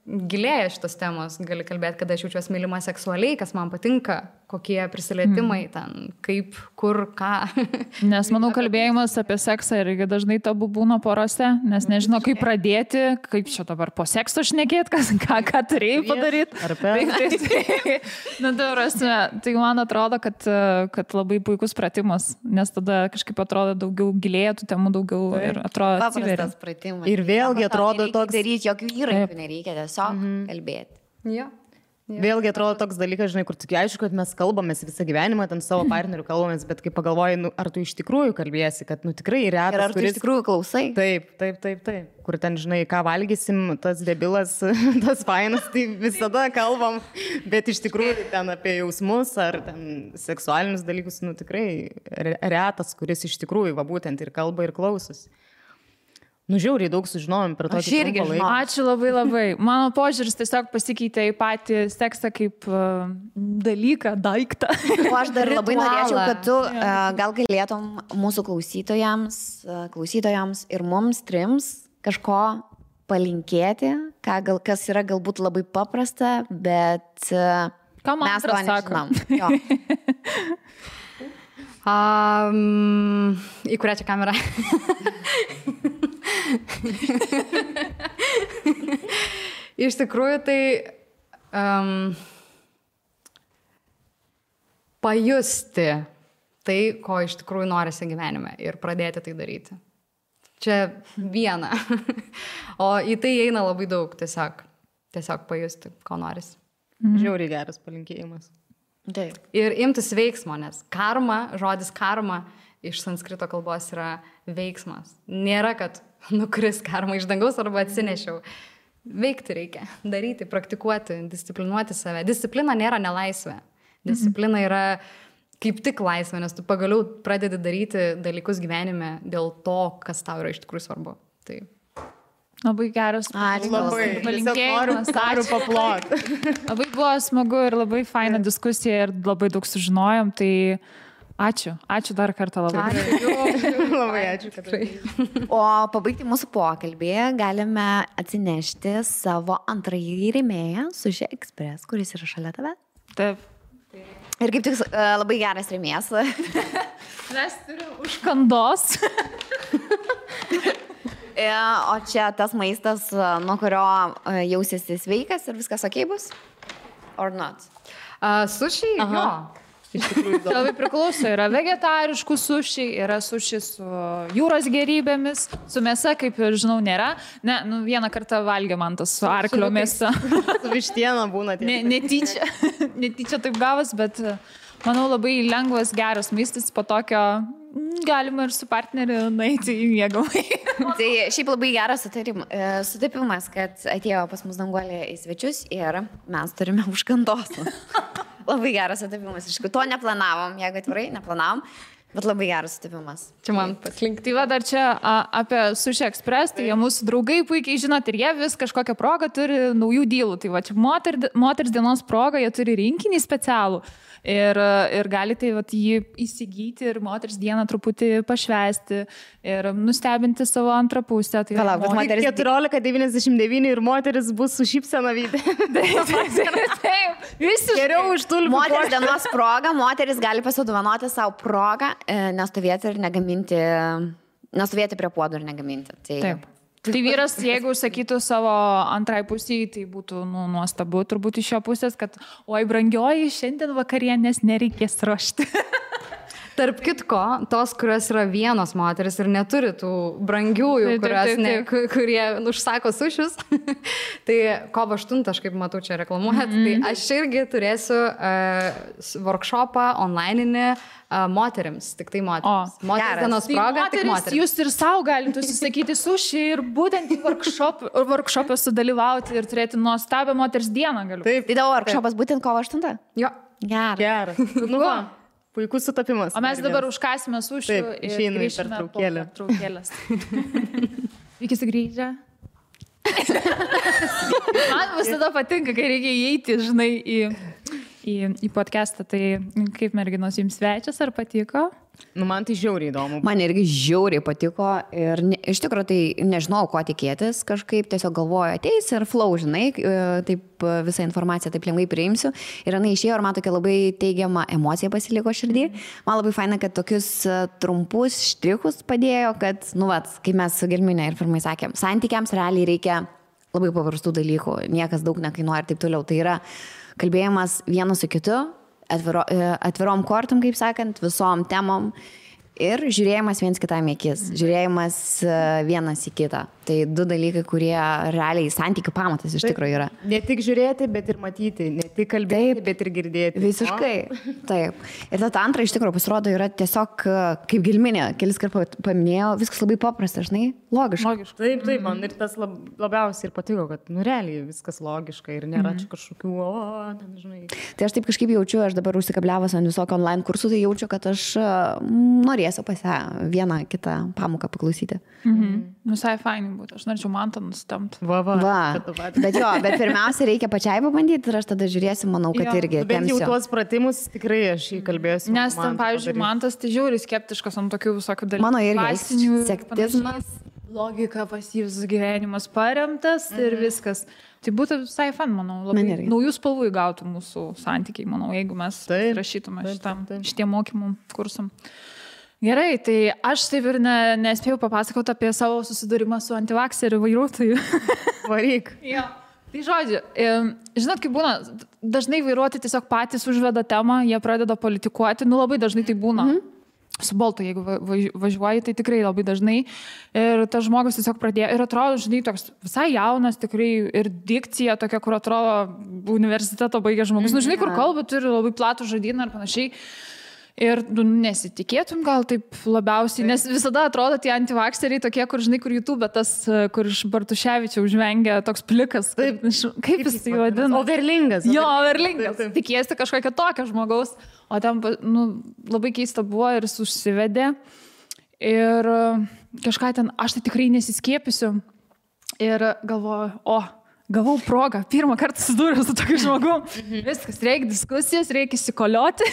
gilėja šitos temos, gali kalbėti, kada aš jaučiuosi mylima seksualiai, kas man patinka, kokie prisilietimai ten, kaip, kur, ką. Nes, manau, kalbėjimas apie seksą irgi dažnai tabu būna porose, nes nežino, kaip pradėti, kaip čia dabar po sekso šnekėti, ką turėjai padaryti. Ar per? Na, tai man atrodo, kad labai puikus pratimas, nes tada kažkaip atrodo daugiau gilėja tų temų, daugiau ir atrodo atsiveria. Ir vėlgi atrodo toks... Daryti jokių įrankių nereikia, tiesiog kalbėti. Jo. Vėlgi atrodo toks dalykas, žinai, kur tik aišku, kad mes kalbamės visą gyvenimą, ten savo partnerių kalbamės, bet kai pagalvoji, nu, ar tu iš tikrųjų kalbėsi, kad, nu, tikrai retas, ir ar tu iš tikrųjų klausai? Taip. Kur ten, žinai, ką valgysim, tas debilas, tas fainas, tai visada kalbam, bet iš tikrųjų ten apie jausmus ar ten seksualinius dalykus, nu, tikrai retas, kuris iš tikrųjų, va, būtent ir kalba ir klausosi. Žiauriai daug sužinojom per tokį laiką. Ačiū labai. Mano požiūris tiesiog pasikeitė į patį seksą kaip dalyką, daiktą. O aš dar labai norėčiau, kad tu gal galėtum mūsų klausytojams ir mums trims kažko palinkėti, kas yra galbūt labai paprasta, bet mes to nežinom. Į kurią čia kamerą? Iš tikrųjų, tai pajusti tai, ko iš tikrųjų norisi gyvenime ir pradėti tai daryti. Čia viena. O į tai eina labai daug, tiesiog pajusti, ko norisi. Žiauriai geras palinkėjimas. Taip. Ir imtis veiksmo, nes žodis karma iš sanskrito kalbos yra veiksmas. Nėra, kad nukris karma iš dangaus arba atsinešiau. Veikti reikia, daryti, praktikuoti, disciplinuoti save. Disciplina nėra nelaisvė. Disciplina yra kaip tik laisvė, nes tu pagaliau pradedi daryti dalykus gyvenime dėl to, kas tau yra iš tikrųjų svarbu. Tai. Labai geras. Palinkėjimas. Noriu paploti. Labai buvo smagu ir labai faina diskusija ir labai daug sužinojom. Tai ačiū dar kartą labai. Labai ačiū. O pabaigti mūsų pokalbį galime atsinešti savo antrąjį rėmėją Sushi Express, kuris yra šalia tave. Taip. Ir kaip tik labai geras rėmėjas. Mes turim užkandos. O čia tas maistas, nuo kurio jausiesi sveikas ir viskas okei bus? Or not? Sushi? Jo. Iš tikrųjų, labai priklauso. Yra vegetariškų sushi, yra sushi su jūros gerybėmis, su mėsa, kaip ir žinau, nėra. Ne, vieną kartą valgė man tas su arklio mėsa. Su vištiena būna. Netyčia taip gavas, bet manau labai lengvas, geras maistas po tokio galima ir su partneriu nueiti į miegamąjį. Tai šiaip labai geras sutapimas, kad atėjo pas mus Danguolė į svečius ir mes turime užkandos. Labai geras sutapimas. Iš tikrųjų, to neplanavom, jeigu atvirai, neplanavom, bet labai geras sutapimas. Čia man paslinkti. Tai va dar čia apie Sushi Express, tai jie mūsų draugai puikiai žinot ir jie vis kažkokią progą turi naujų dylų. Tai va čia moters dienos proga, jie turi rinkinį specialų. Ir galite jį įsigyti ir moters dieną truputį pašvęsti ir nustebinti savo antrą pusę. Tai palauk, moteris 14,99 ir moteris bus su šypsena veide. Taip, visi geriau už tulpių. Moters dienos proga, moteris gali pasidovanoti savo progą, nestovėti prie puodų ir negaminti. Taip. Tai vyras, jeigu sakytų savo antrai pusiai, tai būtų nuostabu turbūt iš jo pusės, kad oi brangioji, šiandien vakarienės nereikės ruošti. Tarp kitko, tos, kurios yra vienos moteris ir neturi tų brangiųjų, kurie užsako sušius, tai kovo 8, aš kaip matau čia reklamuojat, tai aš irgi turėsiu workshopą onlineinį moterims, tik tai moterims. Moters dienos proga, tik moterims. Jūs ir savo galite užsisakyti sušį ir būtent į workshopą sudalyvauti ir turėti nuostabią moters dieną galiu. Taip. Tai tavo workshopas būtent kovo 8? Jo. Geras. Nu va. Puikus sutapimas. O mes dabar užkasime sušių ir grįžime po pertraukėlės. Iki sugrįžę. Man visada patinka, kai reikia įeiti, žinai, į podcastą. Tai kaip merginos jums svečias, ar patiko? Man tai žiauriai įdomu. Man irgi žiauriai patiko ir iš tikrųjų tai nežinau, ko tikėtis, kažkaip tiesiog galvoju, ateis ir flow, žinai, taip visą informaciją taip lengvai priimsiu. Ir jinai išėjo ir man tokia labai teigiama emocija pasiliko širdį. Man labai faina, kad tokius trumpus štrichus padėjo, kad, kaip mes su Gelminė ir pirmai sakėm, santykiams realiai reikia labai paprastų dalykų, niekas daug nekainuoja ir taip toliau. Tai yra kalbėjimas vienas su kitu, atvirom kortom, kaip sakant, visom temom ir žiūrėjimas viens kitam į akis, žiūrėjimas vienas į kitą. Tai 2 dalykai, kurie realiai santykių pamatas iš tikrųjų yra. Ne tik žiūrėti, bet ir matyti, ne tik kalbėti, bet ir girdėti. Visiškai, taip. Ir ta antra iš tikrųjų pasirodo yra tiesiog kaip gilminė, kelis kartus paminėjau, viskas labai paprasta, žinai, logiška. Taip, man ir tas labiausiai ir patiko, kad realiai viskas logiška ir nėra čia kažkokių, ten, žinai. Tai aš taip kažkaip jaučiu, aš dabar užsikabliavęs ant visokio online kursų, tai jaučiu, kad aš norėsiu pas ją vieną kitą pamoką paklausyti. Visai fainai būtų, aš norėčiau Mantą nustemti. Va. Bet pirmiausia reikia pačiai pabandyti ir aš tada žiūrėsiu, manau, kad irgi tempsiu. Bet jau tuos pratimus tikrai aš įkalbėsiu. Nes ten, pavyzdžiui, Mantas tai žiūri skeptiškas ant tokių visokių dalykų. Mano irgi sektizmas. Logika pas jį visas gyvenimas paremtas ir viskas. Tai būtų visai fan, manau, labai naujų spalvų įgautų mūsų santykiai, manau, jeigu mes rašytume šitiem mokymų kursam. Gerai, tai aš taip ir nespėjau papasakoti apie savo susidūrimą su antivakseriu vairuotoju. Varyk. Jo. Tai žodžiu, žinot, kaip būna, dažnai vairuotojai tiesiog patys užveda temą, jie pradeda politikuoti, labai dažnai tai būna. Su Boltu, jeigu važiuoji, tai tikrai labai dažnai. Ir tas žmogus tiesiog pradėjo, ir atrodo, žinai, toks visai jaunas, tikrai ir dikcija tokia, kur atrodo universiteto baigė žmogus. Žinai, kur kalba, turi labai platų žodyną ir panašiai. Ir nesitikėtum gal taip labiausiai, nes visada atrodo tie antivakseriai tokie, kur, žinai, kur YouTube, tas, kur iš Bartuševičiaus žvengia toks plikas. Taip, kaip jis tai vadina? Overlingas. Jo, overlingas. Tikėsi kažkokią tokią žmogaus. O ten, labai keista buvo ir jis užsivedė. Ir kažką ten, aš tai tikrai nesiskiepysiu. Ir galvoju, gavau progą, pirmą kartą susidūriau su tokiu žmogum. Viskas, reikia diskusijos, reikia įsikolioti,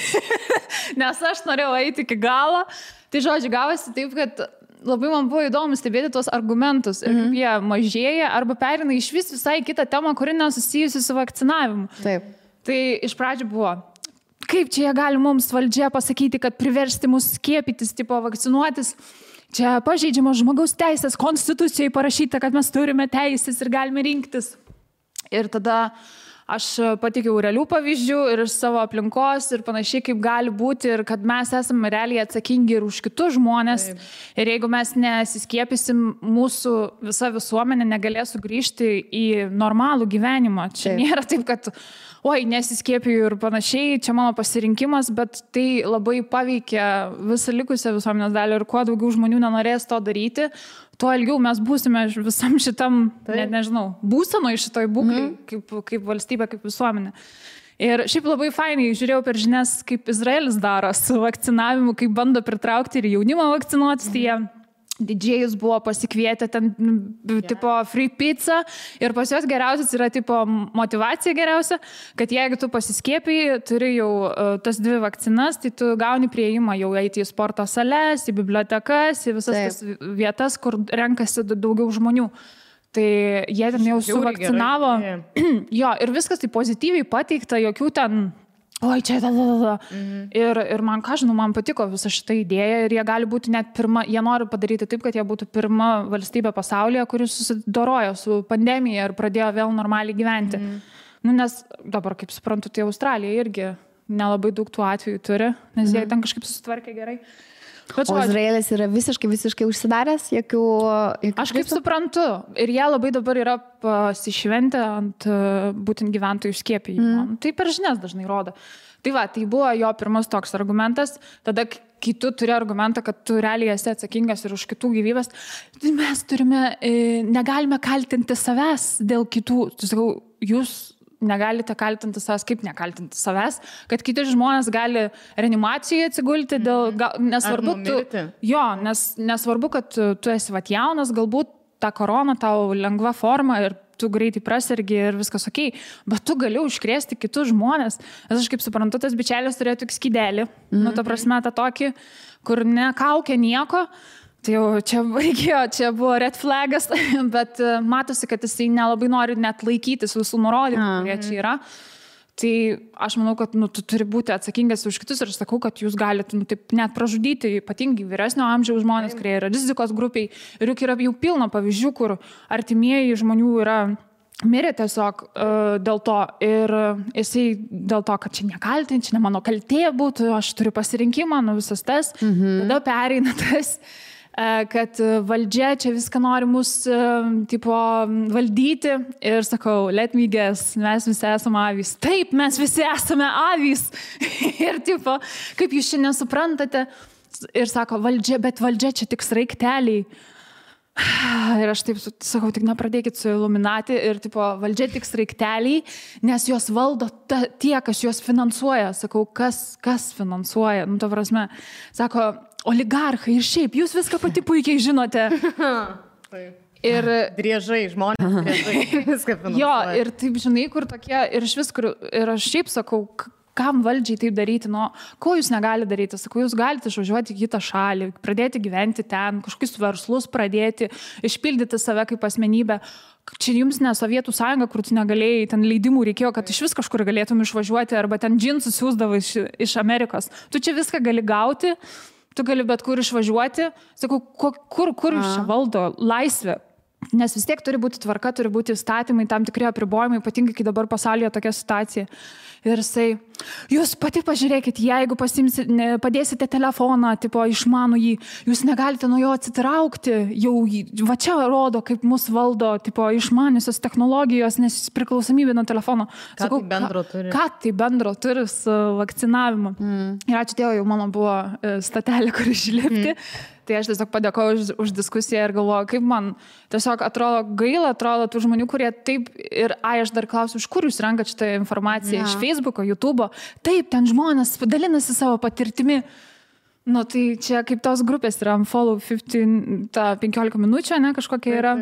nes aš norėjau eiti iki galo. Tai žodžiu, gavosi taip, kad labai man buvo įdomu stebėti tuos argumentus ir kaip jie mažėja arba perina iš visai kitą temą, kuri nesusijusi su vakcinavimu. Taip. Tai iš pradžių buvo, kaip čia jie gali mums valdžia pasakyti, kad priversti mus skiepytis, tipo vakcinuotis. Čia pažeidžiamos žmogaus teisės, konstitucijoje parašyta, kad mes turime teisės ir galime rinktis. Ir tada aš pateikiau realių pavyzdžių ir iš savo aplinkos ir panašiai, kaip gali būti ir kad mes esame realiai atsakingi ir už kitus žmonės. Taip. Ir jeigu mes nesiskiepysim, mūsų visa visuomenė negalės sugrįžti į normalų gyvenimą. Čia nėra taip, kad nesiskiepiju ir panašiai, čia mano pasirinkimas, bet tai labai paveikia visą likusią visuomenės dalį ir kuo daugiau žmonių nenorės to daryti, tuo ilgiau mes būsime visam šitam, net nežinau, būsenoj šitoj būklei, kaip valstybė, kaip visuomenė. Ir šiaip labai fainai žiūrėjau per žinias, kaip Izraelis daro su vakcinavimu, kaip bando pritraukti ir jaunimą vakcinuotis, tai jie didžėjus buvo pasikvietę ten, tipo, free pizza ir pas juos geriausias yra, tipo, motivacija geriausia, kad jeigu tu pasiskiepiji, turi jau tas 2 vakcinas, tai tu gauni prieimą jau eiti į sporto sales, į bibliotekas, į visas tas vietas, kur renkasi daugiau žmonių. Tai jie ten jau suvakcinavo. Jo, ir viskas tai pozityviai pateikta, jokių ten čia ir man, man patiko visa šita idėja ir jie gali būti net pirma, jie nori padaryti taip, kad jie būtų pirma valstybė pasaulyje, kuris susidorojo su pandemija ir pradėjo vėl normaliai gyventi. Nes dabar, kaip suprantu, tai Australija irgi nelabai daug tų atvejų turi, nes jie ten kažkaip susitvarkė gerai. O Izraelis yra visiškai užsidaręs, jokių... Aš kaip suprantu, ir jie labai dabar yra pasišventę ant būtent gyventojų skiepijimo. Tai per žinias dažnai rodo. Tai tai buvo jo pirmas toks argumentas. Tada, kai tu turi argumentą, kad tu realiai esi atsakingas ir už kitų gyvybės, mes negalime kaltinti savęs dėl kitų. Tu sakau, jūs negalite kaltinti savęs, kaip nekaltinti savęs, kad kiti žmonės gali reanimacijoje atsigulti dėl, nesvarbu, nesvarbu, kad tu esi jaunas, galbūt ta korona tau lengva forma ir tu greitai prasergi ir viskas okei, bet tu gali užkrėsti kitus žmonės. Aš kaip suprantu, tas bičelis turėjo tik skydelį, ta prasme, tą tokį, kur nekaukia nieko. Tai jau čia buvo red flagas, bet matosi, kad jisai nelabai nori net laikytis visų nurodymų, kurie čia yra. Tai aš manau, kad tu turi būti atsakingas už kitus ir aš sakau, kad jūs galite taip net pražudyti ypatingai vyresnio amžiaus žmonės, kurie yra rizikos grupiai. Ir juk yra jau pilna pavyzdžių, kur artimieji žmonių yra mirė tiesiog dėl to ir jisai dėl to, kad čia nekaltinti, čia ne mano kaltė būtų, aš turiu pasirinkimą, visas tas, tada pereina tas. kad valdžia čia viską nori mus, tipo, valdyti. Ir sakau, let me guess, mes visi esame avys. Taip, mes visi esame avys. Ir, tipo, kaip jūs šiandien suprantate? Ir sako, valdžia, bet valdžia čia tik sraigteliai. Ir aš taip sakau, tik nepradėkit su Illuminati ir tipo, valdžia tik sraigteliai, nes jos valdo tie, kas juos finansuoja. Sakau, kas finansuoja? Nu, to prasme, sako, oligarchai ir šiaip, jūs viską pati puikiai žinote. Ir driežai, žmonės, driežai, viską finansuoja. Jo, ir taip, žinai, kur tokie, ir iš vis, kur, ir aš šiaip sakau, kam valdžiai taip daryti, nu, ko jūs negali daryti? Sakau, jūs galite išvažiuoti į kitą šalį, pradėti gyventi ten, kažkokius verslus pradėti, išpildyti save kaip asmenybę. Čia jums ne Sovietų sąjunga, kur tu negalėjai, ten leidimų reikėjo, kad iš vis kažkur galėtum išvažiuoti, arba ten džinsus siūsdavo iš Amerikos. Tu čia viską gali gauti, tu gali bet kur išvažiuoti. Sakau, kur jūs čia valdo laisvė? Nes vis tiek turi būti tvarka, turi būti įstatymai, tam tikri apribojimai, ypatingai, kai dabar pasaulyje tokia situacija. Ir jisai, jūs pati pažiūrėkit, jeigu padėsite telefoną, tipo, išmanų jį, jūs negalite nuo jo atsitraukti, jau va čia rodo, kaip mus valdo, tipo, išmaniusios technologijos, nes priklausomybė nuo telefono. Sakau, ką tai bendro turi su vakcinavimu? Ir ačiū Dievui, jau mano buvo statelė, kur išlipti. Tai aš tiesiog padėkoju už diskusiją ir galvoju, kaip man tiesiog atrodo gaila, atrodo tų žmonių, kurie taip ir, aš dar klausiu, iš kur jūs renkat šitą informaciją, iš Facebooko, YouTube'o, taip, ten žmonės dalinasi savo patirtimi. Nu, tai čia kaip tos grupės yra Unfollow 15 minučių, ne, kažkokia yra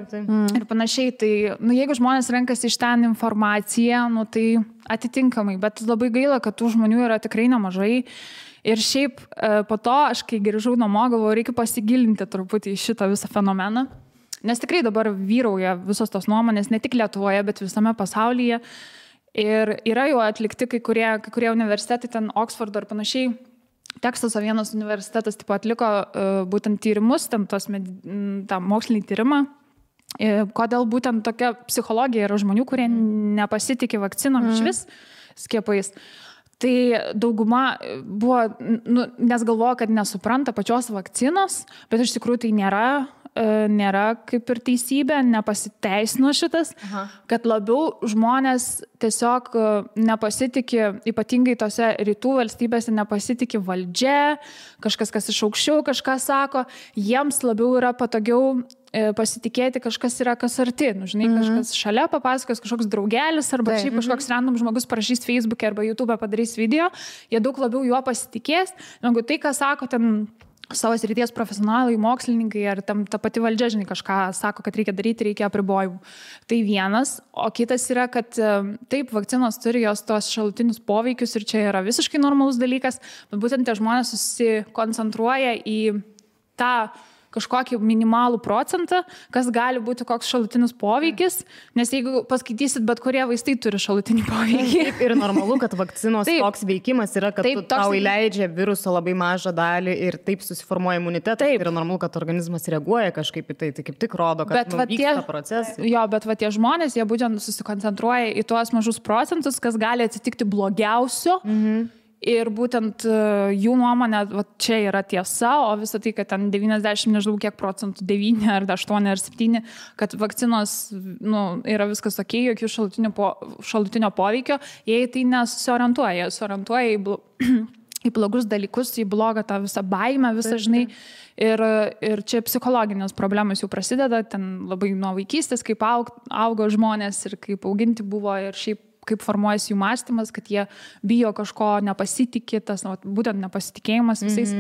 ir panašiai. Tai, nu, jeigu žmonės renkasi iš ten informaciją, nu, tai atitinkamai, bet labai gaila, kad tų žmonių yra tikrai nemažai. Ir šiaip po to, aš kai grįžau namo, galvoju, reikia pasigilinti truputį į šitą visą fenomeną. Nes tikrai dabar vyrauja visos tos nuomonės, ne tik Lietuvoje, bet visame pasaulyje. Ir yra jau atlikti kai kurie universitetai, ten Oxfordo ir panašiai. Teksaso vienas universitetas tipo, atliko būtent tyrimus, ten tą mokslinį tyrimą. Kodėl būtent tokia psichologija yra žmonių, kurie nepasitikė vakcinom iš vis skiepais. Tai dauguma buvo, nu, nes galvoja, kad nesupranta pačios vakcinos, bet iš tikrųjų tai nėra kaip ir teisybė, nepasiteisino šitas, kad labiau žmonės tiesiog nepasitikė, ypatingai tose rytų valstybėse nepasitikė valdžia, kažkas, kas iš aukščiau kažką sako, jiems labiau yra patogiau pasitikėti kažkas yra kas arti, nu, žinai, kažkas šalia papasakos, kažkoks draugelis arba šiaip kažkoks random žmogus parašys Facebook'e arba YouTube'e padarys video, jie daug labiau juo pasitikės, negu tai, ką sako ten savo srities profesionalai, mokslininkai ar tam ta pati valdžia, žinai, kažką sako, kad reikia daryti, reikia apribojimų. Tai vienas, o kitas yra, kad taip, vakcinos turi jos tos šalutinius poveikius ir čia yra visiškai normalus dalykas, bet būtent tie žmonės susikoncentruoja į tą kažkokį minimalų procentą, kas gali būti koks šalutinis poveikis, nes jeigu paskaitysit, bet kurie vaistai turi šalutinį poveikį. Taip, ir normalu, kad vakcinos toks veikimas yra, kad tau įleidžia viruso labai mažą dalį ir taip susiformuoja imunitetas. Taip. Ir normalu, kad organizmas reaguoja kažkaip į tai, tai kaip tik rodo, kad vyksta procesai. Jo, bet va tie žmonės, jie būtent susikoncentruoja į tuos mažus procentus, kas gali atsitikti blogiausio. Ir būtent jų nuomonė, va, čia yra tiesa, o visą tai, kad ten 90, nežinau kiek procentų, 9 ar 8 ar 7, kad vakcinos yra viskas ok, jokių šalutinio poveikio, jie tai nesusiorientuoja, jie susiorientuoja į blogus dalykus, į blogą tą visą baimę, visą, žinai, ir čia psichologinės problemos jau prasideda, ten labai nuo vaikystės, kaip augo žmonės ir kaip auginti buvo ir šiaip kaip formuojasi jų mąstymas, kad jie bijo kažko, nepasitikė, tas būtent nepasitikėjimas visais.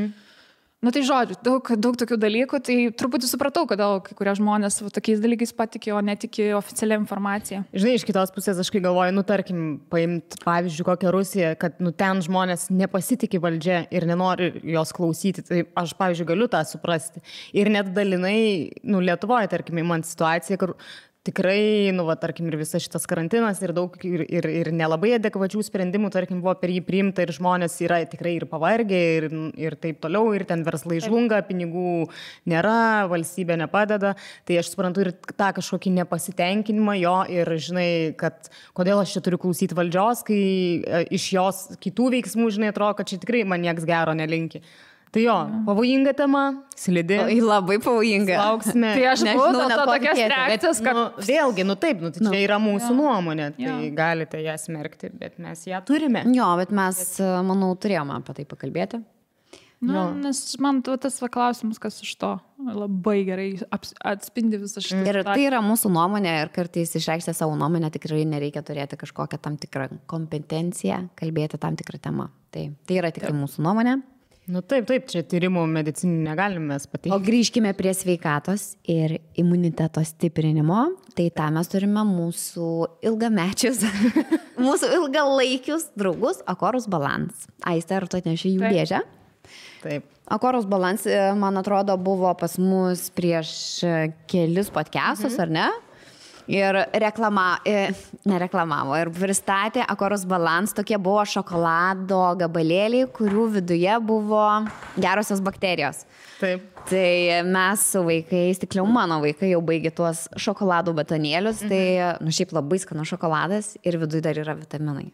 Nu tai žodžiu, daug tokių dalykų, tai truputį supratau, kodėl kai kurie žmonės tokiais dalykais patikė, o netikė oficialią informaciją. Žinai, iš kitos pusės aš kai galvoju, tarkim, paimti pavyzdžiui kokią Rusiją, kad ten žmonės nepasitikė valdžia ir nenori jos klausyti, tai aš, pavyzdžiui, galiu tą suprasti. Ir net dalinai, Lietuvoje, tarkim, man situacija, kur tikrai, tarkim, ir visas šitas karantinas ir daug ir nelabai adekvačių sprendimų, tarkim, buvo per jį priimta ir žmonės yra tikrai ir pavargę ir taip toliau, ir ten verslai žlunga, pinigų nėra, valstybė nepadeda. Tai aš suprantu ir tą kažkokį nepasitenkinimą jo ir žinai, kad kodėl aš čia turiu klausyti valdžios, kai iš jos kitų veiksmų, žinai, atrodo, kad čia tikrai man nieks gero nelinki. Tai jo, pavojinga tema, slidi. Labai pavojinga. Lauksime. Tai aš nežinau, net tokias reakcijas, kad... Vėlgi, taip, tai čia yra mūsų nuomonė, tai galite ją smerkti, bet mes ją turime. Jo, bet mes, manau, turėjome apie tai pakalbėti. Nes man tas klausimas, kas iš to labai gerai atspindi visą šitą. Ir tai yra mūsų nuomonė ir kartais išreikšti savo nuomonę tikrai nereikia turėti kažkokią tam tikrą kompetenciją, kalbėti tam tikrą temą. Tai yra tikrai mūsų nuomonė. Taip, čia tyrimų medicinį negalime mes pateikti. O grįžkime prie sveikatos ir imuniteto stiprinimo. Tai tą mes turime mūsų ilgamečius, mūsų ilgalaikius draugus Akorus Balance. Aiste, ar tu atneši jų dėžę? Taip. Akorus Balance, man atrodo, buvo pas mus prieš kelis podcastus, ar ne? Ir nereklamavo ir pristatė Akorus Balance, tokie buvo šokolado gabalėliai, kurių viduje buvo gerosios bakterijos. Taip. Tai mes su vaikais, tikliau mano vaikai jau baigė tuos šokoladų batonėlius, tai šiaip labai skanus šokoladas ir viduje dar yra vitaminai.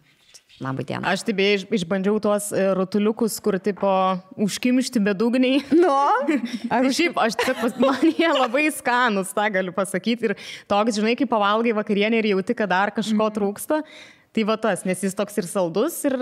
Labai diena. Aš taip išbandžiau tuos rutuliukus, kur tipo užkimšti bedugniai. Šiaip, man jie labai skanus, tą galiu pasakyti. Ir toks, žinai, kai pavalgai vakarienę ir jauti, kad dar kažko trūksta, tai va tas, nes jis toks ir saldus, ir,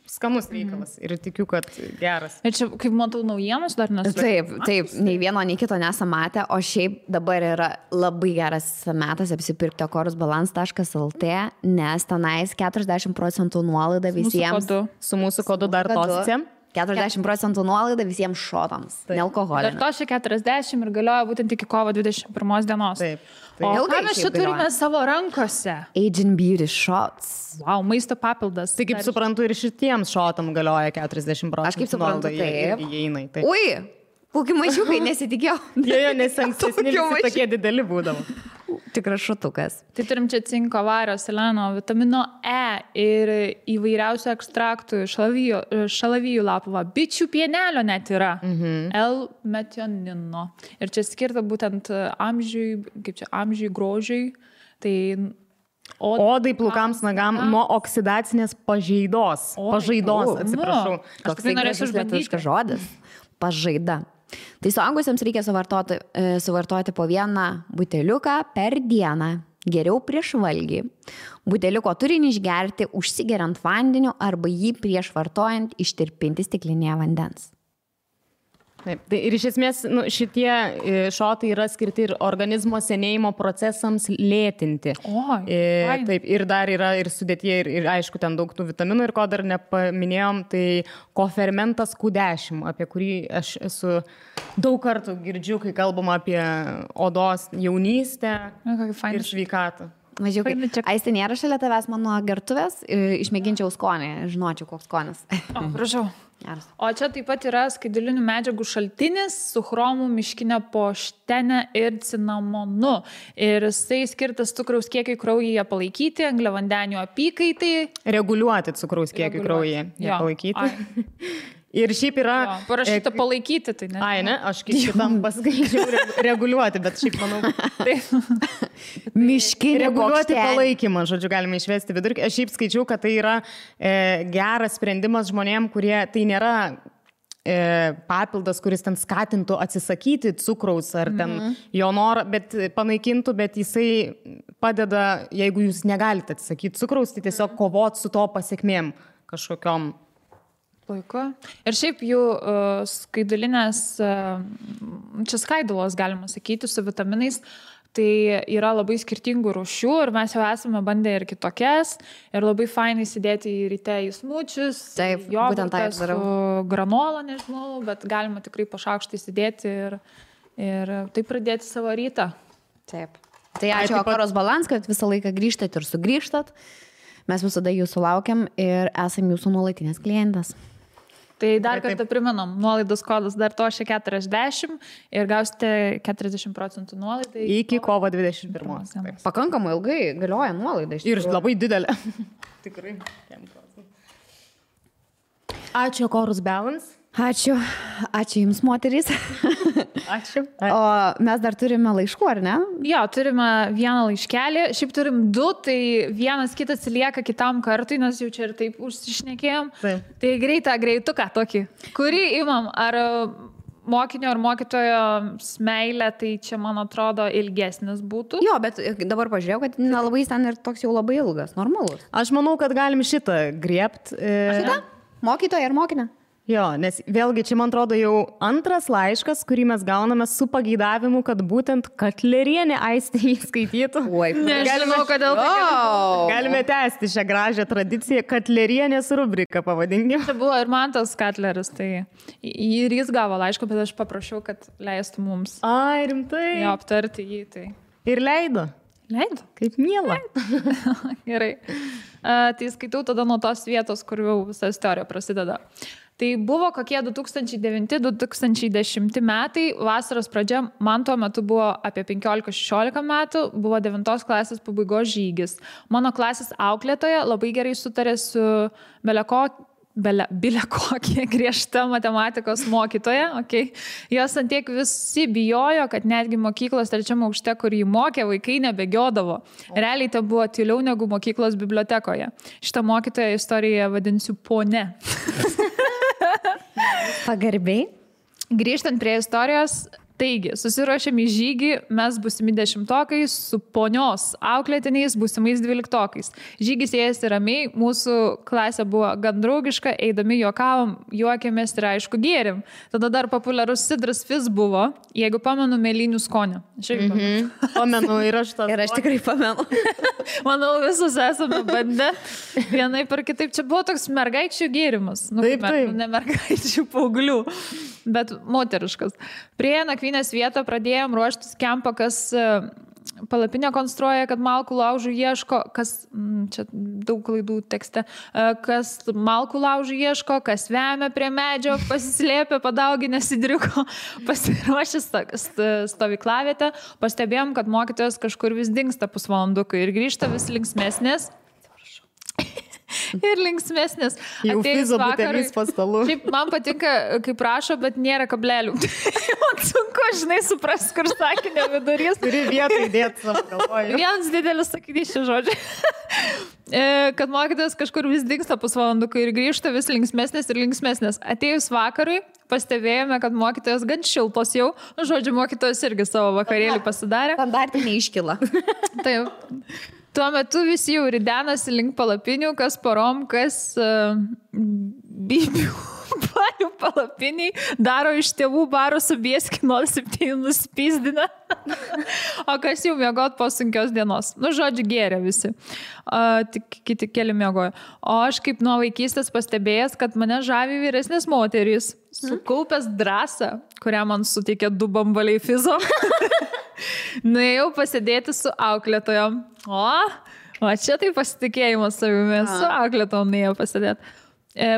skanus reikalas. Ir tikiu, kad geras. Ir čia, kaip matau, naujienos dar nesu. Taip, nei vieno, nei kito nesam matę, o šiaip dabar yra labai geras metas apsipirkti akorusbalance.lt, nes tenais 40% nuolaida visiems. Su mūsų kodu dar tosicė. 40% nuolaida visiems šotams, nealkoholinio. Dar to šia 40 ir galioja būtent iki kovo 21 dienos. Taip. O ką mes čia turime savo rankose? Agent Beauty Shots. Wow, maisto papildas. Tai kaip suprantu, ir šitiems šotam galioja 40%. Aš kaip suprantu, taip. Ui, kokį mažiukai nesitikėjau. Jie, nes ankstesni visi tokie dideli būdavo. Tikras šutukas. Tai turim čia cinko, vario, seleno, vitamino E ir įvairiausių ekstraktų, šalavijų lapų, bičių pienelio net yra, L-metionino. Ir čia skirta būtent amžiui, grožiui. Tai odai, plukams, nagam nuo oksidacinės pažaidos. Atsiprašau. Aš tikrai norėsiu išbandyti žodis. Pažaida. Tai suaugusiems reikia suvartoti po vieną buteliuką per dieną, geriau prieš valgį. Buteliuko turinį išgerti užsigeriant vandeniu arba jį prieš vartojant ištirpinti stiklinėje vandens. Taip, tai ir iš esmės šitie šotai yra skirti ir organizmo senėjimo procesams lėtinti. Taip, ir dar yra ir sudėtyje, ir aišku, ten daug tų vitaminų, ir ko dar nepaminėjom, tai kofermentas Q10, apie kurį aš esu daug kartų girdžiu, kai kalbama apie odos jaunystę ir sveikatą. Mažiukai. Aistė nėra šalia tavęs mano gertuvės, išmėginčiau skonį, žinočiau, koks skonis. Prašau. O čia taip pat yra skaidulinių medžiagų šaltinis su chromu, miškinė poštene ir cinamonu. Ir jisai skirtas cukraus kiekiai kraujyje palaikyti, angliavandenių apykaitai. Reguliuoti cukraus kiekiai kraujyje palaikyti. Ir šiaip yra... Parašyta palaikyti, tai ne. Ne, aš kitam paskaičiau reguliuoti, bet šiaip manau... Miškinė reguliuoti palaikymą, žodžiu, galime išvesti vidurkį. Aš šiaip skaičiau, kad tai yra geras sprendimas žmonėm, kurie tai nėra papildas, kuris ten skatintų atsisakyti cukraus ar ten jo norą, bet panaikintų, bet jisai padeda, jeigu jūs negalite atsisakyti cukraus, tai tiesiog kovot su to pasiekmėm kažkokiom. Puiku. Ir šiaip jų skaidulinės, čia skaidulos galima sakyti, su vitaminais, tai yra labai skirtingų rūšių ir mes jau esame bandę ir kitokias ir labai fainai įsidėti į ryte į smučius, jogurtą su granola, nežinau, bet galima tikrai po šaukštą įsidėti ir taip pradėti savo rytą. Taip. Tai ačiū Akorus Balance, kad visą laiką grįžtat ir sugrįžtat. Mes visada jūsų laukiam ir esam jūsų nuolatinės klientas. Tai dar kartą priminam, nuolaidos kodas dar to šia 40 ir gausite 40% nuolaidą. Iki kovo 21. Pakankamai ilgai galioja nuolaida. Ir labai didelė. Tikrai. Ačiū, Chorus Balance. Ačiū Jums, moterys. Ačiū. O mes dar turime laiškų, ar ne? Jo, turime vieną laiškelį, šiaip turim 2, tai vienas kitas lieka kitam kartui, nes jau čia ir taip užsišnekėjom. Tai greituką tokį, kurį imam, ar mokinio ar mokytojo meilė, tai čia, man atrodo, ilgesnis būtų. Jo, bet dabar pažiūrėjau, kad nelabai ten ir toks jau labai ilgas, normalus. Aš manau, kad galim šitą griebt. Šitą? Mokytoja ir mokinę? Jo, nes vėlgi čia, man atrodo, jau antras laiškas, kurį mes gauname su pageidavimu, kad būtent Katlerienė Aistė jį skaitytų. Oi, nežinau, kodėl galime tęsti šią gražią tradiciją, Katlerienės rubriką pavadinkime. Čia buvo ir Mantas Katleris, tai ir jis gavo laišką, bet aš paprašiau, kad leistų mums. Ai, rimtai. Jo, aptarti jį, tai. Ir leido. Leido? Kaip miela. Gerai. Tai skaitau tada nuo tos vietos, kur jau visa istorija prasideda. Tai buvo kokie 2009-2010 metai, vasaros pradžia, man tuo metu buvo apie 15-16 metų, buvo 9 klasės pabaigos žygis. Mano klasės auklėtoja labai gerai sutarė su bilekokie griežta matematikos mokytoja, okay. Jos antiek visi bijojo, kad netgi mokyklos 3 aukšte, kur jį mokė, vaikai nebėgiodavo. Realiai tai buvo tyliau negu mokyklos bibliotekoje. Šitą mokytoją istoriją vadinsiu pone. Pagarbiai. Grįžtant prie istorijos, taigi, susiruošėm į žygį, mes būsimi 10-okai su ponios auklėtiniais būsimais 12-okais. Žygis ėjasi ramiai, mūsų klasė buvo gan draugiška, eidami juokavom, juokėmės ir aišku gėrim. Tada dar populiarus sidras fizz buvo, jeigu pamenu, mėlynių skonį. Pamenu ir aš tą. Ir aš tikrai pamenu. Manau, visus esame bandę. Vienai per kitaip, čia buvo toks mergaičių gėrimas. Taip. Ne mergaičių paauglių, bet moteriškas. Prie nakvynės vietą pradėjom ruoštis kempą, kas palapinę konstruoja, kad malkų laužų ieško, kas, čia daug klaidų tekste, kas malkų laužų ieško, kas vemia prie medžio, pasislėpė, padauginę sidriuko, pasiruošęs stovyklavietę, pastebėjom, kad mokytojas kažkur vis dingsta pusvalandukai ir grįžta vis linksmesnės. Ir linksmesnės. Jau fizo butelis po stalu. Šiaip man patinka, kaip rašo, bet nėra kablelių. Man sunku, žinai, supras, kur sakinio vidurys. Turi vietą įdėti savo galvoje. Vienas didelis sakinys šį žodžią. Kad mokytojas kažkur vis dingsta pusvalandukai ir grįžta vis linksmesnės ir linksmesnės. Atėjus vakarui, pastebėjome, kad mokytojas gan šiltos jau. Žodžiu, mokytojas irgi savo vakarėlį pasidarė. Standartinė iškyla. Taip. Tuo metu visi jau ridenasi link palapinių, kas porom, kas bibių barių palapiniai, daro iš tėvų baro su bieski 07 nuspysdina, o kas jau miegot po sunkios dienos. Nu, žodžiu, gėrė visi. Tik kiti keli miegojo. O aš kaip nuo vaikystės pastebėjęs, kad mane žavi vyresnės moterys, sukaupęs drąsą, kurią man suteikė 2 bambaliai fizo. Nuėjau pasidėti su auklėtojom. O čia tai pasitikėjimas savimi. Su auklėtojom nuėjau pasidėti.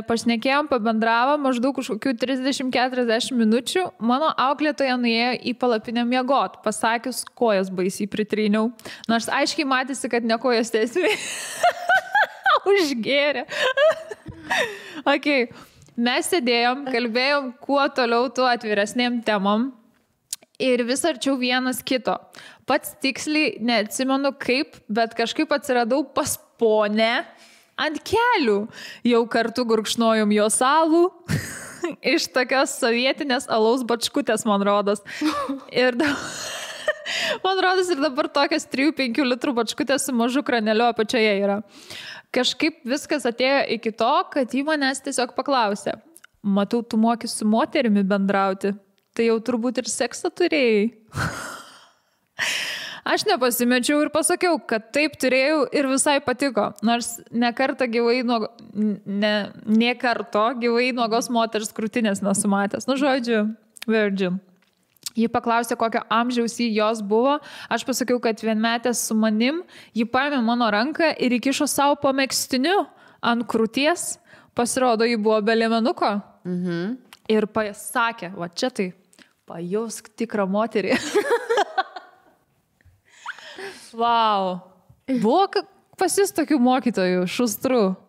Pašnekėjom, pabendravom maždaug kažkokių 30-40 minučių. Mano auklėtoja nuėjo į palapinę miegot, pasakius, kojas baisiai pritryniau. Nors aiškiai matėsi, kad ne kojas tiesiai. Užgėrė. Okay. Mes sėdėjom, kalbėjom kuo toliau, tuo atviresnėm temom. Ir vis arčiau vienas kito. Pats tiksliai neatsimenu kaip, bet kažkaip atsiradau pas ponę ant kelių. Jau kartu gurkšnojom jos alų. Iš tokios sovietinės alaus bačkutės, man rodos. Ir man rodos ir dabar tokias 3-5 litrų bačkutės su mažu kraneliu apačioje yra. Kažkaip viskas atėjo iki to, kad jį manęs tiesiog paklausė. Matau, tu moki su moterimi bendrauti. Tai jau turbūt ir seksą turėjai. Aš nepasimečiau ir pasakiau, kad taip turėjau ir visai patiko. Nors nekarto gyvai nuogos moters krūtinės nesumatęs. Nu, žodžiu, virgin. Ji paklausė, kokio amžiaus jį jos buvo. Aš pasakiau, kad vienmetės su manim. Ji paėmė mano ranką ir įkišo savo po megztiniu ant krūties. Pasirodo, ji buvo be liemenuko. Ir pasakė, va čia tai, pajausk tikrą moterį. Wow. Buvo pas jis tokių mokytojų, šustrų.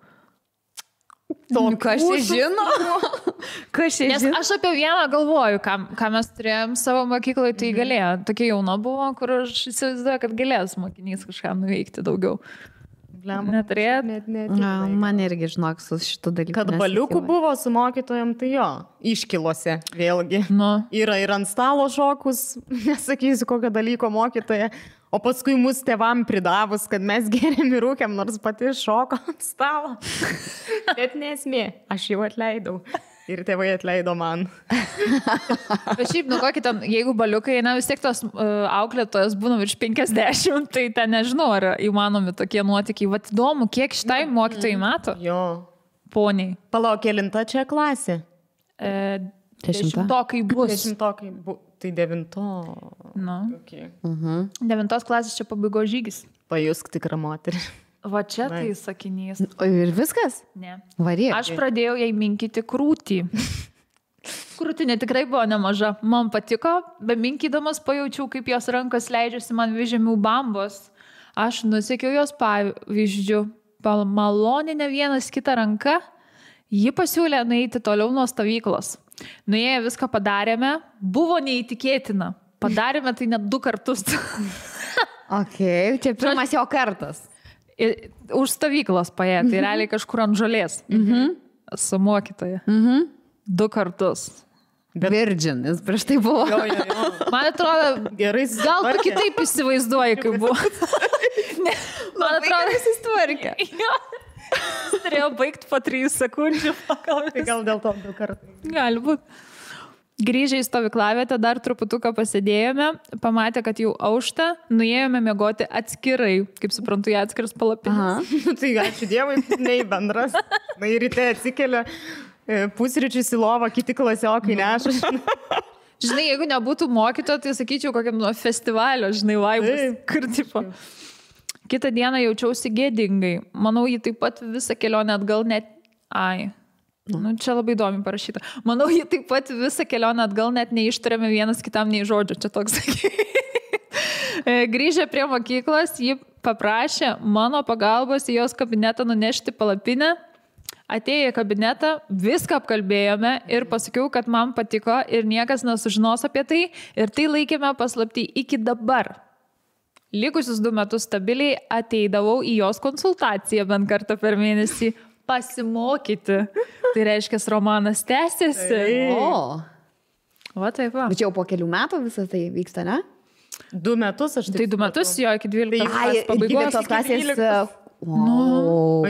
Kas čia žino? Kas čia žino? Aš apie vieną galvoju, ką mes turėjom savo mokykloje, tai galėjo. Tokia jauna buvo, kur aš įsivaizduoju, kad galės mokinys kažką nuveikti daugiau. Neturėt? Man irgi, žinok, su šitų dalykų. Kad baliukų buvo su mokytojom, tai jo, iškilose vėlgi. Yra ir ant stalo šokus, nesakysiu kokio dalyko mokytoja, o paskui mus tėvam pridavus, kad mes geriam ir rūkiam, nors pati šoko ant stalo. Bet nesmė, aš jau atleidau. Ir tėvai atleido man. Bet šiaip, kokį ten, jeigu baliukai, vis tiek tos auklėtojas būna virš 50, tai ten nežinau, ar įmanomi tokie nuotykiai. Vat įdomu, kiek šitai mokytojai metų? Jo. Poniai. Palauk, kelinta čia klasė? 10-tokai bus. 10-tokai bus. Tai 9. Okay. 9 klasės čia pabaigos žygis. Pajusk tikrą moterį. Va čia tai sakinys. O ir viskas? Ne. Varyk. Aš pradėjau jai minkyti krūtį. Krūtinė tikrai buvo nemaža. Man patiko, be minkydamas pajaučiau, kaip jos rankos leidžiasi man vyžemių bambos. Aš nusekiau jos pavyzdžių. Maloninę vienas kitą ranką. Ji pasiūlė nueiti toliau nuo stovyklos. Nuėję viską padarėme. Buvo neįtikėtina. Padarėme tai net 2 kartus. Čia pirmas jo kartas. Už stovyklos paė, tai realiai kažkur ant žolės. Su mokytoja. 2 kartus. Virgin, jis prieš tai buvo. Man atrodo, gerai, gal tu kitaip įsivaizduoji, kaip buvo. Man atrodo, jis įstvarkė. Turėjau baigti po 3 sekundžių. Tai gal dėl to 2 kartus. Gali būti. Grįžę į stovyklavietę, dar truputuką pasėdėjome, pamatė, kad jau aušta, nuėjome miegoti atskirai, kaip suprantu, jie atskiras palapinės. Tai ačiū Dievui, nei bendras. Na ir ryte atsikelia, pusryčius į lovą, kiti klasiokai neša. Žinai, jeigu nebūtų mokyto, tai sakyčiau, kokiam festivalio, žinai, vaibus. Kur tipo. Kitą dieną jaučiausi gėdingai. Manau, jį taip pat visą kelionę atgal net... Čia labai įdomi parašyta. Manau, jį taip pat visą kelionę atgal net neištarėme vienas kitam nei žodžio. Čia toks. Grįžę prie mokyklos, ji paprašė mano pagalbos į jos kabinetą nunešti palapinę. Atėję į kabinetą, viską apkalbėjome ir pasakiau, kad man patiko ir niekas nesužinos apie tai. Ir tai laikėme paslaptį iki dabar. Likusius 2 metus stabiliai ateidavau į jos konsultaciją bent kartą per mėnesį. Pasimokyti. Tai reiškia, romanas tęsiasi. Va taip va. Bet čia jau po kelių metų visą tai vyksta, ne? 2 metus aš tai 2 metus, jo, iki 12 klasės pabaigos. Klasės.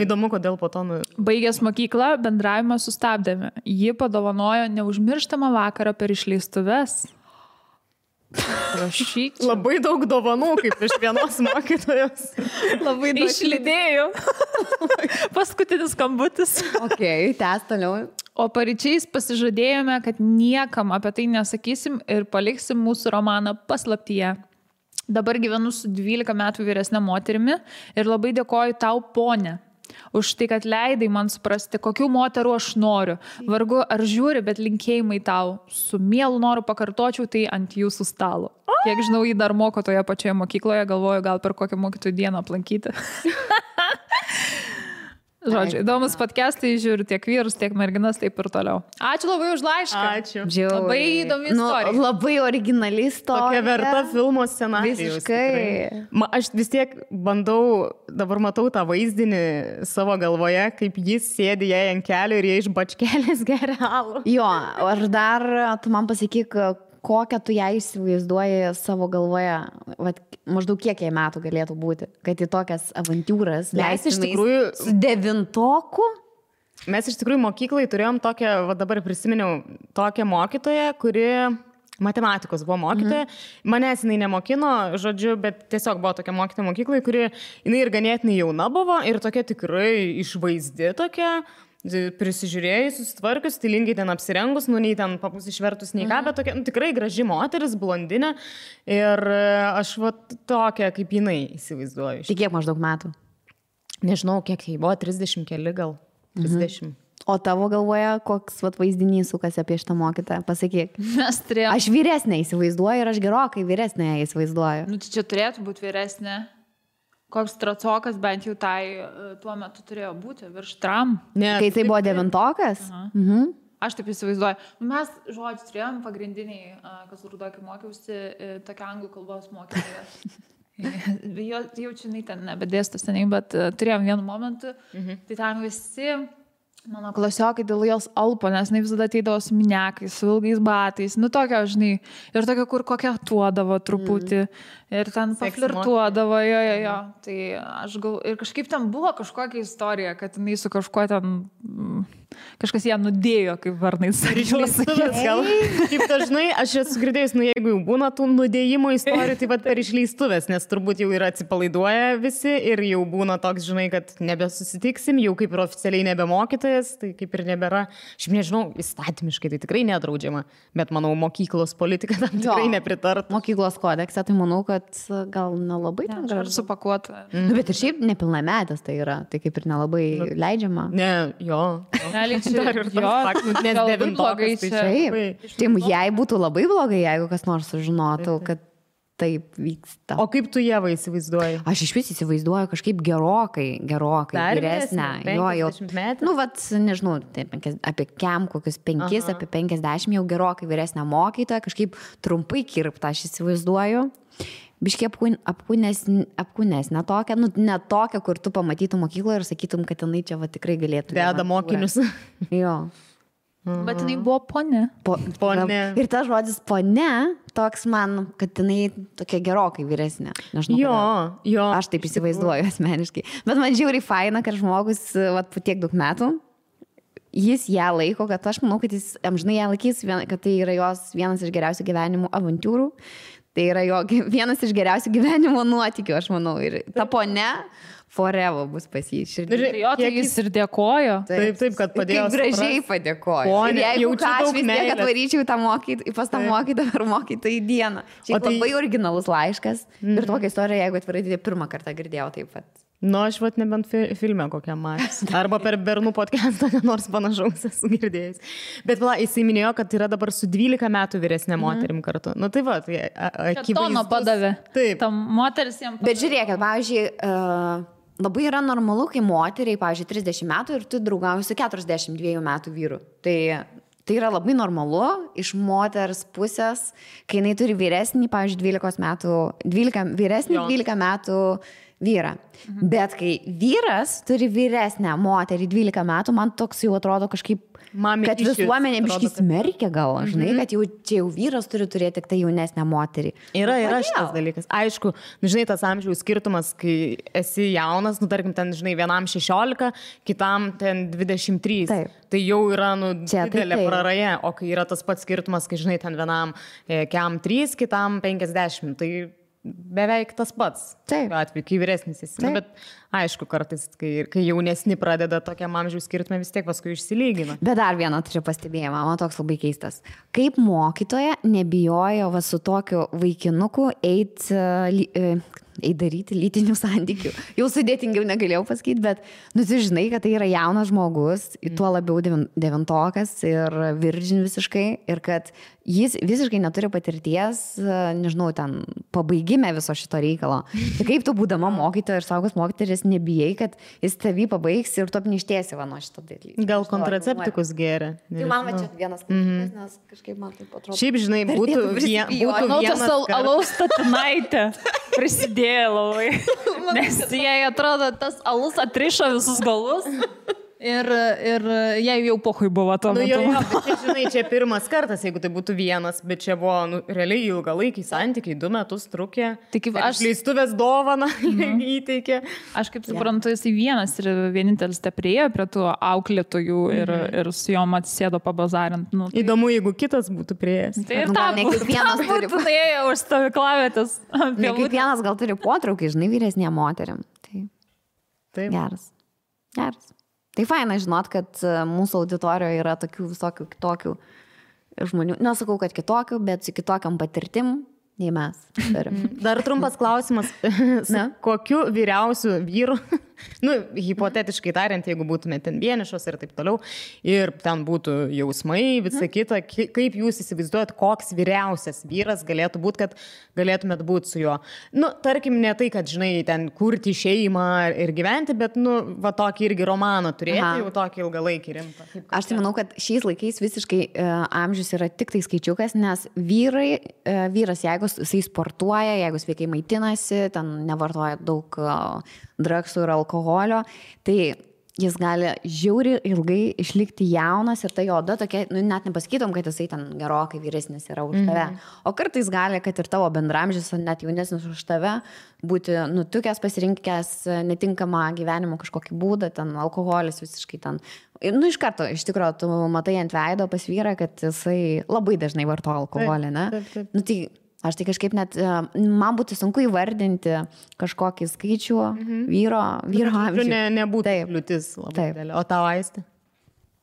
Įdomu, kodėl po to. Baigęs mokyklą, bendravimą sustabdėme. Ji padovanojo neužmirštamą vakarą per išleistuves. Prašyčiau. Labai daug dovanų, kaip iš vienos mokytojos. Labai daug. Išlydėjau. Paskutinis skambutis. Tęs toliau. O paryčiais pasižadėjome, kad niekam apie tai nesakysim ir paliksim mūsų romaną paslaptyje. Dabar gyvenu su 12 metų vyresnė moterimi ir labai dėkoju tau, ponė, už tai, kad leidai man suprasti, kokių moterų aš noriu. Vargu ar žiūri, bet linkėjimai tau. Su mielu noru pakartočiau tai ant jūsų stalo. Kiek žinau, jį dar moko toje pačioje mokykloje, galvoju, gal per kokią mokytojų dieną aplankyti. Žodžiu, įdomus podcastai, žiūriu tiek vyrus, tiek merginas, taip ir toliau. Ačiū labai už laišką. Ačiū. Labai įdomi istorija. Labai originali istorija. Tokia verta filmo scenarijus. Visiškai. Aš vis tiek bandau, dabar matau tą vaizdinį savo galvoje, kaip jis sėdi jai ant kelio ir jie iš bačkelės geria alų. Jo, aš dar, tu man pasakyk, kokią tu ją įsivaizduoji savo galvoje, maždaug kiek jai metų galėtų būti, kad į tokias avantūras leistumės su 9-oku? Mes iš tikrųjų mokyklai turėjom tokią, dabar prisiminiau, tokią mokytoją, kuri matematikos buvo mokytoja. Manęs jinai nemokino, žodžiu, bet tiesiog buvo tokia mokytoja mokyklai, kuri jinai ir ganėtinai jauna buvo ir tokia tikrai išvaizdi tokia, prisižiūrėjus, susitvarkius, stilingai ten apsirengus, nei ten papus išvertus, nei ką, bet tokia, tikrai graži moteris, blondinė. Ir aš tokia, kaip jinai įsivaizduoju. Tai kiek maždaug metų? Nežinau, kiek jai buvo, 30 keli gal. 30. O tavo galvoje, koks vaizdinys sukasi apie šitą mokytoją? Pasakyk. Aš vyresnė įsivaizduoju ir aš gerokai vyresnė įsivaizduoju. Nu, čia turėtų būti vyresnė. koks tracokas bent jau tai tuo metu turėjo būti, virš tram. Ne, kai tai buvo 9-okas? Aš taip įsivaizduoju. Mes, žodžiu, turėjom pagrindiniai, kas Rudokį mokiausi, tokia anglų kalbos mokytoja. Jaučiu, ten nebedėsto seniai, bet turėjom vienu momentu. Tai ten visi mano klasiokai dėl jos alpo, nes jinai visada ateidavo su miniakais, su ilgais batais. Nu, tokia, žinai, ir tokia, kur kokia tuodavo truputį. Ir ten paflirtuodavo, jo. Tai aš gal... Ir kažkaip ten buvo kažkokia istorija, kad jinai su kažkuo ten... Kažkas ją nudėjo, kaip varnai išleistuvės gal. Kaip dažnai, aš esu girdėjus, jeigu jau būna tų nudėjimo istorijų, tai per išleistuvės, nes turbūt jau yra atsipalaiduoja visi ir jau būna toks, žinai, kad nebesusitiksim, jau kaip ir oficialiai nebemokytojas, tai kaip ir nebėra. Aš nežinau, įstatymiškai tai tikrai nedraudžiama, bet manau, mokyklos politika tam tikrai nepritart. Mokyklos kodekse, tai manau, kad gal nelabai ten gražu supakuota. Bet ir šiaip nepilnametis tai yra, tai kaip ir nelabai leidžiama. Ne, jo. Nes 9-okas tai jai būtų labai blogai, jeigu kas nors sužinotų, kad taip vyksta. O kaip tu Ieva įsivaizduoji? Aš iš vis įsivaizduoju kažkaip gerokai vyresnę. Nu, nežinau, apie kokius 5, apie 50 jau gerokai vyresnę mokytoją, kažkaip trumpai kirptą aš įsivaizduoju. Biškiai apkūnesnė tokia, ne tokia, kur tu pamatytum mokykloje ir sakytum, kad jinai čia tikrai galėtų. Veda mokinius. Jo. Bet jinai buvo ponė. Ponė. Ir tas žodis ponė, toks man, kad jinai tokia gerokai vyresnė. Jo. Aš taip įsivaizduoju asmeniškai. Bet man žiauriai faina, kad žmogus po tiek daug metų, jis ją laiko, kad aš manau, kad jis amžinai ją laikys, kad tai yra jos vienas iš geriausių gyvenimo avantūrų. Tai yra jo vienas iš geriausių gyvenimo nuotykių, aš manau. Ir ta ponė forever bus pas jį. Tai jis ir dėkojo. Taip, kad padėjo. Kaip gražiai padėkojo. Ir jeigu ką, aš vis tiek atvaryčiau pas tą mokytą ar mokytą į dieną. Šiaip labai originalus laiškas. Ir tokia istorija, jeigu atvirai, tai pirmą kartą girdėjau taip pat. Nu, aš nebent filme kokią matęs. Arba per bernų podcastą, nors panašaus esu girdėjęs. Bet jisai minėjo, kad yra dabar su 12 metų vyresnė moterim kartu. Nu, tai tai akivaizdus. Tono padavė. Taip. Tam moteris jam padavė. Bet žiūrėkit, pavyzdžiui, labai yra normalu, kai moteriai, pavyzdžiui, 30 metų ir tu draugauji su 42 metų vyru. Tai yra labai normalu iš moters pusės, kai jinai turi vyresnį, pavyzdžiui, 12 metų vyrą. Bet kai vyras turi vyresnę moterį 12 metų, man toks jau atrodo kažkaip, kad visuomenė biškai smerkia gal, žinai, kad čia jau vyras turi turėti tik tai jaunesnę moterį. Yra šitas dalykas. Aišku, žinai, tas amžiaus skirtumas, kai esi jaunas, tarkim, ten, žinai, vienam 16, kitam ten 23. Taip. Tai jau yra, didelė praraja, o kai yra tas pats skirtumas, kai, žinai, ten vienam kiam 3, kitam 50, tai beveik tas pats. Taip. Atveju, kai vyresnis esi. Bet aišku, kartais, kai jaunesni pradeda tokiam amžiaus skirtumą, vis tiek paskui išsilygina. Bet dar vieną turiu pastebėjimą, man toks labai keistas. Kaip mokytoja nebijojo su tokiu vaikinuku daryti lytinių santykių. Jau sudėtingiau negalėjau pasakyti, bet tu žinai, kad tai yra jaunas žmogus, tuo labiau 9-okas ir virgin visiškai, ir kad jis visiškai neturi patirties, nežinau, ten pabaigime viso šito reikalo. Tai kaip tu būdama mokytoja ir saugus mokytojas nebijai, kad jis tavį pabaigs ir tu apništėsi nuo šito dalyko. Gal kontraceptikus geria. Tai man va čia vienas klausimas, nes kažkaip man taip atrodo. Šiaip, žinai, būtų vienas alaus statinaitė prisidėjo labai. Nes jai atrodo, tas alus atrišo visus galus. Ir jai jau pohui buvo tuo metu. Bet žinai, čia pirmas kartas, jeigu tai būtų vienas, bet čia buvo realiai ilgalaikiai santykiai, 2 metus trukė. Tik aš leistuvės dovaną įteikė. Aš kaip suprantu, jisai vienas ir vienintelis te priejo prie tų auklėtojų ir su jom atsisėdo pabazarint. Įdomu, jeigu kitas būtų priėjęs. Tai ir tam būtų ėjo už stovyklavietės. Ne kiekvienas gal turi potraukį, žinai, vyresnė moterim. Tai geras. Tai faina žinot, kad mūsų auditorijoje yra tokių visokių kitokių žmonių. Nesakau, kad kitokių, bet su kitokiam patirtim nei mes. Dar trumpas klausimas. Kokiu vyriausiu vyru Nu, hipotetiškai tariant, jeigu būtume ten vienišos ir taip toliau, ir ten būtų jausmai, visa kita, kaip jūs įsivaizduojat, koks vyriausias vyras galėtų būti, kad galėtumėt būti su juo. Nu, tarkim, ne tai, kad, žinai, ten kurti šeimą ir gyventi, bet, nu, va tokį irgi romaną turėti, jau tokį ilgalaikį rimtą. Aš tai manau, kad šiais laikais visiškai amžius yra tik tai skaičiukas, nes vyras, jeigu jisai sportuoja, jeigu sveikai maitinasi, ten nevartoja daug drugsų ir alkoholio, tai jis gali žiauriai ilgai išlikti jaunas ir ta jo oda tokia, nu, net nepasakytum, kad jisai ten gerokai vyresnis yra už tave. O kartais gali, kad ir tavo bendramžis, net jaunesnis už tave, būti nutukęs, pasirinkęs netinkamą gyvenimo kažkokį būdą, ten alkoholis visiškai ten. Nu, iš karto, iš tikrųjų, tu matai ant veido pas vyrą, kad jisai labai dažnai vartoja alkoholį, ne? Taip. Nu, tai aš tai kažkaip net, man būtų sunku įvardinti kažkokį skaičių vyro amžių. Nebūtų kliūtis labai dėlė. O tau, Aistė?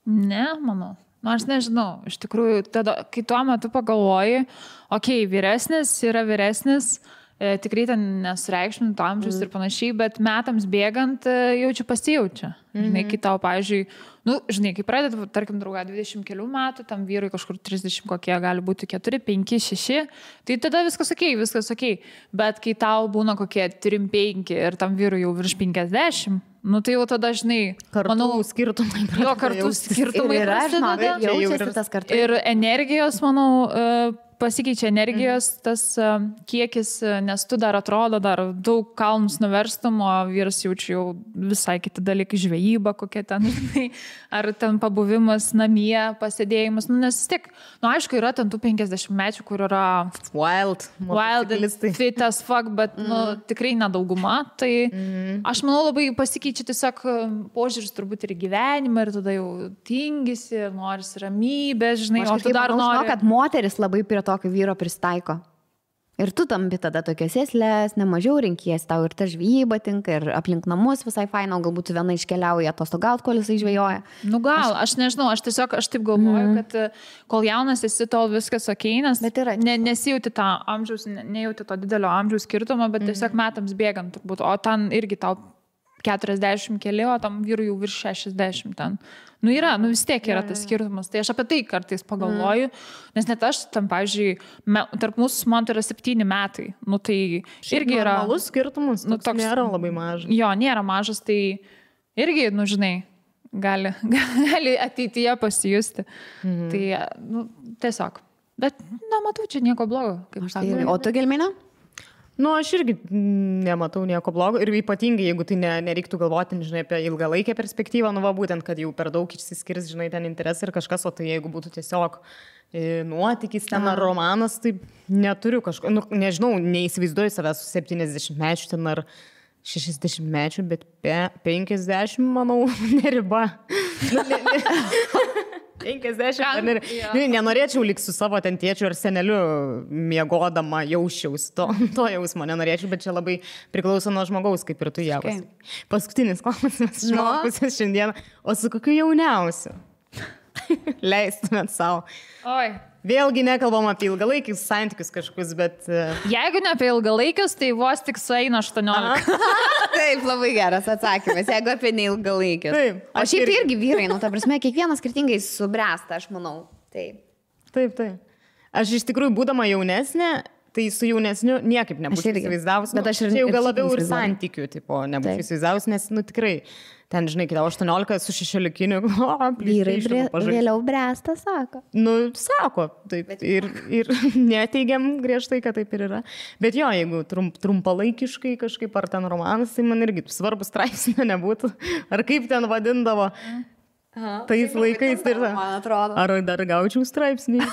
Ne, manau. Nu, aš nežinau. Iš tikrųjų, tada, kai tuo metu pagalvoji, vyresnis yra vyresnis, tikrai ten nesureikšminto amžius ir panašiai, bet metams bėgant pasijaučia. Žinai, kai tau, pavyzdžiui, kai pradeda, tarkim, draugą 20 kelių metų, tam vyrui kažkur 30 kokie gali būti 4, 5, 6, tai tada viskas okei. Bet kai tau būna kokie 3, 5 ir tam vyrui jau virš 50, nu tai jau tada, žinai, manau, skirtumai. Jo, kartų skirtumai yra, jaučiasi tas kartu. Ir energijos, manau, pasikeičia energijos tas kiekis, nes tu dar atrodo, dar daug kalnus nuverstum, o vyras jaučia jau visai kiti dalykai, žvejyba kokia ten, ar ten pabuvimas namie, pasėdėjimas, nes tik, aišku, yra ten tų 50 mečių, kur yra wild fit as fuck, bet tikrai nedauguma, tai aš manau labai pasikeičia tiesiog požiūris turbūt ir gyvenimą, ir tada jau tingisi, norisi ramybės, žinai, o tu dar nori. Kad moteris labai prie tokio vyro pristaiko. Ir tu tampi tada tokias sėslės, nemažiau renkies, tau ir ta žvejyba tinka, ir aplink namus visai faina, galbūt viena iškeliauja atostogaut, kol jisai žvejoja. Nu gal, aš nežinau, aš taip galvoju, kad kol jaunas esi, tol viskas okei, nes nesijauti tą amžiaus, nejauti to didelio amžiaus skirtumo, bet tiesiog metams bėgant turbūt, o ten irgi tau 40 keli, o tam vyrui jau virš 60 ten. Nu yra, vis tiek yra tas skirtumas. Tai aš apie tai kartais pagalvoju, nes net aš tam, pavyzdžiui, tarp mūsų man tai yra 7 metai. Nu tai irgi yra... Normalus skirtumas, toks nėra labai mažas. Jo, nėra mažas, tai irgi, žinai, gali ateityje pasijusti. Tai, tiesiog. Bet, matau, čia nieko blogo. O tu, Gelmina? Nu, aš irgi nematau nieko blogo ir ypatingai, jeigu tai nereiktų galvoti, žinai, apie ilgalaikę perspektyvą, būtent, kad jau per daug išsiskirs, žinai, ten interesai ir kažkas, o tai jeigu būtų tiesiog nuotykis ten ar romanas, tai neturiu kažko, nežinau, neįsivaizduoju savęs su 70 mečių ten ar 60 mečių, bet 50, manau, neriba. 50. Nenorėčiau likti su savo ten tėčiu ar seneliu miegodama jausčiaus. To jausmo nenorėčiau, bet čia labai priklauso nuo žmogaus, kaip ir tu javas. Paskutinis klausimas žmogus šiandien. O su kokiu jauniausiu? Leistumėt savo. Oi. Vėlgi nekalbam apie ilgalaikius santykius kažkokius, bet... Jeigu ne apie ilgalaikius, tai vos tik sueina 18. Taip, labai geras atsakymas, jeigu apie neilgalaikius. Taip. O šiaip irgi vyrai, ta prasme, kiekvienas skirtingai subręsta, aš manau. Taip. Aš iš tikrųjų, būdama jaunesnė, tai su jaunesniu niekaip nebūčiau įsivaizdavus. Bet aš ir jau gal labiau ir santykių, tipo, nebūčiau įsivaizdavus, nes, tikrai... Ten, žinai, kai 18 su 16, vyrai vėliau bręsta, sako. Sako, taip. Ir neteigiam griežtai, kad taip ir yra. Bet jo, jeigu trumpalaikiškai kažkaip ar ten romanas, tai man irgi svarbus straipsnio nebūtų. Ar kaip ten vadindavo tais laikais. Man atrodo. Ar dar gaučiau straipsnį.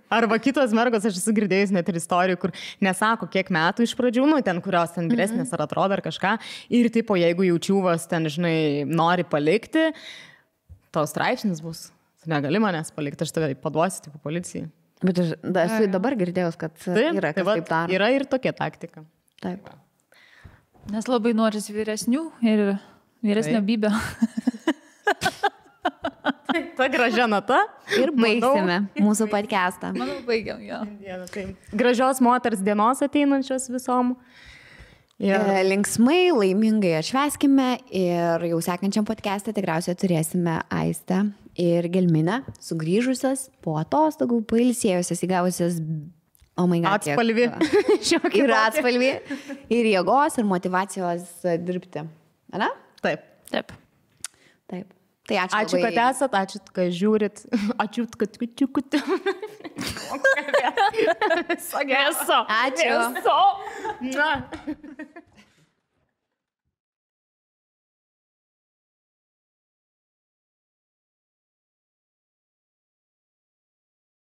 Arba kitos mergos, aš esu girdėjus net ir istorijų, kur nesako, kiek metų iš pradžių, ten kurios ten vyresnės ar atrodo ar kažką. Ir tipo, jeigu jaučiuvas ten, žinai, nori palikti, to straipsnis bus. Tu negali manęs palikti, aš tave paduosiu, tipo, policijai. Bet aš dabar girdėjus, kad yra kas taip daro. Yra ir tokia taktika. Taip. Nes labai noris vyresnių ir vyresnio bybio. Ta gražia nata. Ir baigsime mūsų podcastą. Manau, baigiam, jo. Gražios moters dienos ateinančios visom. Linksmai, laimingai atšvęskime ir jau sekančiam podcast'e tikriausiai turėsime Aistę ir Gelminę, sugrįžusios po atostogų, pailsėjusios, įgavusios, atspalvį. Ir atspalvį, ir jėgos, ir motyvacijos dirbti. Ana? Taip. Taip. Tai ačiū, kad esat, ačiū, kad žiūrit, ačiū, kad kučiukut. Ačiū. Ačiū.